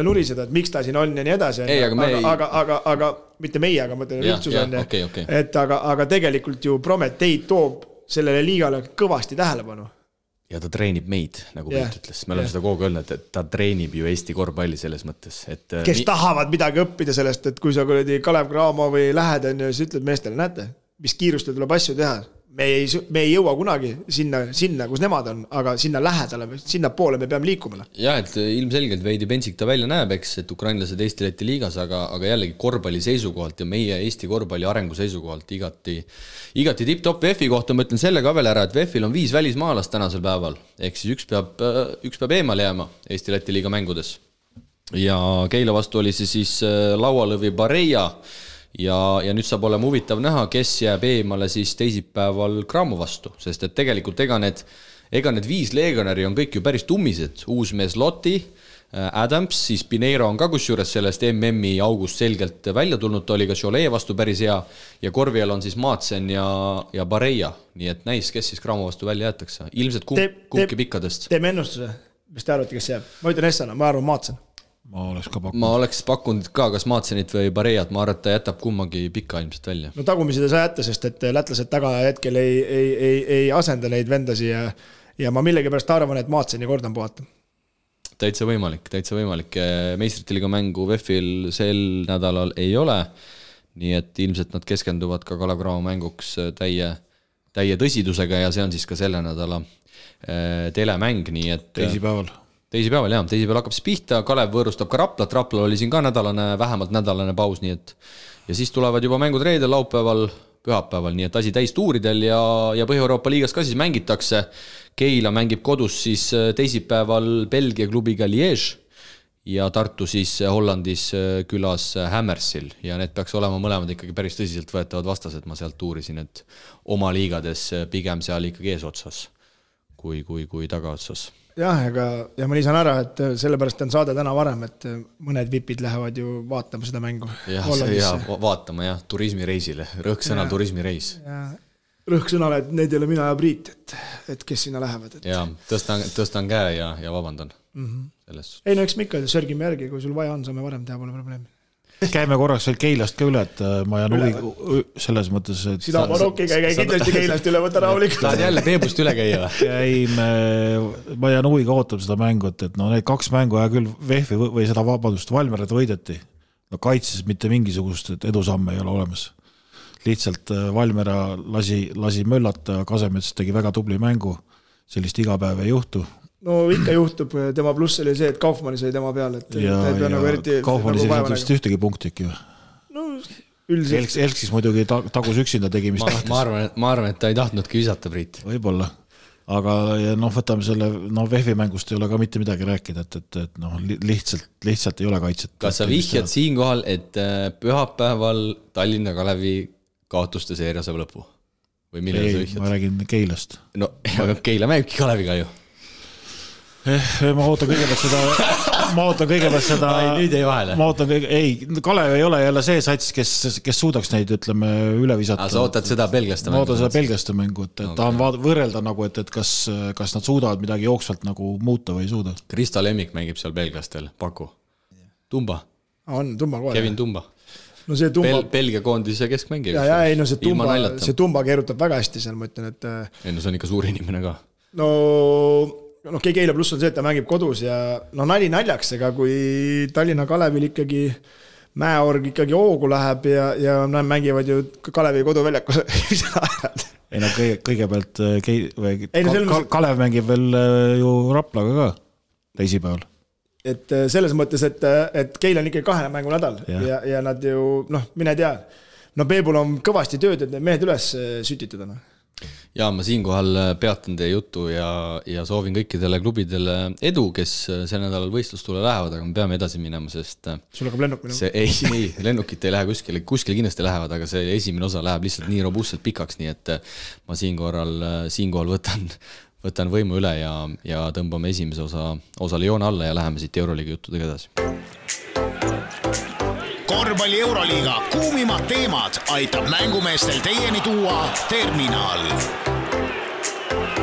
nuriseda, et miks ta siin on ja nii edasi. Aga mitte meie, aga mõtlen üldsus on. Okay. Et aga tegelikult ju Prometee toob sellele liigale kõvasti tähelepanu. Ja ta treenib meid, nagu Pilt ütles. Me oleme seda kogu öelnud, et ta treenib ju Eesti korvpalli selles mõttes. Et kes tahavad midagi õppida sellest, et kui sa Kalev Cramo või lähed, siis ütled meestele, näete, mis kiirustel tuleb asju teha. Me ei jõua kunagi sinna, kus nemad on, aga sinna lähedale, sinna poole me peame liikuma. Ja, et ilmselgelt veidi pentsik ta välja näeb, eks, et ukrainlased Eesti-Läti liigas, aga jällegi korvpalli seisukohalt ja meie Eesti korvpalli arengu seisukohalt igati tipp-top. VEF-i kohta ma ütlen selle ka veel ära, et VEF-il on 5 välismaalast tänasel päeval, ehk siis üks peab eemale jääma Eesti-Läti liiga mängudes. Ja Keila vastu oli see siis Laualõvi Bareja, ja nüüd saab olema huvitav näha, kes jääb eemale siis teisipäeval Cramo vastu, sest et tegelikult ega need 5 legionäri on kõik ju päris tummised. Uus mees Lotti, Adams, siis Pineiro on ka kusjuures sellest MM-i august selgelt välja tulnud, ta oli ka Cholet vastu päris hea ja korvial on siis Maatsen ja Bareja, nii et näis, kes siis Cramo vastu välja jäetakse. Ilmselt kumbki pikkadest. Teeme ennustuse, mis te arvate, kes jääb? Ma ütlen Essana, ma arvan Maatsen. Ma oleks pakkunud ka kas Maatsenit või Barejat, ma arvan, et ta jätab kummagi pika ilmselt välja. No tagumised ei saa jätta, sest et lätlased taga hetkel ei asenda neid vendasi ja ma millegipärast arvan, et Maatseni kordan puhata. Täitsa võimalik. Meistrite liiga mängu VEF-il sel nädalal ei ole, nii et ilmselt nad keskenduvad ka Kalev Cramo mänguks täie tõsidusega ja see on siis ka selle nädala telemäng, nii et Teisipäeval hakkab siis pihta, Kalev võõrustab ka Raplat, Raplal oli siin ka vähemalt nädalane paus, nii et ja siis tulevad juba mängud reedel, laupäeval, pühapäeval, nii et asi täis tuuridel ja Põhja-Euroopa liigas ka siis mängitakse. Keila mängib kodus siis teisipäeval Belgia klubiga Liège ja Tartu siis Hollandis külas Hammersil ja need peaks olema mõlemad ikkagi päris tõsiselt võetavad vastased, ma sealt tuurisin, et oma liigades pigem seal ikkagi eesotsas kui tagaotsas. Jah, ja ma lisan ära, et sellepärast on saade täna varem, et mõned vipid lähevad ju vaatama seda mängu. Vaatama, turismireisile. Rõhksõnal turismireis. Rõhksõnal, et need ei ole mina ja Priit, et kes sinna lähevad. Ja, tõstan käe ja vabandan. Ei, no eks me ikka sörgime järgi, kui sul vaja on, saame varem teha, pole probleemi. Käime korraks veel Keilast ka üle, et ma jään huvi selles mõttes, et sina Marokki käi kindlasti Keilast üle, võta rahulikult. Tahad jälle Peebust üle käia? Ma jään huviga ootab seda mängu, et need 2 mängu ja küll VEF-i või seda Valmerat võideti. No kaitses mitte mingisugust edusamme ei ole olemas. Lihtsalt Valmera lasi möllata, Kasemets tegi väga tubli mängu, sellist igapäev ei juhtu. No ikka juhtub, tema pluss oli see, et Kaufmanni sai tema peal, et Kaufmanni sellised vist ühtegi punkti ikka ju. No üldiselt. Elksis muidugi tagus üksinda tegi, mis tahtis. Ma arvan, et ta ei tahtnudki visata, Priit. Võib-olla, aga võtame selle, VEF-i mängust ei ole ka mitte midagi rääkida, et lihtsalt ei ole kaitset. Kas sa vihjad siinkohal, et pühapäeval Tallinna Kalevi kaotuste seeria saab lõpu? Või millele sa vihjad? Ma räägin Keilast. No, aga Keila mängibki Kaleviga ju. Ma ootan kõigepealt seda nüüd ei vahele. Kalev ei ole jälle see sats, kes suudaks neid, ütleme, üle visata. Sa ootad seda belgiaste mängu? Ma ootan seda belgiaste mängu, et tahan võrrelda nagu, et kas nad suudavad midagi jooksvalt nagu muuta või ei suuda. Krista Lemmik mängib seal belgiastel, Paku. Tumba. On, Tumba kohe. Kevin Tumba. No see Tumba... Belgia koondise keskmängib. See Tumba keerutab väga hästi seal, ma ütlen, et... Ei, no see on ikka suur inimene ka. Keila pluss on see, et ta mängib kodus ja nali naljaks, ega kui Tallinna Kalevil ikkagi Mäeorg ikkagi hoogu läheb ja mängivad ju Kalevi koduväljakus. Kõigepealt Kalev mängib veel ju Raplaga ka teisipäeval. Et selles mõttes, et Keila on ikkagi 2 mängu nädal ja nad ju, mine tea. Peebul on kõvasti tööd, et need mehed üles sütitada. Ja ma siinkohal peatan teie juttu ja soovin kõikidele klubidele edu, kes sel nädalal võistlustule lähevad, aga me peame edasi minema, sest sul hakkab lennuk minema? Ei, lennukit ei lähe kuskile kindlasti lähevad, aga see esimene osa läheb lihtsalt nii robustselt pikaks, nii et ma siinkohal võtan võimu üle ja tõmbame esimese osale joone alla ja läheme siit Euroliiga juttudega edasi. Korvpalli Euroliiga kuumimad teemad aitab mängumeestel teieni tuua Terminal.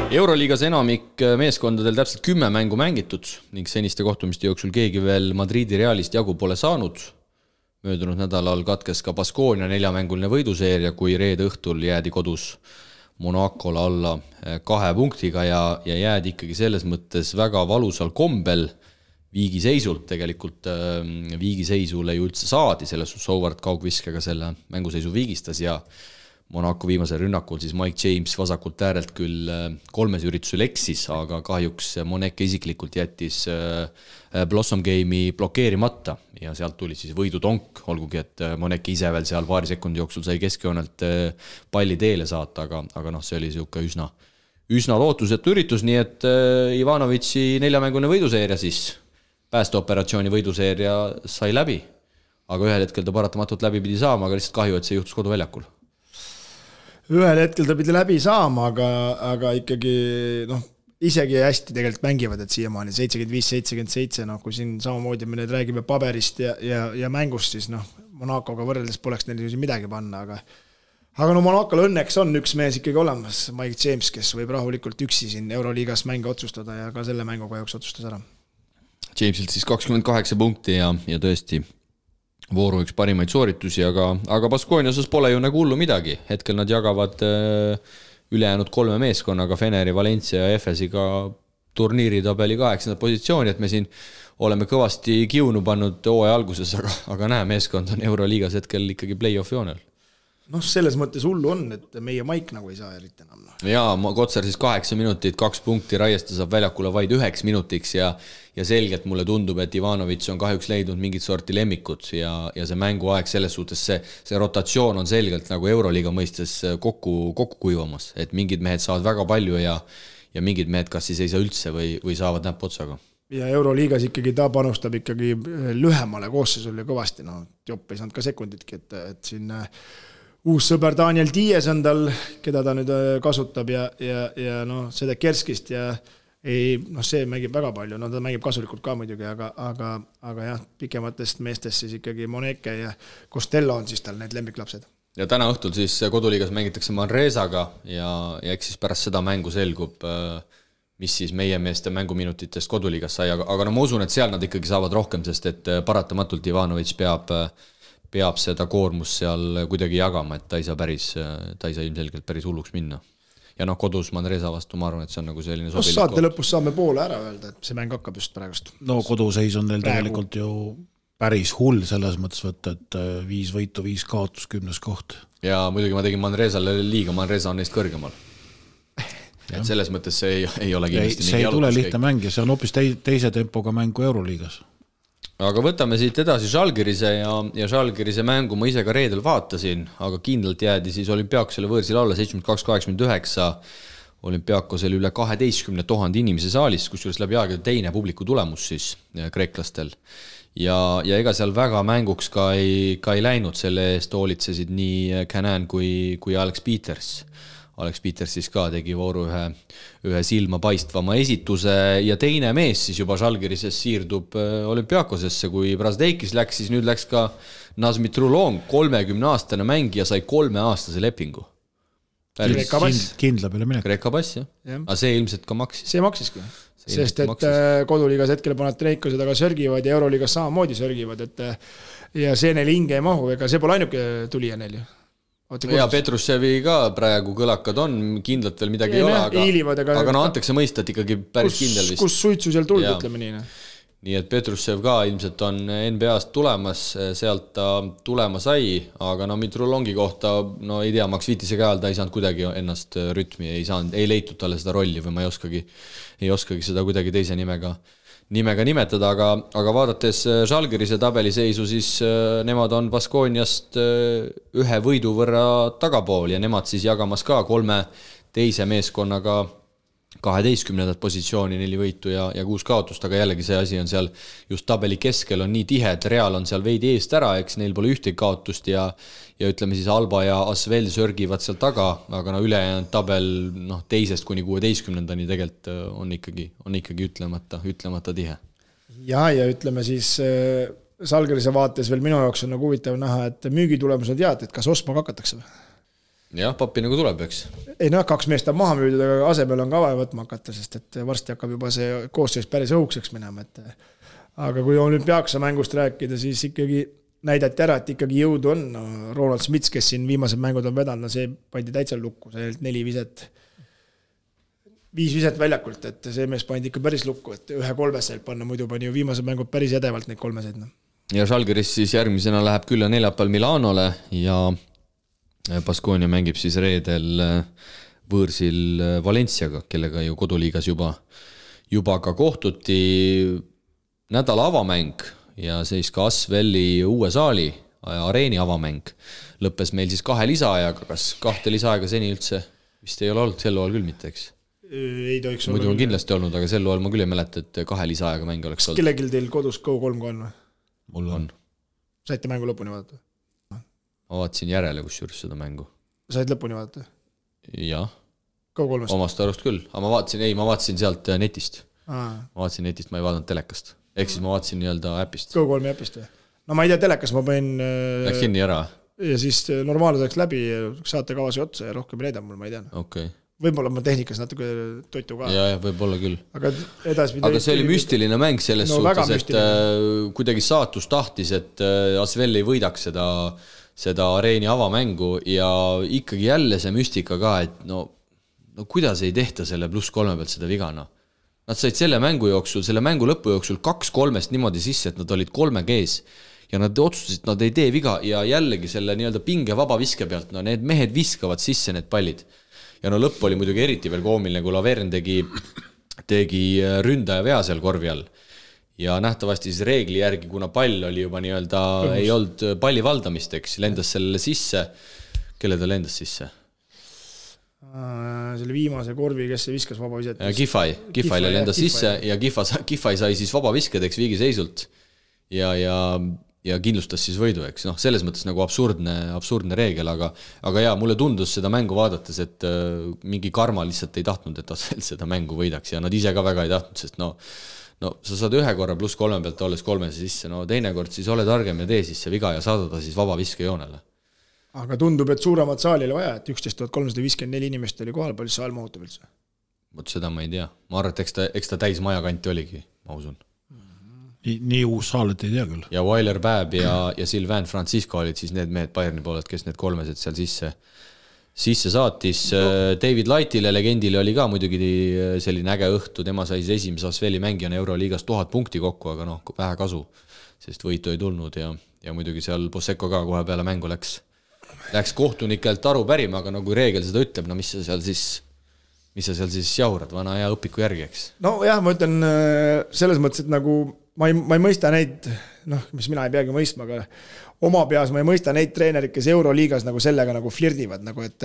Euroliigas enamik meeskondadel täpselt 10 mängu mängitud ning seniste kohtumiste jooksul keegi veel Madridi Realist jagu pole saanud. Möödunud nädalal katkes ka Baskonia 4-mänguline võiduseeria, kui reede õhtul jäädi kodus Monacole alla 2 punktiga ja jäädi ikkagi selles mõttes väga valusal kombel viigiseisult. Tegelikult viigiseisule ju üldse saadi, selles Howard kaugviskega selle mänguseisu viigistas ja Monaco viimasel rünnakul siis Mike James vasakult äärelt küll 3 üritusel eksis, aga kahjuks Moneke isiklikult jättis Blossom Game'i blokeerimata ja sealt tuli siis võidutonk, olgugi et Moneke ise veel seal paari sekundi jooksul sai keskjoonelt palli teele saata, aga see oli siuke üsna lootusetu üritus, nii et Ivanovici 4-mänguline võiduseeria siis, päästeoperatsiooni võiduseeria sai läbi, aga ühel hetkel ta paratamatult läbi pidi saama, aga lihtsalt kahju, et see juhtus koduväljakul. Ühel hetkel ta pidi läbi saama, aga ikkagi isegi hästi tegelikult mängivad, et siiamaani 75-77, kui siin samamoodi me nüüd räägime paberist ja mängust, siis Monacoga võrreldes poleks neil midagi panna, aga Monacol õnneks on üks mees ikkagi olemas, Mike James, kes võib rahulikult üksi siin Euroliigas mänge otsustada ja ka selle mängu kahjuks otsustas ära. Jamesilt siis 28 punkti ja tõesti vooru üks parimaid sooritusi, aga Baskonia osas pole ju nagu hullu midagi. Hetkel nad jagavad ülejäänud 3 meeskonnaga, Feneri, Valencia ja Efesiga turniiritabeli 8. positsiooni, et me siin oleme kõvasti kiunu pannud hooaja alguses, aga näe, meeskond on Euroliigas hetkel ikkagi play-off joonel. Selles mõttes hullu on, et meie Maik nagu ei saa eriti enam. Jaa, Kotsar siis 8 minutit, 2 punkti, Raiesta saab väljakule vaid 9 minutiks ja selgelt mulle tundub, et Ivanovic on kahjuks leidnud mingit sorti lemmikud ja see mänguaeg selles suhtes, see rotatsioon on selgelt nagu Euroliiga mõistes kokku kuivamas, et mingid mehed saavad väga palju ja mingid mehed kas siis ei saa üldse või saavad näpp otsaga. Ja Euroliigas ikkagi ta panustab ikkagi lühemale koosseisule kõvasti, Jopp ei saanud ka sekunditki, et siin uus sõber Daniel Dies on tal, keda ta nüüd kasutab ja seda Kerskist ja see mängib väga palju, ta mängib kasulikult ka muidugi, aga jah, pikematest meestest siis ikkagi Moneke ja Costello on siis tal need lemmiklapsed. Ja täna õhtul siis koduliigas mängitakse Manresaga ja eks siis pärast seda mängu selgub, mis siis meie meeste mänguminutitest koduliigas sai, aga ma usun, et seal nad ikkagi saavad rohkem, sest et paratamatult Ivanovic peab seda koormust seal kuidagi jagama, et ta ei saa ilmselgelt päris hulluks minna. Ja kodus Manresa vastu, ma arvan, et see on nagu selline sobilik saate lõpus saame poole ära öelda, et see mäng hakkab just praegust. Koduseis on neil tegelikult ju päris hull selles mõttes võtta, et 5 võitu, 5 kaotus, 10. koht. Ja muidugi ma tegin Manresale liiga, Manresa on neist kõrgemal. Et selles mõttes see ei ole kindlasti see ei tule lihtne mäng ja see on hoopis teise tempoga mängu Euroliigas. Aga võtame siit edasi Žalgirise ja Žalgirise mängu ma ise ka reedel vaatasin, aga kindlalt jäädi siis Olümpiakosele võõrsil alla 72-89, Olümpiakosel üle 12 000 inimese saalis, kusjuures läbi aegade teine publiku tulemus siis kreeklastel. Ja ega seal väga mänguks ka ei läinud, selle eest hoolitsesid nii Canan kui Alex Peters. Alex Peters siis ka tegi vooru ühe silma paistvama esituse ja teine mees siis juba Žalgirises siirdub Olümpiakosesse, kui Brasdeikis läks, siis nüüd läks ka Nazmi Trulong, 30-aastane mängija sai 3-aastase lepingu. Kreeka pass. Kindla peale minek. Kreeka pass, jah. Aga see ilmselt ka maksis. See maksiski, sest et koduliigas hetkel Panathinaikosed aga sörgivad ja Euroliigas samamoodi sörgivad, ja see neil hinge ei mahu, ega see pole ainuke tulija neil ju. Ja Petrussevi ka praegu kõlakad on, kindlalt veel midagi ei ole, aga antakse mõista, et ikkagi päris kindel vist. Kus suitsu seal tuld, ütleme nii. Nii et Petrussev ka ilmselt on NBA-st tulemas, sealt ta tulema sai, aga Mitrulongi kohta, ei tea, Max Viitise käel ta ei saanud kuidagi ennast rütmi, ei leitud talle seda rolli või ma ei oskagi seda kuidagi teise nimega nimetada, aga vaadates Žalgirise tabeliseisu, siis nemad on Baskoniast 1 võidu võrra tagapool ja nemad siis jagamas ka 3 teise meeskonnaga 12. positsiooni, 4 võitu ja 6 kaotust, aga jällegi see asi on seal just tabeli keskel on nii tihe, et Real on seal veidi eest ära, eks neil pole ühtegi kaotust ja ütleme siis Alba ja Asvel sörgivad seal taga, aga ülejäänud tabel teisest kuni 16-ndani tegelikult on ikkagi ütlemata tihe. Ja ütleme siis Žalgirise vaates veel minu jaoks on huvitav näha, et müügitulemused et kas Osma hakatakse või? jah, pappi nagu tuleb, eks. Ei noh, 2 meest on maha müüdud, aga asemel on ka vaja võtma hakata, sest et varsti hakkab juba see koosseis päris õhukseks minema. Aga kui olümpiaaksa mängust rääkida, siis ikkagi näidati ära, et ikkagi jõudu on. No, Ronald Smits, kes siin viimased mängud on vedanud, see pandi täitsa lukku, see 5 viset väljakult, et see mees pandi ikka päris lukku, et 1-3 panna, muidu pani ju viimased mängud päris edevalt neid 3. Ja Žalgiris siis järgmisena läheb küll ja neljapäeval Milanole ja Baskonia mängib siis reedel võõrsil Valenciaga, kellega ju koduliigas juba ka kohtuti. Nädala avamäng ja siis ka Asveli uue saali areeni avamäng lõppes meil siis 2 lisaajaga. Kas 2 lisaajaga seni üldse vist ei ole olnud, sel loal küll mitte, eks? Ei tohiks muidu on kindlasti olnud, aga sel loal ma küll ei mäleta, et 2 lisaajaga mäng oleks olnud. Kellegil teil kodus Go3 on või? Mul on. Saite mängu lõpuni vaadata? Ma vaatasin järele kusjuures seda mängu. Said lõpuni vaadata? Jah. Go3-st? Omast arust küll, aga ma vaatasin sealt netist. Ma vaatasin netist, ma ei vaadanud telekast. Ehk siis ma vaatasin nii-öelda äpist. Go3 äpist või? No ma ei tea, telekas ma panin... Läks kinni ära? Ja siis normaalne läks läbi, saate kavasi otsa ja rohkem ei näida mul, ma ei tea. Okay. Võib-olla ma tehnikas natuke toitu ka. Ja, võib-olla küll. Aga see oli müstiline mäng selles suhtes, et kuidagi saatus tahtis, et Asvel ei võidaks seda areeni avamängu ja ikkagi jälle see müstika ka, et no kuidas ei tehta selle +3 pealt seda vigana. Nad said selle mängu lõpu jooksul 2-3 niimoodi sisse, et nad olid 3G-s ja nad otsustasid, et nad ei tee viga ja jällegi selle nii-öelda pinge vaba viske pealt, no need mehed viskavad sisse need pallid. Ja no lõpp oli muidugi eriti veel koomiline, kui Lavern tegi ründaja vea seal korvi all. Ja nähtavasti siis reegli järgi, kuna pall oli juba nii-öelda ei olnud palli valdamist, eks, lendas sellele sisse. Kelle ta lendas sisse? Selle viimase korvi, kes see viskas vaba viset? Gifaile lendas sisse ja Gifai sai siis vaba viskedeks viigiseisult ja kindlustas siis võidu, eks. No, selles mõttes nagu absurdne reegel, aga jaa, mulle tundus seda mängu vaadates, et mingi karma lihtsalt ei tahtnud, et Asvel seda mängu võidaks ja nad ise ka väga ei tahtnud, sest no sa saad 1 korra +3 pealt olles 3 sisse, no teine kord siis ole targem ja tee siis see viga ja saada ta siis vaba viskejoonele. Aga tundub, et suuremat saali oli vaja, et 11 354 inimest oli kohal, palju saal mahutab üldse? Võt seda ma ei tea. Ma arvan, et eks ta täis maja kanti oligi, ma usun. Nii uus saal, et ei tea küll. Ja Weiler Päeb ja Sylvain Francisco olid siis need mehed Bayerni pooled, kes need 3 seal sisse saatis. David Lightile, legendile oli ka muidugi selline äge õhtu, tema sai esimese Asveli mängijana Euroliigas 1000 punkti kokku, aga vähe kasu, sest võitu ei tulnud ja muidugi seal Boseko ka kohe peale mängu läks kohtunikelt aru pärima, aga kui reegel seda ütleb, mis sa seal siis jaurad, vana hea õpiku järgi, eks? No jah, ma ütlen selles mõttes, et nagu ma ei mõista neid, mis mina ei peagi mõistma, aga oma peas ma ei mõista neid treenerid, kes Euroliigas nagu sellega nagu flirdivad, nagu et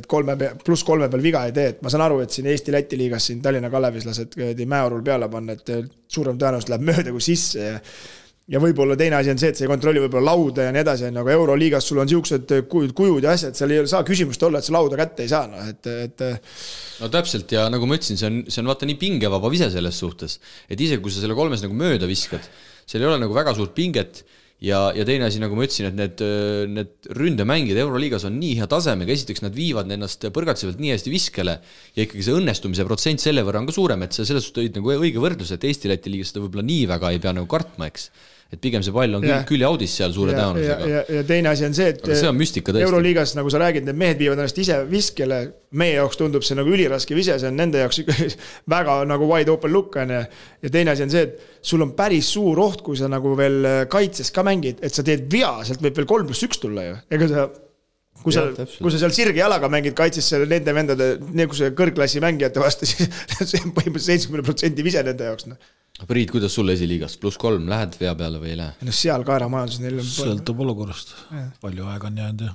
3 peal viga ei tee, et ma saan aru, et siin Eesti-Läti liigas siin Tallinna Kalevis lased mäeorul peale panna, et suurem tõenäoliselt läheb mööda kui sisse ja võib-olla teine asi on see, et see ei kontrolli võib-olla lauda ja nii edasi, aga Euroliigas sul on siuksed kujud ja asjad, seal ei saa küsimust olla, et see lauda kätte ei saa. No täpselt ja nagu ma ütlesin, see on vaata nii pingevaba vise selles suhtes, et isegi kui sa selle 3 nagu mööda viskad, seal ei ole nagu väga suurt pinget ja teine asi, nagu ma ütlesin, et need ründemängid Euroliigas on nii hea tasemega, esiteks nad viivad ennast põrgatsevalt nii hästi viskele ja ikkagi see õnnestumise protsent selle võrra on ka suurem, et see selles suhtes nagu õige võrdlus, et Eesti-Läti liigas seda võib-olla nii väga ei pea nagu kartma, eks. Et pigem see pall on küll jaudis seal suure tõenäosusega. Ja teine asi on see, et see on müstika tõesti. Euroliigas, nagu sa räägid, need mehed viivad ennast ise viskele, meie jaoks tundub see nagu üliraske vise, see on nende jaoks väga nagu wide open look on ja teine asi on see, et sul on päris suur oht, kui sa nagu veel kaitses ka mängid, et sa teed vea, sealt võib veel 3+1 tulla ju. Ega sa, kui sa seal sirge jalaga mängid kaitses nende vendade, nagu see kõrgklassi mängijate vastu, siis see on põhimõtteliselt 70% vise nende jaoks. Priit, kuidas sul esiliigas? +3 lähed vea peale või ei lähe? No seal kaeramajandus neil on... Sõltub olukorrast. Palju aega on jäänud ja...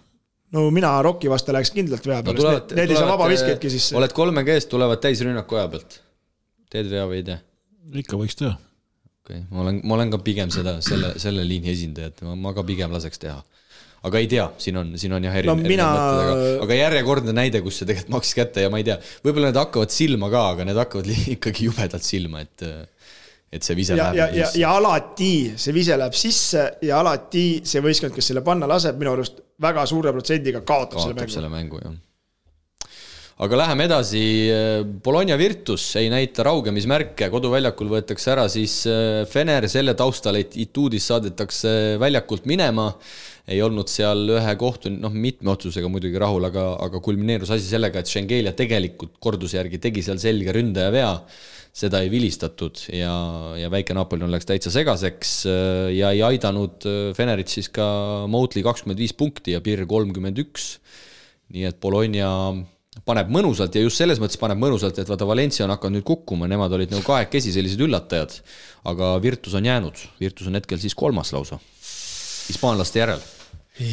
No mina Rocki vastu läheks kindlalt vea peale. Need ei saa vaba viskeidki sisse. Oled 3G-st, tulevad täis rünnaku aja pealt. Teed vea või ei tee? Ikka võiks teha. Okay. Ma olen ka pigem selle liini esindajat. Ma ka pigem laseks teha. Aga ei tea, siin on jah erinevad mõtted, aga järjekordne näide, kus see tegelikult maksis kätte ja ma ei tea, võib-olla need hakkavad silma ka, aga need hakkavad ikkagi jubedalt silma, et see vise läheb sisse. Ja alati see vise läheb sisse ja alati see võistkond, kes selle panna laseb, minu arust väga suure protsendiga kaotab selle mängu. Jah. Aga läheme edasi, Bologna Virtus ei näita raugemismärke, koduväljakul võetakse ära siis Fener, selle taustal, et Ituudis saadetakse väljakult minema, ei olnud seal ühe kohtu, mitme otsusega muidugi rahul, aga kulmineerus asi sellega, et Schengelia tegelikult korduse järgi tegi seal selge ründaja vea, seda ei vilistatud ja väike Napoli läks täitsa segaseks ja ei aidanud Fenerit siis ka Moutli 25 punkti ja Pirr 31, nii et Bologna paneb mõnusalt ja just selles mõttes paneb mõnusalt, et vaata Valencia on hakanud nüüd kukkuma, nemad olid nagu kahekesi sellised üllatajad, aga Virtus on jäänud, Virtus on hetkel siis 3. lausa, hispaanlaste järel.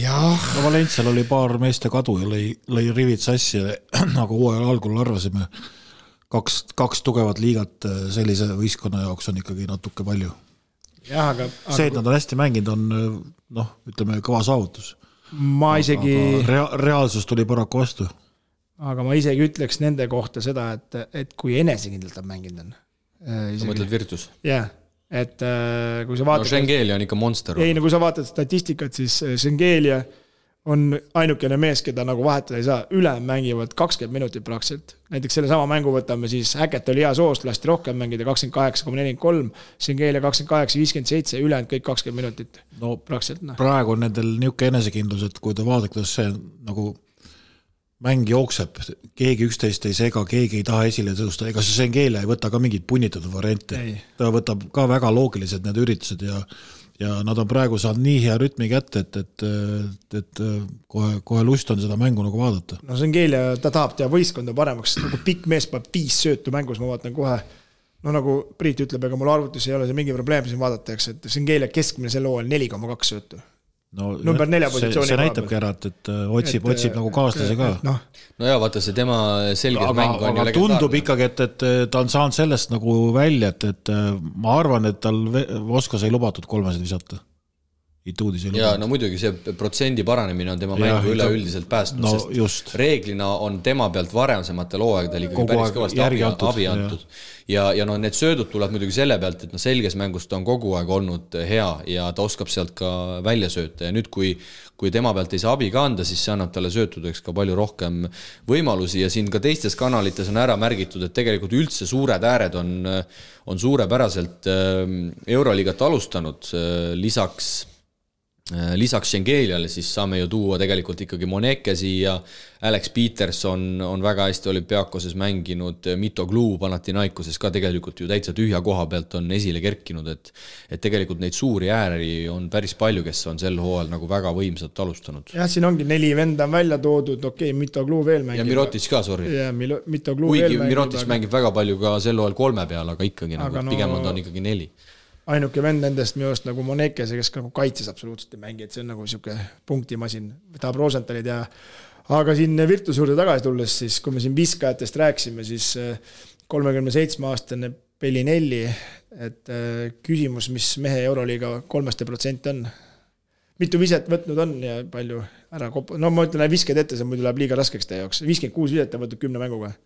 No Valencial oli paar meeste kadu ja lõi rivid sassi, nagu hooajal algul arvasime, kaks tugevat liigat sellise võistkonna jaoks on ikkagi natuke palju. Aga see, et nad on hästi mänginud, on ütleme kõva saavutus. Reaalsus tuli paraku vastu. Aga ma isegi ütleks nende kohta seda, et kui enesekindlalt on mänginud on. Sa mõtled Virtus? Jah, et kui sa vaatad... Schengelia on ikka monster. Ei, kui sa vaatad statistikat, siis Schengelia on ainukene mees, keda nagu vahetada ei saa. Üle mängivad 20 minutit praktiliselt. Näiteks selle sama mängu võtame siis Häket oli hea soost, lasti rohkem mängida 28,43, Schengelia 28,57, ülejäänud kõik 20 minutit. No praktiliselt. Praegu on nendel niuke enesekindlus, et kui ta vaadab, kuidas see nagu mäng jookseb, keegi üksteist ei sega, keegi ei taha esile tõusta, ega see Schengelia ei võta ka mingid punnitatud variante. Ta võtab ka väga loogilised need üritused ja nad on praegu saanud nii hea rütmi kätte, et kohe lust on seda mängu nagu vaadata. No Schengelia, ta tahab teha võistkonda paremaks, nagu pikk mees peab 5 söötu mängus, ma vaatan kohe, nagu Priit ütleb, ega mul arvutus ei ole see mingi probleem siin vaadatakse, et Schengelia keskmine selle hooajal 4,2 söötu. Number 4 positsiooni. See näitabki ära, et otsib nagu kaaslase ka. No ja vaata see tema selges mäng on ju legendaarne. Tundub ikkagi, et ta on saanud sellest nagu välja, et ma arvan, et tal Voskos ei lubatud 3 visata. Ituudis ei lubatud. Ja no muidugi see protsendi paranemine on tema mängu üleüldiselt päästnud, sest just. Reeglina on tema pealt varemsematel hooaegadel ikkagi päris kõvasti abi antud. Ja need söödud tuleb muidugi selle pealt, et selges mängus ta on kogu aeg olnud hea ja ta oskab sealt ka välja sööta ja nüüd kui tema pealt ei saa abi ka anda, siis see annab talle söötudeks ka palju rohkem võimalusi ja siin ka teistes kanalites on ära märgitud, et tegelikult üldse suured ääred on suurepäraselt Euroliigat alustanud, lisaks Schengeliale siis saame ju tuua tegelikult ikkagi Monekesi ja Alex Peterson on väga hästi olümpiaakoses mänginud, Mitoglou Panathinaikoses ka tegelikult ju täitsa tühja koha pealt on esile kerkinud, et tegelikult neid suuri ääri on päris palju, kes on sel hooajal nagu väga võimsalt alustanud. Jah, siin ongi 4 venda on välja toodud, Mitoglou veel mängib. Ja Mirotic ka, sorry. Ja Mitoglou veel mängib. Mirotic mängib väga palju ka sel hooajal 3 peal, aga ikkagi nagu, pigem on ta ikkagi 4. Ainuke vend nendest minu arust nagu Monekese, kes nagu kaitses absoluutselt ei mängi, et see on nagu siuke punktimasin, tahab Rosenthalid ja aga siin Virtus juurde tagasi tulles, siis kui me siin viskajatest rääksime, siis 37-aastane Bellinelli, et küsimus, mis mehe Euroliiga 3% on. Mitu viset võtnud on ja palju ära ma ütlen, visked ette, see muidu läheb liiga raskeks teie jaoks. 56 viset on võtnud 10 mänguga.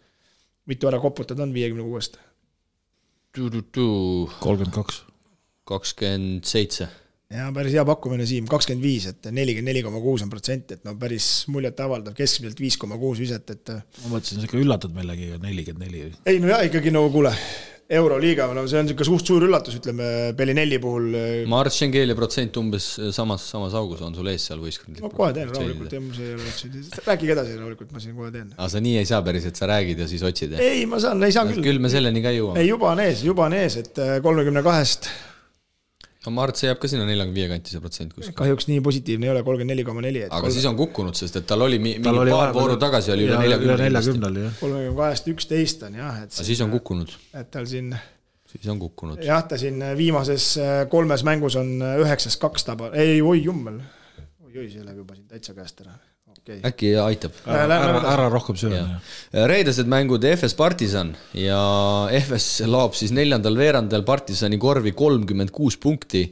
Mitu ära koputad on 56-st? 32. 27. Ja päris hea pakkumine Siim, 25, et 44,6%, et päris muljet avaldav, keskmiselt 5,6 viset, et ma mõtlesin, see ikka üllatad meilegi 44. Ei, no jah, ikkagi nagu kuule, Euroliiga, see on ikka suur üllatus, ütleme, Bellinelli puhul. Ma arvan, Schengelia protsent umbes samas augus on sul ees seal võistkond. Ma kohe teen rahulikult, rääkige edasi rahulikult, ma siin kohe teen. Aga sa nii ei saa päris, et sa räägid ja siis otsid? Ei, ma saan, ei saa küll. Küll me selleni ka jõuame. Ei, juba on ees, et 32-st. Ma arvan, et see jääb ka sinna 45 kanti see protsent kuskil. Kahjuks nii positiivne ei ole, 34,4. Aga siis on kukkunud, sest et tal oli mingi paar vooru tagasi oli üle 40. 32-st 11 on jah. Aga siis on kukkunud. Et tal siin... Siis on kukkunud. Jah, ta siin viimases 3 mängus on 9-2 taba. Ei, oi jummel. Oi, see läheb juba siin täitsa käest ära. Okay. Äkki aitab. Ära rohkem sööma. Reedesed mängud FS Partisan ja FS laob siis 4. veerandal Partisani korvi 36 punkti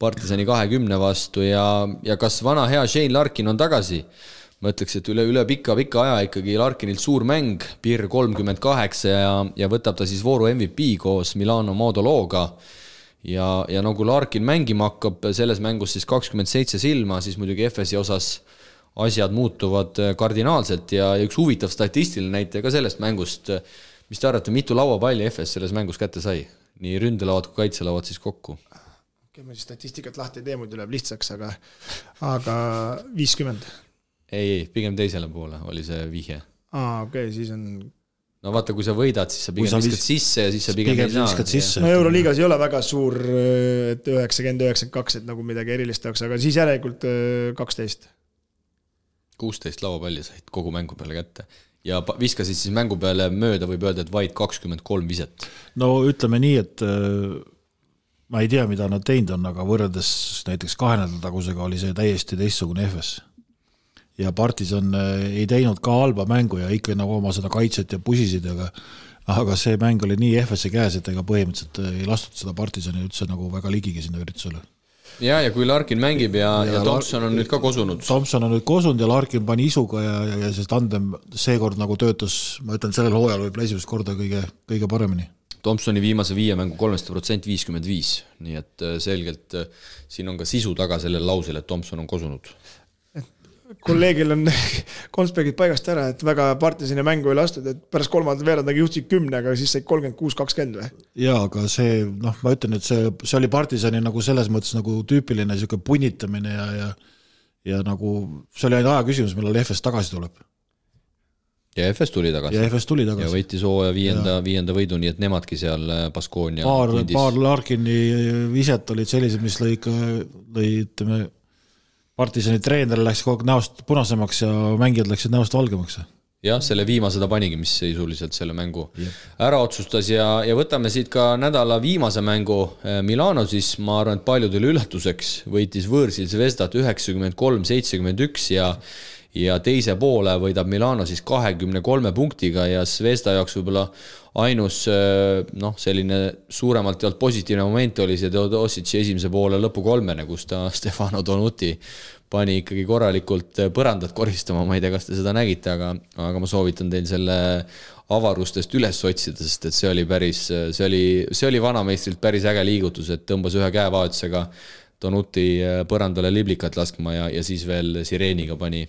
Partisani 20 vastu ja kas vana hea Shane Larkin on tagasi? ma ütleks, et üle pika aja ikkagi Larkinilt suur mäng, Pirr 38 ja võtab ta siis vooru MVP koos Milano Modologa ja no kui Larkin mängima hakkab selles mängus siis 27 silma, siis muidugi FS-i osas asjad muutuvad kardinaalselt ja üks huvitav statistiline näitaja ka sellest mängust, mis te arvate, mitu lauapalli FS selles mängus kätte sai? Nii ründelauad kui kaitselauad siis kokku. Okei, ma siis statistikat lahti ei tee, muidu läheb lihtsaks, aga 50. Ei, pigem teisele poole oli see vihje. Okei, siis on... No vaata, kui sa võidad, siis sa pigem viskad sisse ja siis sa pigem ei saa. No Euroliigas ei ole väga suur, et 90-92, et nagu midagi erilist oleks, aga siis järelikult 12. 16 lauapalli said kogu mängu peale kätte ja viskasid siis mängu peale mööda, võib öelda, et vaid 23 viset. No ütleme nii, et ma ei tea, mida nad teinud on, aga võrreldes näiteks 2 nädala tagusega oli see täiesti teistsugune FS. Ja Partisan ei teinud ka halba mängu ja ikka nagu oma seda kaitset ja pusisid, aga see mäng oli nii FS-i käes, et ega põhimõtteliselt ei lastud seda Partisani üldse nagu väga ligigi sinna üritusele. Ja kui Larkin mängib ja Thompson on nüüd ka kosunud. Thompson on nüüd kosunud ja Larkin pani isuga ja see tandem seekord nagu töötas, ma ütlen, sellel hooajal võib esimest korda kõige paremini. Thompsoni viimase 5 mängu 3% 55, nii et selgelt siin on ka sisu taga sellel lausel, et Thompson on kosunud. Kolleegil on Konsbergid paigast ära, et väga Partisani mängu ei lastud, et pärast 3. veerandagi juhtsid 10, aga siis said 36-20 või? Jaa, aga see, ma ütlen, et see oli Partisani nagu selles mõttes nagu tüüpiline siuke punnitamine ja nagu see oli ainult aja küsimus, millal FS tagasi tuleb. Ja FS tuli tagasi. Ja võitis hooaja 5. võidu, nii et nemadki seal Baskonia paar Larkini viset olid sellised, mis lõi ütleme Partisani treener läks kogu näost punasemaks ja mängijad läksid näost valgemaks. Jah, selle viimase ta panigi, mis seisuliselt selle mängu ära otsustas ja võtame siit ka nädala viimase mängu Milano, siis ma arvan, et paljudele üllatuseks võitis võõrsil Zvezdat 93-71 ja teise poole võidab Milano siis 23 punktiga ja Zvezda jaoks võib-olla ainus selline suuremalt jalt positiivne moment oli see Teodosic'i esimese poole lõpu 3, kus ta Stefano Donuti pani ikkagi korralikult põrandat koristama, ma ei tea, kas te seda nägite, aga ma soovitan teil selle avarustest üles otsida, sest et see oli vanameistrilt päris äge liigutus, et tõmbas ühe käevahetusega Donuti põrandale liblikat laskma ja siis veel sireeniga pani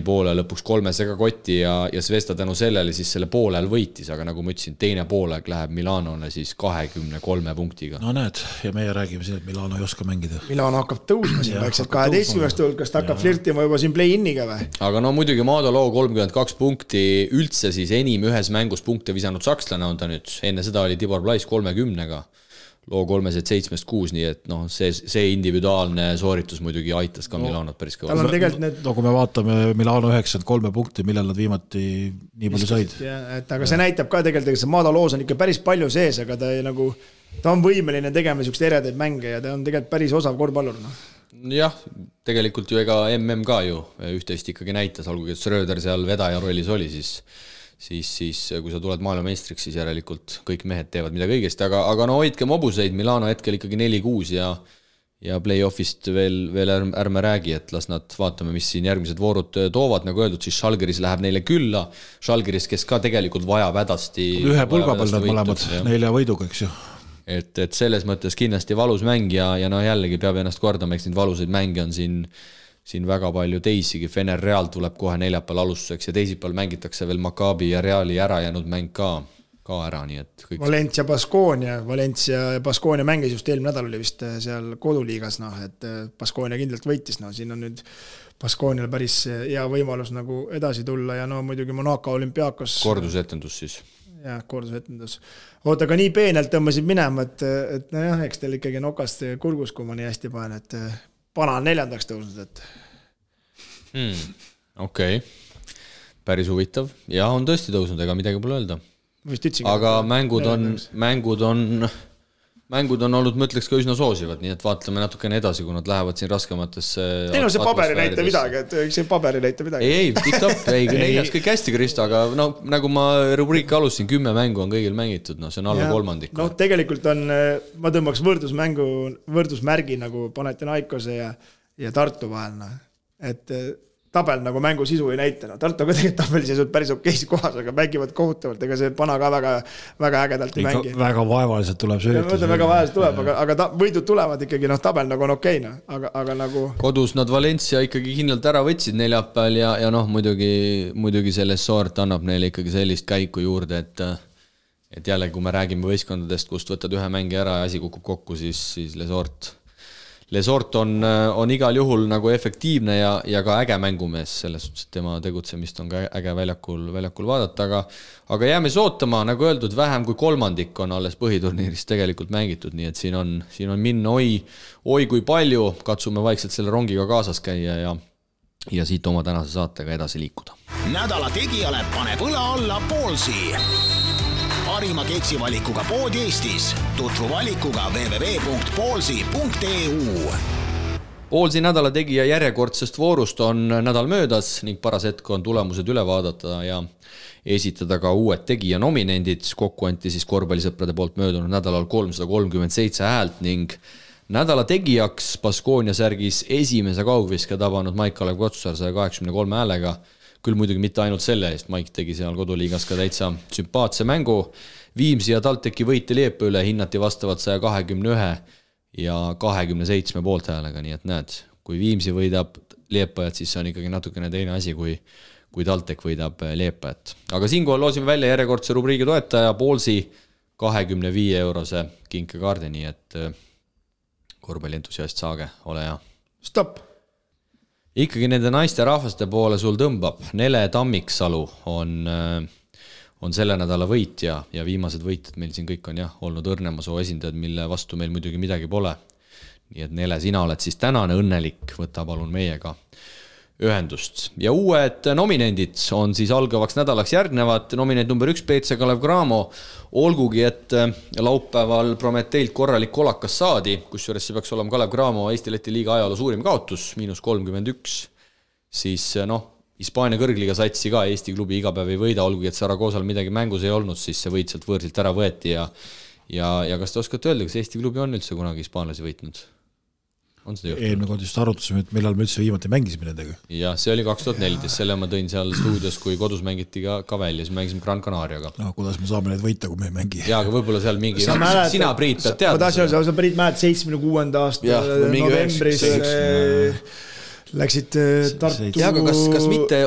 poole lõpuks 3 kotti ja Zvezda tänu sellele siis selle poolel võitis, aga nagu ma ütlesin, teine poolek läheb Milanole siis 23 punktiga. No näed, ja meie räägime siin, et Milano ei oska mängida. Milano hakkab tõusma siin vaikselt 12 hulkast, hakkab flirtima juba siin play-in'iga või? Aga no muidugi Modolo 32 punkti üldse siis enim ühes mängus punkte visanud sakslane on ta nüüd, enne seda oli Tibor Plais 30-ga. Loo 3-7-6, nii et see individuaalne sooritus muidugi aitas ka Milanot päris kõva. No kui me vaatame Milano 93 punkti, millal nad viimati nii palju said. Aga see näitab ka tegelikult, et see Madaloos on ikka päris palju sees, aga ta on võimeline tegema niisugust eredaid mänge ja ta on tegelikult päris osav korvpallur. Jah, tegelikult ju ega MM ka ju üht-teist ikkagi näitas, olgugi et Schröder seal vedaja rollis oli, siis kui sa tuled maailmameistriks, siis järelikult kõik mehed teevad midagi õigesti, aga no hoidke mobuseid, Milano hetkel ikkagi 4-6 ja play-offist veel ärme räägi, et las nad vaatame, mis siin järgmised voorud toovad, nagu öeldud, siis Žalgiris läheb neile külla, Žalgiris, kes ka tegelikult vajab hädasti ühe pulga peal nad mõlemad 4 võiduga, eks ju. Et selles mõttes kindlasti valus mäng ja jällegi peab ennast kordama, eks neid valusaid mänge on siin väga palju teisigi, Fener Real tuleb kohe neljapäeval alustuseks ja teisipäeval mängitakse veel Maccabi ja Reali ära jäänud mäng ka ära, nii et kõik... Valencia ja Baskonia mängis just eelmine nädal oli vist seal koduliigas, et Baskonia kindlalt võitis, siin on nüüd Baskonial päris hea võimalus nagu edasi tulla ja muidugi Monaco Olümpiakos kordusetendus siis. Jah, kordusetendus. Oota, aga nii peenelt tõmbasid minema, et eks teil ikkagi nokast kurgus, kui ma nii hästi panen, et Pana on 4. tõusnud, et... Okei. Päris huvitav. Ja on tõesti tõusnud, ega midagi pole öelda. Aga mängud on olnud, ma ütleks, ka üsna soosivad, nii et vaatleme natukene edasi, kui nad lähevad siin raskematesse... Teil on see paberi näita midagi, et see paberi näita midagi. Ei, tiktop, neljas kõik hästi, Kristo, aga nagu ma rubriiki alustasin, 10 mängu on kõigil mängitud, see on alla kolmandik. Tegelikult on, ma tõmbaks võrdusmärgi nagu Panathinaikose ja Tartu vahel, et tabel nagu mängu sisu ei näita. No, Tartu ka tegelikult tabeliseisud päris okeisi kohas, aga mängivad kohutavalt, ega see Pana ka väga ägedalt ei mängi. Väga vaevaliselt tuleb see üritus. Väga vaevaliselt tuleb, aga võidud tulevad ikkagi, tabel nagu on okeina, aga nagu... Kodus nad Valencia ikkagi kindlalt ära võtsid neljapäeval ja muidugi selles Sort annab neile ikkagi sellist käiku juurde, et jälle, kui me räägime võistkondadest, kust võtad ühe mängi ära ja asi kukub kokku, siis Lesort on igal juhul nagu efektiivne ja ka äge mängumees, selles suhtes, et tema tegutsemist on ka äge väljakul vaadata, aga jääme sootama, nagu öeldud, vähem kui kolmandik on alles põhiturniirist tegelikult mängitud, nii et siin on minna oi kui palju, katsume vaikselt selle rongiga kaasas käia ja siit oma tänase saatega edasi liikuda. Nädala tegijale paneb õla alla Poolsi. Parima keksivalikuga pood Eestis. Tutvu valikuga www.poolsi.eu. Poolsi nädala tegija järjekordsest voorust on nädal möödas ning paras hetk on tulemused üle vaadata ja esitada ka uued tegija nominendid. Kokku anti siis korvpallisõprade poolt möödunud nädalal 337 häält ning nädala tegijaks Baskonia särgis esimese kaugviske tabanud Maik-Kalev Kotsar 183 häälega. Küll muidugi mitte ainult selle eest, Maik tegi seal koduliigas ka täitsa sümpaatse mängu. Viimsi ja TalTechi võite Liepa üle hinnati vastavalt 121 ja 27 poolthäälega, nii et näed, kui Viimsi võidab Liepajat, siis see on ikkagi natukene teine asi, kui TalTech võidab Liepajat. Aga siinkohal loosime välja järjekordse rubriigi toetaja Poolsi 25 eurose kinkekaardi, nii et korvpallientusiast saage, ole hea. Stop! Ikkagi nende naiste rahvaste poole sul tõmbab. Nele Tammiksalu on selle nädala võitja ja viimased võitjad meil siin kõik on olnud Õrnemasoo esindajad, mille vastu meil muidugi midagi pole. Nii et Nele, sina oled siis tänane õnnelik, võta palun meiega ühendust. Ja uued nominendid on siis algavaks nädalaks järgnevad. Nominent number 1 PC Kalev Cramo, olgugi et laupäeval Prometeilt korralik kolakas saadi, kusjuures see peaks olema Kalev Cramo Eesti-Läti liiga ajaloo suurim kaotus, -31, siis Hispaania kõrgliga satsi ka Eesti klubi iga päev ei võida, olgugi et Saragoosal midagi mängus ei olnud, siis see võit sealt võõrsilt ära võeti ja kas te oskate öelda, kas Eesti klubi on üldse kunagi hispaanlasi võitnud? Eelmine kord just arutasime, et millal me üldse viimati mängisime nendega. Ja see oli 2014, selle ma tõin seal stuudios, kui kodus mängiti ka välja, siis mängisime Gran Canariaga. Kuidas me saame neid võita, kui me ei mängi? Jaa, aga võib-olla seal mingi... Sina, Priit, pead teada. Ma tahtsin öelda, sa Priit mäed 76. aasta novembris läksid Tartu... Jaa, aga kas mitte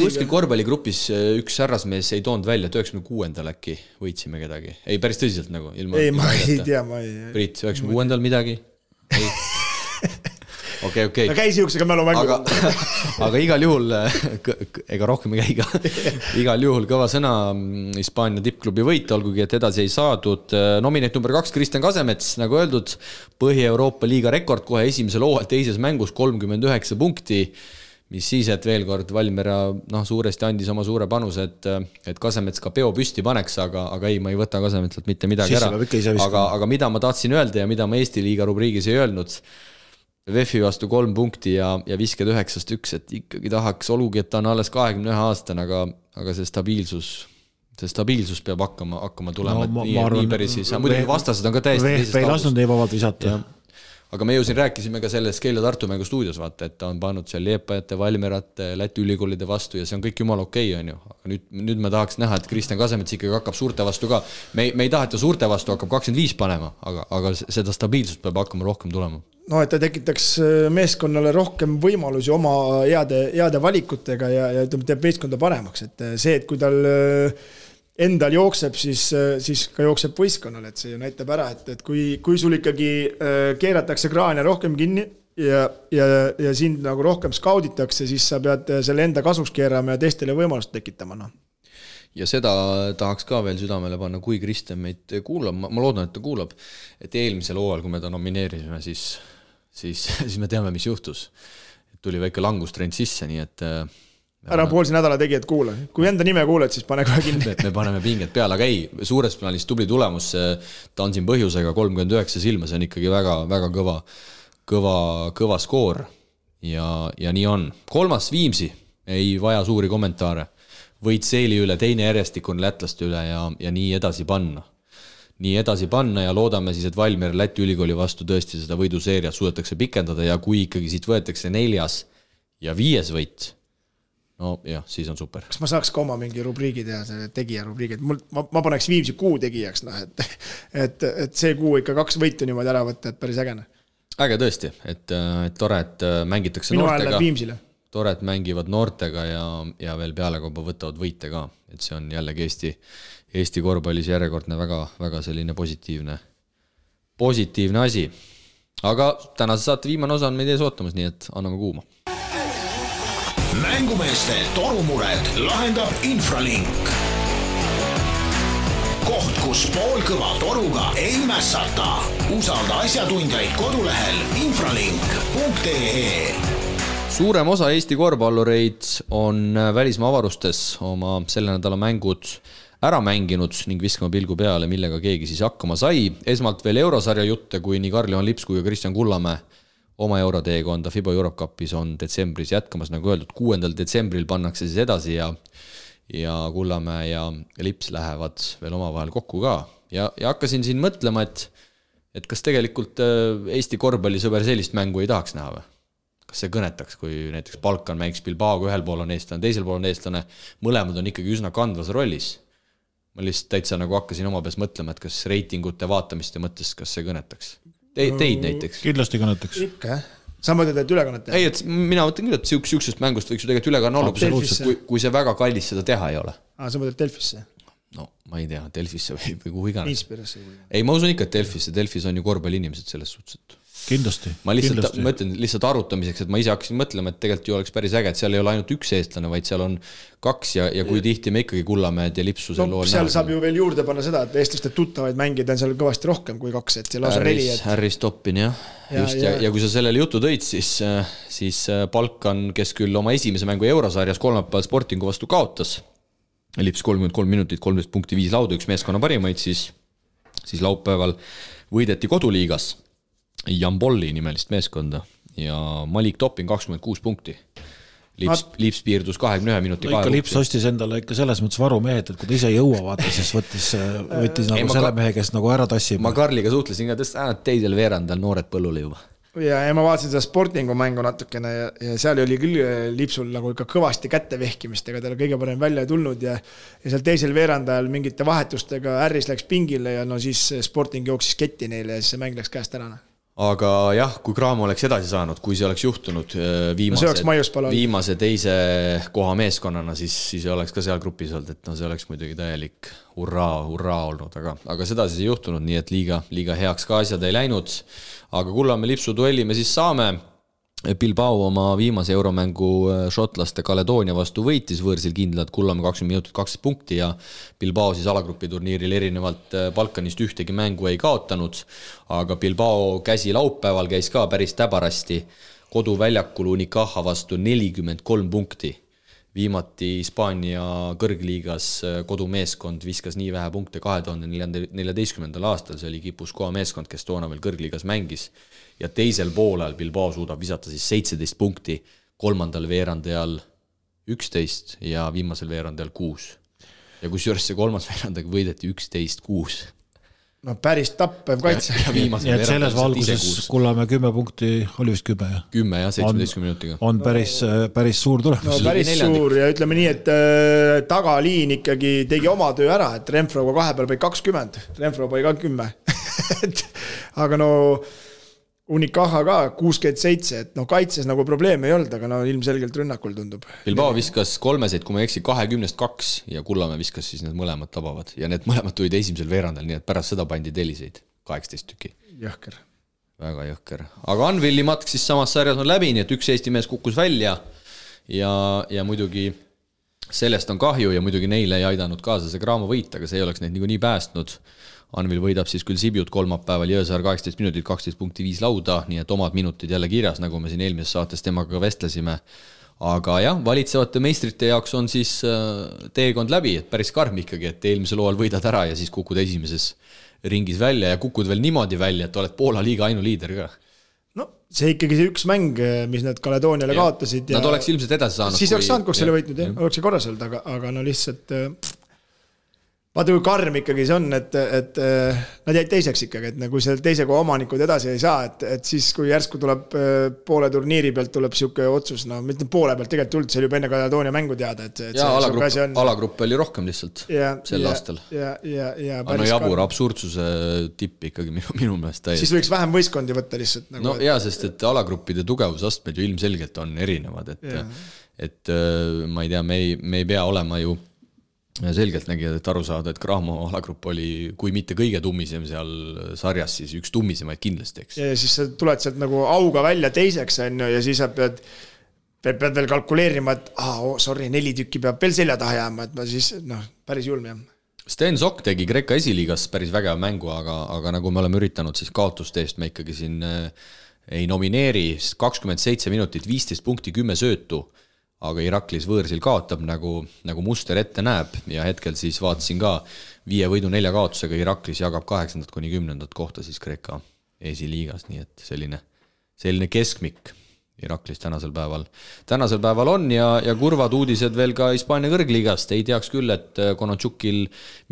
kuskil korvpalligrupis üks härrasmees ei toonud välja, 96. äkki võitsime kedagi? Ei, päris tõsiselt nagu. Ei, ma ei tea, ma ei... Priit, 96. midagi? Ei. Okay. Ta käis jõuksega mälu mängu. Aga igal juhul, ega rohkem ei käiga, igal juhul kõva sõna Hispaania tippklubi võita, olgugi et edasi ei saadud. Nominent number 2 Kristjan Kasemets, nagu öeldud, Põhja-Euroopa liiga rekord kohe esimesel hooajal teises mängus 39 punkti, mis siis, et veel kord Valmiera suuresti andis oma suure panuse, et Kasemets ka peo püsti paneks, aga ei, ma ei võta Kasemetsalt mitte midagi ära. Aga mida ma tahtsin öelda ja mida ma Eesti liiga rubriigis ei öelnud, VEF-i vastu 3 punkti ja visked 9-1, et ikkagi tahaks, olgugi, et ta on alles 21 aastane, aga see stabiilsus peab hakkama tulema, nii päris siis. Muidugi vastased on ka täiesti teisest ei lasknud nii vabalt visata. Aga me ju siin rääkisime ka sellest Keila Tartu mängu stuudios, vaata, et ta on pannud seal Liepajate, Valmerate, Läti ülikoolide vastu ja see on kõik jumal okei, on ju. Aga nüüd me tahaks näha, et Kristjan Kasemets ikkagi hakkab suurte vastu ka. Me ei taha, et ta suurte vastu hakkab 25 panema, aga seda stabiilsust peab hakkama rohkem tulema. No, et ta tekitaks meeskonnale rohkem võimalusi oma heade valikutega ja teeb meeskonda paremaks. Et see, et kui tal endal jookseb, siis ka jookseb võistkonnal, et see ju näitab ära, et kui sul ikkagi keeratakse kraania rohkem kinni ja sind nagu rohkem skauditakse, siis sa pead selle enda kasuks keerama ja teistele võimalust tekitama. Ja seda tahaks ka veel südamele panna, kui Kristjan meid kuulab, ma loodan, et ta kuulab, et eelmisel hooajal, kui me ta nomineerisime, siis me teame, mis juhtus. Tuli väike langustrend sisse, nii et ära Poolsi nädala tegijad kuula. Kui enda nime kuuled, siis pane kohe kinni. Me paneme pinget peale, aga ei, suures plaanis tubli tulemus, ta on siin põhjusega 39 silma, see on ikkagi väga, väga kõva skoor ja nii on. 3. Viimsi ei vaja suuri kommentaare. Võit Seeli üle, teine järjestikun lätlaste üle ja nii edasi panna. Nii edasi panna ja loodame siis, et Valmiera Läti ülikooli vastu tõesti seda võiduseeriat suudetakse pikendada ja kui ikkagi siit võetakse 4. ja 5. võit, no jah, siis on super. Kas ma saaks ka oma mingi rubriigi teha, selle tegija rubriigi, et ma paneks Viimsi kuu tegijaks, et see kuu ikka 2 võitu niimoodi ära võtta, et päris ägene. Äge tõesti, et tore, et mängitakse minu noortega. Viimsile. Tore, et mängivad noortega ja veel pealekauba võtavad võite ka, et see on jällegi Eesti korvpallis järjekordne väga, väga selline positiivne asi. Aga tänase saate viimane osa on meid ees ootamas, nii et anname kuuma. Mängumeeste torumured lahendab Infralink. Koht, kus poolkõva toruga ei mässata. Usalda asjatundjaid kodulehel infralink.ee. Suurem osa Eesti korvpallureid on välismaa avarustes oma selle nädala mängud ära mänginud ning viskama pilgu peale, millega keegi siis hakkama sai. Esmalt veel eurosarja jutte, kui nii Karl-Johan Lips kui ka Kristjan Kullamäe oma euroteekonda FIBA Europe Cupis on detsembris jätkamas, nagu öeldud, 6. detsembril pannakse siis edasi ja Kullamäe ja Lips lähevad veel omavahel kokku ka. Ja hakkasin siin mõtlema, et kas tegelikult Eesti korvpallisõber sellist mängu ei tahaks näha või? Kas see kõnetaks, kui näiteks Balkan mängiks Bilbaoga, ühel pool on eestlane, teisel pool on eestlane, mõlemad on ikkagi üsna kandvas rollis. Ma lihtsalt täitsa nagu hakkasin oma peas mõtlema, et kas reitingute vaatamist ja mõttes, kas see kõnetaks. Teid näiteks. Kindlasti kõnetaks. Ikka, sa mõtled, et ülekannet teha? Ei, et mina mõtlen küll, et siuksest mängust võiks ju tegelikult ülekanne olla, kui see väga kallis seda teha ei ole. Sa mõtled Delfisse? No, ma ei tea, Delfisse või kuhu iganes. Inspirasse. Ei, ma usun ikka, et Delfis on ju korvpalliinimesed selles suhtes. Kindlasti. Ma mõtlen lihtsalt arutamiseks, et ma ise hakkasin mõtlema, et tegelikult ju oleks päris äge, et seal ei ole ainult üks eestlane, vaid seal on 2 ja kui tihti me ikkagi Kullamäed ja Lipsu seal lool seal saab ju veel juurde panna seda, et eestlaste tuttavaid mängida on seal kõvasti rohkem kui 2, et seal lausa 4. Harry Stoppin, jah. Just, ja kui sa sellele jutu tõid, siis Balkan, kes küll oma esimese mängu eurosarjas kolmapäeval Sportingu vastu kaotas, Lips 33 minutit, 13.5 lauda, üks meeskonna parimaid, siis laupäeval võideti koduliigas Jambolli nimelist meeskonda ja Malik Toppin 26 punkti. Lips piirdus 21 minuti no ikka Lips ostis endale ikka selles mõttes varumehed, et kui ta ise jõua vaata, siis võttis nagu selle mehe, kes nagu ära tassib. Ma Karliga suhtlesin ka, teisel veerandal noored põllule juba. Ja ma vaatasin seda Sportingu mängu natukene ja seal oli küll Lipsul nagu ikka kõvasti kätte vehkimist, ega tal kõige parem välja tulnud ja seal teisel veerandajal mingite vahetustega Harris läks pingile ja no siis Sporting jooksis ketti neile ja siis see mäng läks käest ära. Aga jah, kui Graamo oleks edasi saanud, kui see oleks juhtunud viimase teise koha meeskonnana, siis oleks ka seal grupis olnud, et no see oleks muidugi täielik hurraa olnud, aga seda siis ei juhtunud, nii et liiga heaks ka asjad ei läinud. Aga Kullamäe Lipsu duelli me siis saame. Bilbao oma viimase euromängu šotlaste Kaledoonia vastu võitis võõrsil kindlad Kullamäe 20 minutit 12 punkti ja Bilbao siis alagrupi turniiril erinevalt Balkanist ühtegi mängu ei kaotanud, aga Bilbao käsi laupäeval käis ka päris täbarasti koduväljakul Unicaja vastu 43 punkti. Viimati Hispaania kõrgliigas kodumeeskond viskas nii vähe punkte 2014. aastal, see oli Kipuskoa meeskond, kes toona veel kõrgliigas mängis. Ja teisel poolel Bilbao suudab visata siis 17 punkti, kolmandal veerandajal 11 ja viimasel veerandajal 6. Ja kusjuures see kolmas veerandajal võideti 11-6. No päris tappev kaitse. Ja et selles valguses Kullamäe 10 punkti oli vist 10. 10 ja 17 minutiga. On päris suur tulemus. No päris suur ja ütleme nii, et tagaliin ikkagi tegi oma töö ära, et Renfroga 2 peal pai 20, Renfro pai ka 10. Aga no Unicaja ka 67, et no kaitses nagu probleeme ei olnud, aga no ilmselgelt rünnakul tundub. Bilbao viskas 3, kui ma eksi 20-2 ja Kullamäe viskas siis need mõlemad tabavad. Ja need mõlemad tulid esimesel veerandal, nii et pärast seda pandi teliseid 18 tüki. Jõhker. Väga jõhker. Aga Anvilli matk siis samas sarjas on läbi, nii et üks Eesti mees kukkus välja ja muidugi sellest on kahju ja muidugi neile ei aidanud kaasa see Graamo võit, aga see ei oleks neid nii päästnud. Anvil võidab siis küll Sibiut kolmapäeval Jõesaar 18 minutit, 12.5 lauda, nii et omad minutid jälle kirjas, nagu me siin eelmises saates temaga vestlesime. Aga jah, valitsevate meistrite jaoks on siis teekond läbi, et päris karm ikkagi, et eelmisel hooajal võidad ära ja siis kukud esimeses ringis välja ja kukud veel niimoodi välja, et oled Poola liiga ainuliider ka. No see ikkagi see üks mäng, mis nad Kaledooniale kaotasid. Nad oleks ilmselt edasi saanud. Siis oleks saanud, kui selle võitnud, oleks see korras olnud, aga no lihtsalt vaata kui karm ikkagi see on, et nad jäid teiseks ikkagi, et kui seal teise koha omanikud edasi ei saa, et siis kui järsku tuleb poole turniiri pealt tuleb siuke otsus, no mitte poole pealt tegelikult üldse, see oli juba enne Kaledoonia mängu teada, et alagrupp oli rohkem lihtsalt sel aastal. No jabur absurdsuse tipp ikkagi minu meelest täiesti. Siis võiks vähem võistkondi võtta lihtsalt. No jaa, sest et alagruppide tugevusastmed ju ilmselgelt on erinevad, et ma ei tea, me ei pea olema ju selgelt nägijad, et aru saada, et Graamo alagrupp oli, kui mitte kõige tummisem seal sarjas, siis üks tummisemaid kindlasti, eks. Ja siis sa tuled sealt nagu auga välja teiseks, ja siis sa pead veel kalkuleerima, et sorry, 4 tükki peab veel selja taha jääma, et ma siis, päris julm jah. Sten Sokk tegi Kreeka esiliigas päris vägev mängu, aga nagu me oleme üritanud, siis kaotuste eest me ikkagi siin ei nomineeri, 27 minutit, 15 punkti, 10 söötu, aga Iraklis võõrsil kaotab, nagu muster ette näeb, ja hetkel siis vaatasin ka 5 võidu 4 kaotusega Iraklis jagab 8. kuni 10. kohta siis Kreeka esiliigas, nii et selline keskmik Iraklis tänasel päeval on ja kurvad uudised veel ka Hispaania kõrgliigast, ei teaks küll, et Konotšukil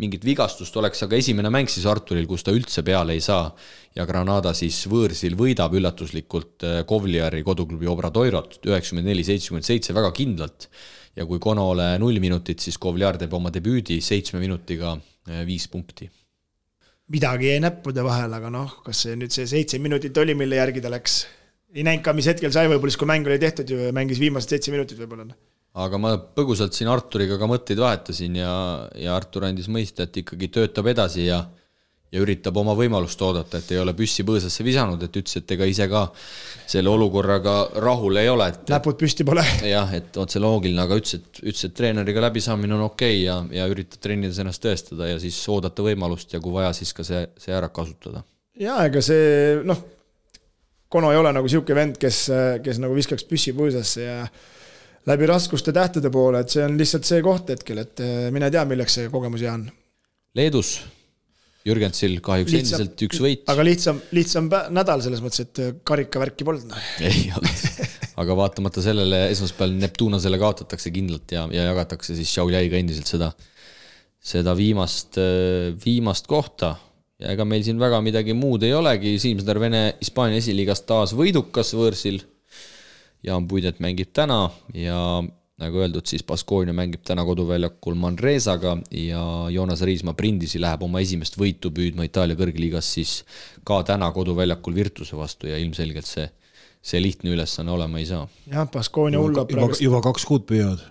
mingit vigastust oleks, aga esimene mäng siis Arturil, kus ta üldse peale ei saa ja Granada siis võõrsil võidab üllatuslikult Kovliari koduklubi Obradoirot 94-77 väga kindlalt ja kui Konole 0 minutit, siis Kovliar teeb oma debüüdi 7 minutiga 5 punkti. Midagi jäi näppude vahel, aga kas see nüüd see 7 minutit oli, mille järgi ta läks? Ei näinud ka, mis hetkel sai võib-olla, kui mäng oli tehtud ju mängis viimased 7 minutit võib-olla. Aga ma põgusalt siin Arturiga ka mõtteid vahetasin ja Artur andis mõista, et ikkagi töötab edasi ja üritab oma võimalust oodata, et ei ole püssi põõsasse visanud, et ütles, et ega ise ka selle olukorraga rahul ei ole. Näpud püsti pole. Jah, et otse loogiline, aga ütles, et treeneriga läbisaamine on okei ja üritab trennides ennast tõestada ja siis oodata võimalust ja kui vaja, siis ka see ära kasutada. Ja ega see, Kono ei ole nagu siuke vend, kes nagu viskaks püssi põõsasse ja läbi raskuste tähtede poole, et see on lihtsalt see koht hetkel, et mine tea, milleks see kogemus jää on. Leedus Jürgensil kahjuks endiselt 1 võit. Aga lihtsam nädal selles mõttes, et karikavärki polnud. Ei olnud, aga vaatamata sellele esmaspäeval Neptunasele kaotatakse kindlalt ja jagatakse siis Šauljaiga endiselt seda viimast kohta. Ja ega meil siin väga midagi muud ei olegi, Siimsner Vene Hispaania esiliigast taas võidukas võõrsil, Jaan Puidet mängib täna ja nagu öeldud, siis Baskonia mängib täna koduväljakul Manresaga ja Joonas Riismaa Brindisi läheb oma esimest võitu püüdma Itaalia kõrgliigas siis ka täna koduväljakul Virtuse vastu ja ilmselgelt see lihtne ülesanne olema ei saa. Jah, Baskonia hullab juba 2 kuud püüavad.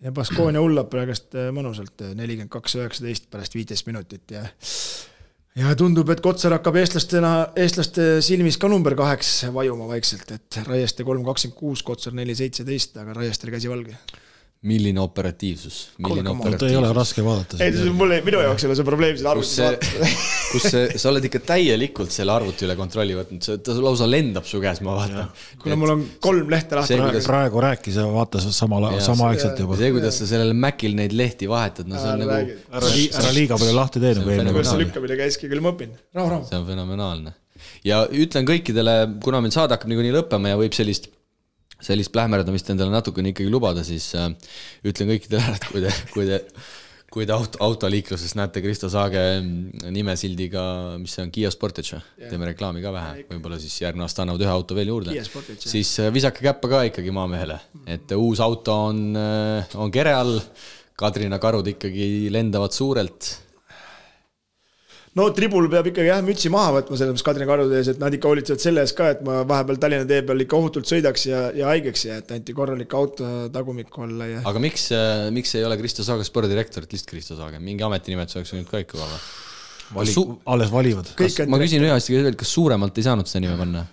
Ja Baskonia hullab praegust mõnusalt 42-19 pärast 15 minutit ja tundub, et Kotsar hakkab eestlaste silmis ka number 8 vajuma vaikselt, et Raieste 3-26, Kotsar 4-17, aga Raiestel käsi valge. Milline operatiivsus? Ei ole raske vaadata. Minu jaoks ei ole see probleem seda arvuti vaadata. Kus sa oled ikka täielikult selle arvuti üle kontrolli võtnud, ta lausa lendab su käes, ma vaatan. Kuna mul on 3 lehte lahti. Praegu rääkis ja vaatas samaaegselt juba. See, kuidas sa sellel Macil neid lehti vahetad, see on nagu... Ära liiga palju lahti teed. See lükkamine käiski, küll ma õpin. Rahu. See on fenomenaalne. Ja ütlen kõikidele, kuna meil saade hakkab niikuinii lõppema ja võib sellist plähmerdamist endale natukene ikkagi lubada, siis ütlen kõikidele, et kui te autoliikluses näete Kristo Saage nimesildiga, mis on Kia Sportage, teeme reklaami ka vähe, võib-olla siis järgmine aasta annavad 1 auto veel juurde, siis visake käppa ka ikkagi maamehele, et uus auto on kere all, Kadrina karud ikkagi lendavad suurelt. No tribul peab ikkagi mütsi maha võtma selles mõttes Kadrina karude ees, et nad ikka hoolitsevad selle ees ka, et ma vahepeal Tallinna tee peal ikka ohutult sõidaks ja haigeks ja et anti korralik auto tagumikku olla. Aga miks ei ole Kristo Saage spordirektorit, lihtsalt Kristo Saage? Mingi ametinimetus oleks nüüd ka ikka olla? Alles valivad. Ma küsin ühe asja, kas suuremalt ei saanud seda nime panna?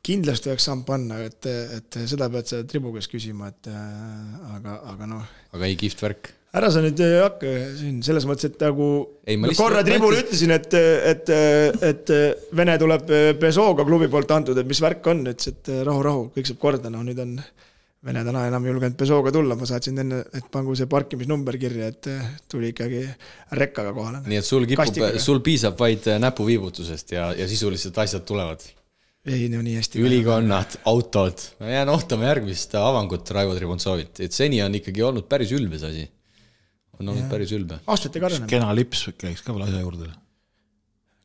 Kindlasti oleks saanud panna, et seda pead sa tribugas küsima, aga noh. Aga ei kihvt värk? Ära sa nüüd hakka siin selles mõttes, et nagu korra tribul ütlesin, et Vene tuleb Pesooga klubi poolt antud, et mis värk on, et rahu, kõik saab korda, nüüd on Vene täna enam julgenud Pesooga tulla, ma saatsin enne, et pangu see parkimisnumber kirja, et tuli ikkagi rekkaga kohale. Nii et sul piisab vaid näpuviibutusest ja sisuliselt asjad tulevad? Ei, nii hästi. Ülikonnad, autod, jään ohtama järgmist avangut Raivo Tribuntsovit, et seni on ikkagi olnud päris ülbes asi. on olnud päris ülbe. Aastate karjane. Kena lips käiks ka veel asja juurde.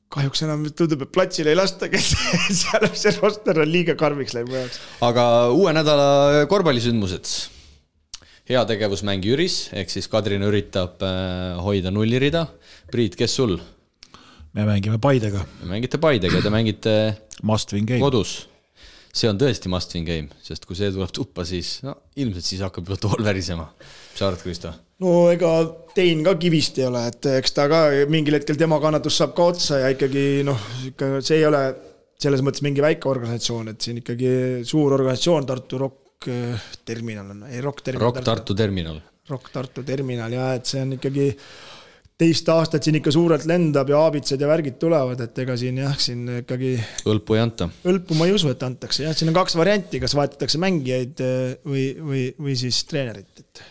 Kahjuks enam tundub, et platsile ei lasta, kes seal see roster on liiga karmiks läinud mu jaoks. Aga uue nädala korvpallisündmused. Heategevusmäng Jüris, ehk siis Kadrin üritab hoida nullirida. Priit, kes sul? Me mängime Paidega. Me mängite Paidega, te mängite must win game. Kodus. See on tõesti must win game, sest kui see tuleb tuppa, siis ilmselt siis hakkab juba tool värisema. Mis arvad, Kristo? No ega Tein ka kivist ei ole, et eks ta ka mingil hetkel tema kannatus saab ka otsa ja ikkagi see ei ole selles mõttes mingi väike organisatsioon, et siin ikkagi suur organisatsioon Tartu Rock Terminal on, ei Rock Terminal. Rock Tartu Terminal ja et see on ikkagi teist aastat siin ikka suurelt lendab ja aabitsed ja värgid tulevad, et ega siin ikkagi Õlpu ei anta. Õlpu ma ei usu, et antakse. Ja siin on 2 varianti, kas vaetatakse mängijaid või siis treenerit.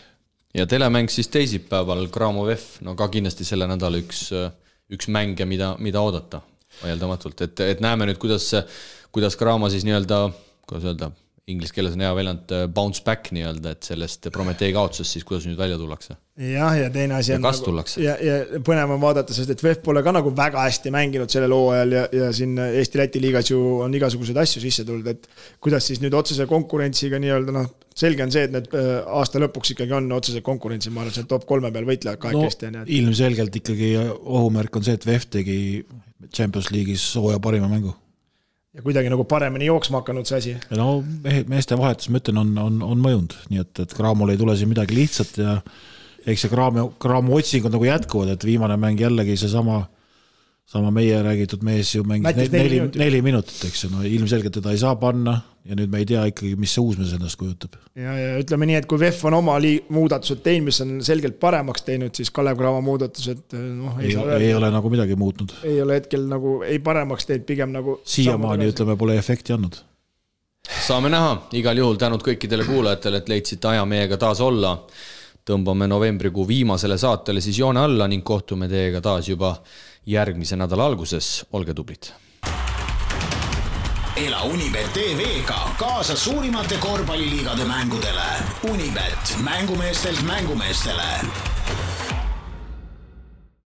Ja telemäng siis teisipäeval Graamov F, no ka kindlasti selle nädala üks mänge, mida oodata vaieldamatult. Et näeme nüüd, kuidas Graamo siis kuidas öelda, inglis keeles on hea väljend bounce back et sellest Prometee kaotusest siis kuidas nüüd välja tullakse. Ja teine asi on ja põnev on vaadata, sest et VEF pole ka nagu väga hästi mänginud sellel hooajal ja siin Eesti-Läti liigas ju on igasuguseid asju sisse tulnud, et kuidas siis nüüd otsese konkurentsiga selge on see, et need aasta lõpuks ikkagi on otsese konkurentsi, ma arvan, see top 3 peal võitlevad kahekesti. Ilmselgelt ikkagi ohumärk on see, et VEF tegi Champions League'is hooaja parima mängu. Ja kuidagi nagu paremini jooksma hakanud see asi. No meeste vahetus, ma ütlen, on mõjund, nii et Graamol ei tule siin midagi lihtsat ja eks see Graamo otsing on nagu jätkuvad, et viimane mäng jällegi see sama meie räägitud mees ju mängis 4 minutit, eks no ilmselgelt teda ei saa panna ja nüüd me ei tea ikkagi, mis see uus mees ennast kujutab. Ja ütleme nii, et kui VEF on oma muudatused teinud, mis on selgelt paremaks teinud, siis Kalev Cramo muudatused ei ole nagu midagi muutnud. Ei ole hetkel nagu ei paremaks teinud, pigem nagu siiamaani ütleme, pole efekti andnud. Saame näha, igal juhul tänud kõikidele kuulajatele, et leidsite aja meiega taas olla. Tõmbame novembrikuu viimasele saatele siis joone alla ning kohtume teiega taas juba järgmise nädala alguses. Olge tublid! Ela Unibet TV-ga kaasa suurimate korvpalliliigade mängudele. Unibet, mängumeestelt mängumeestele.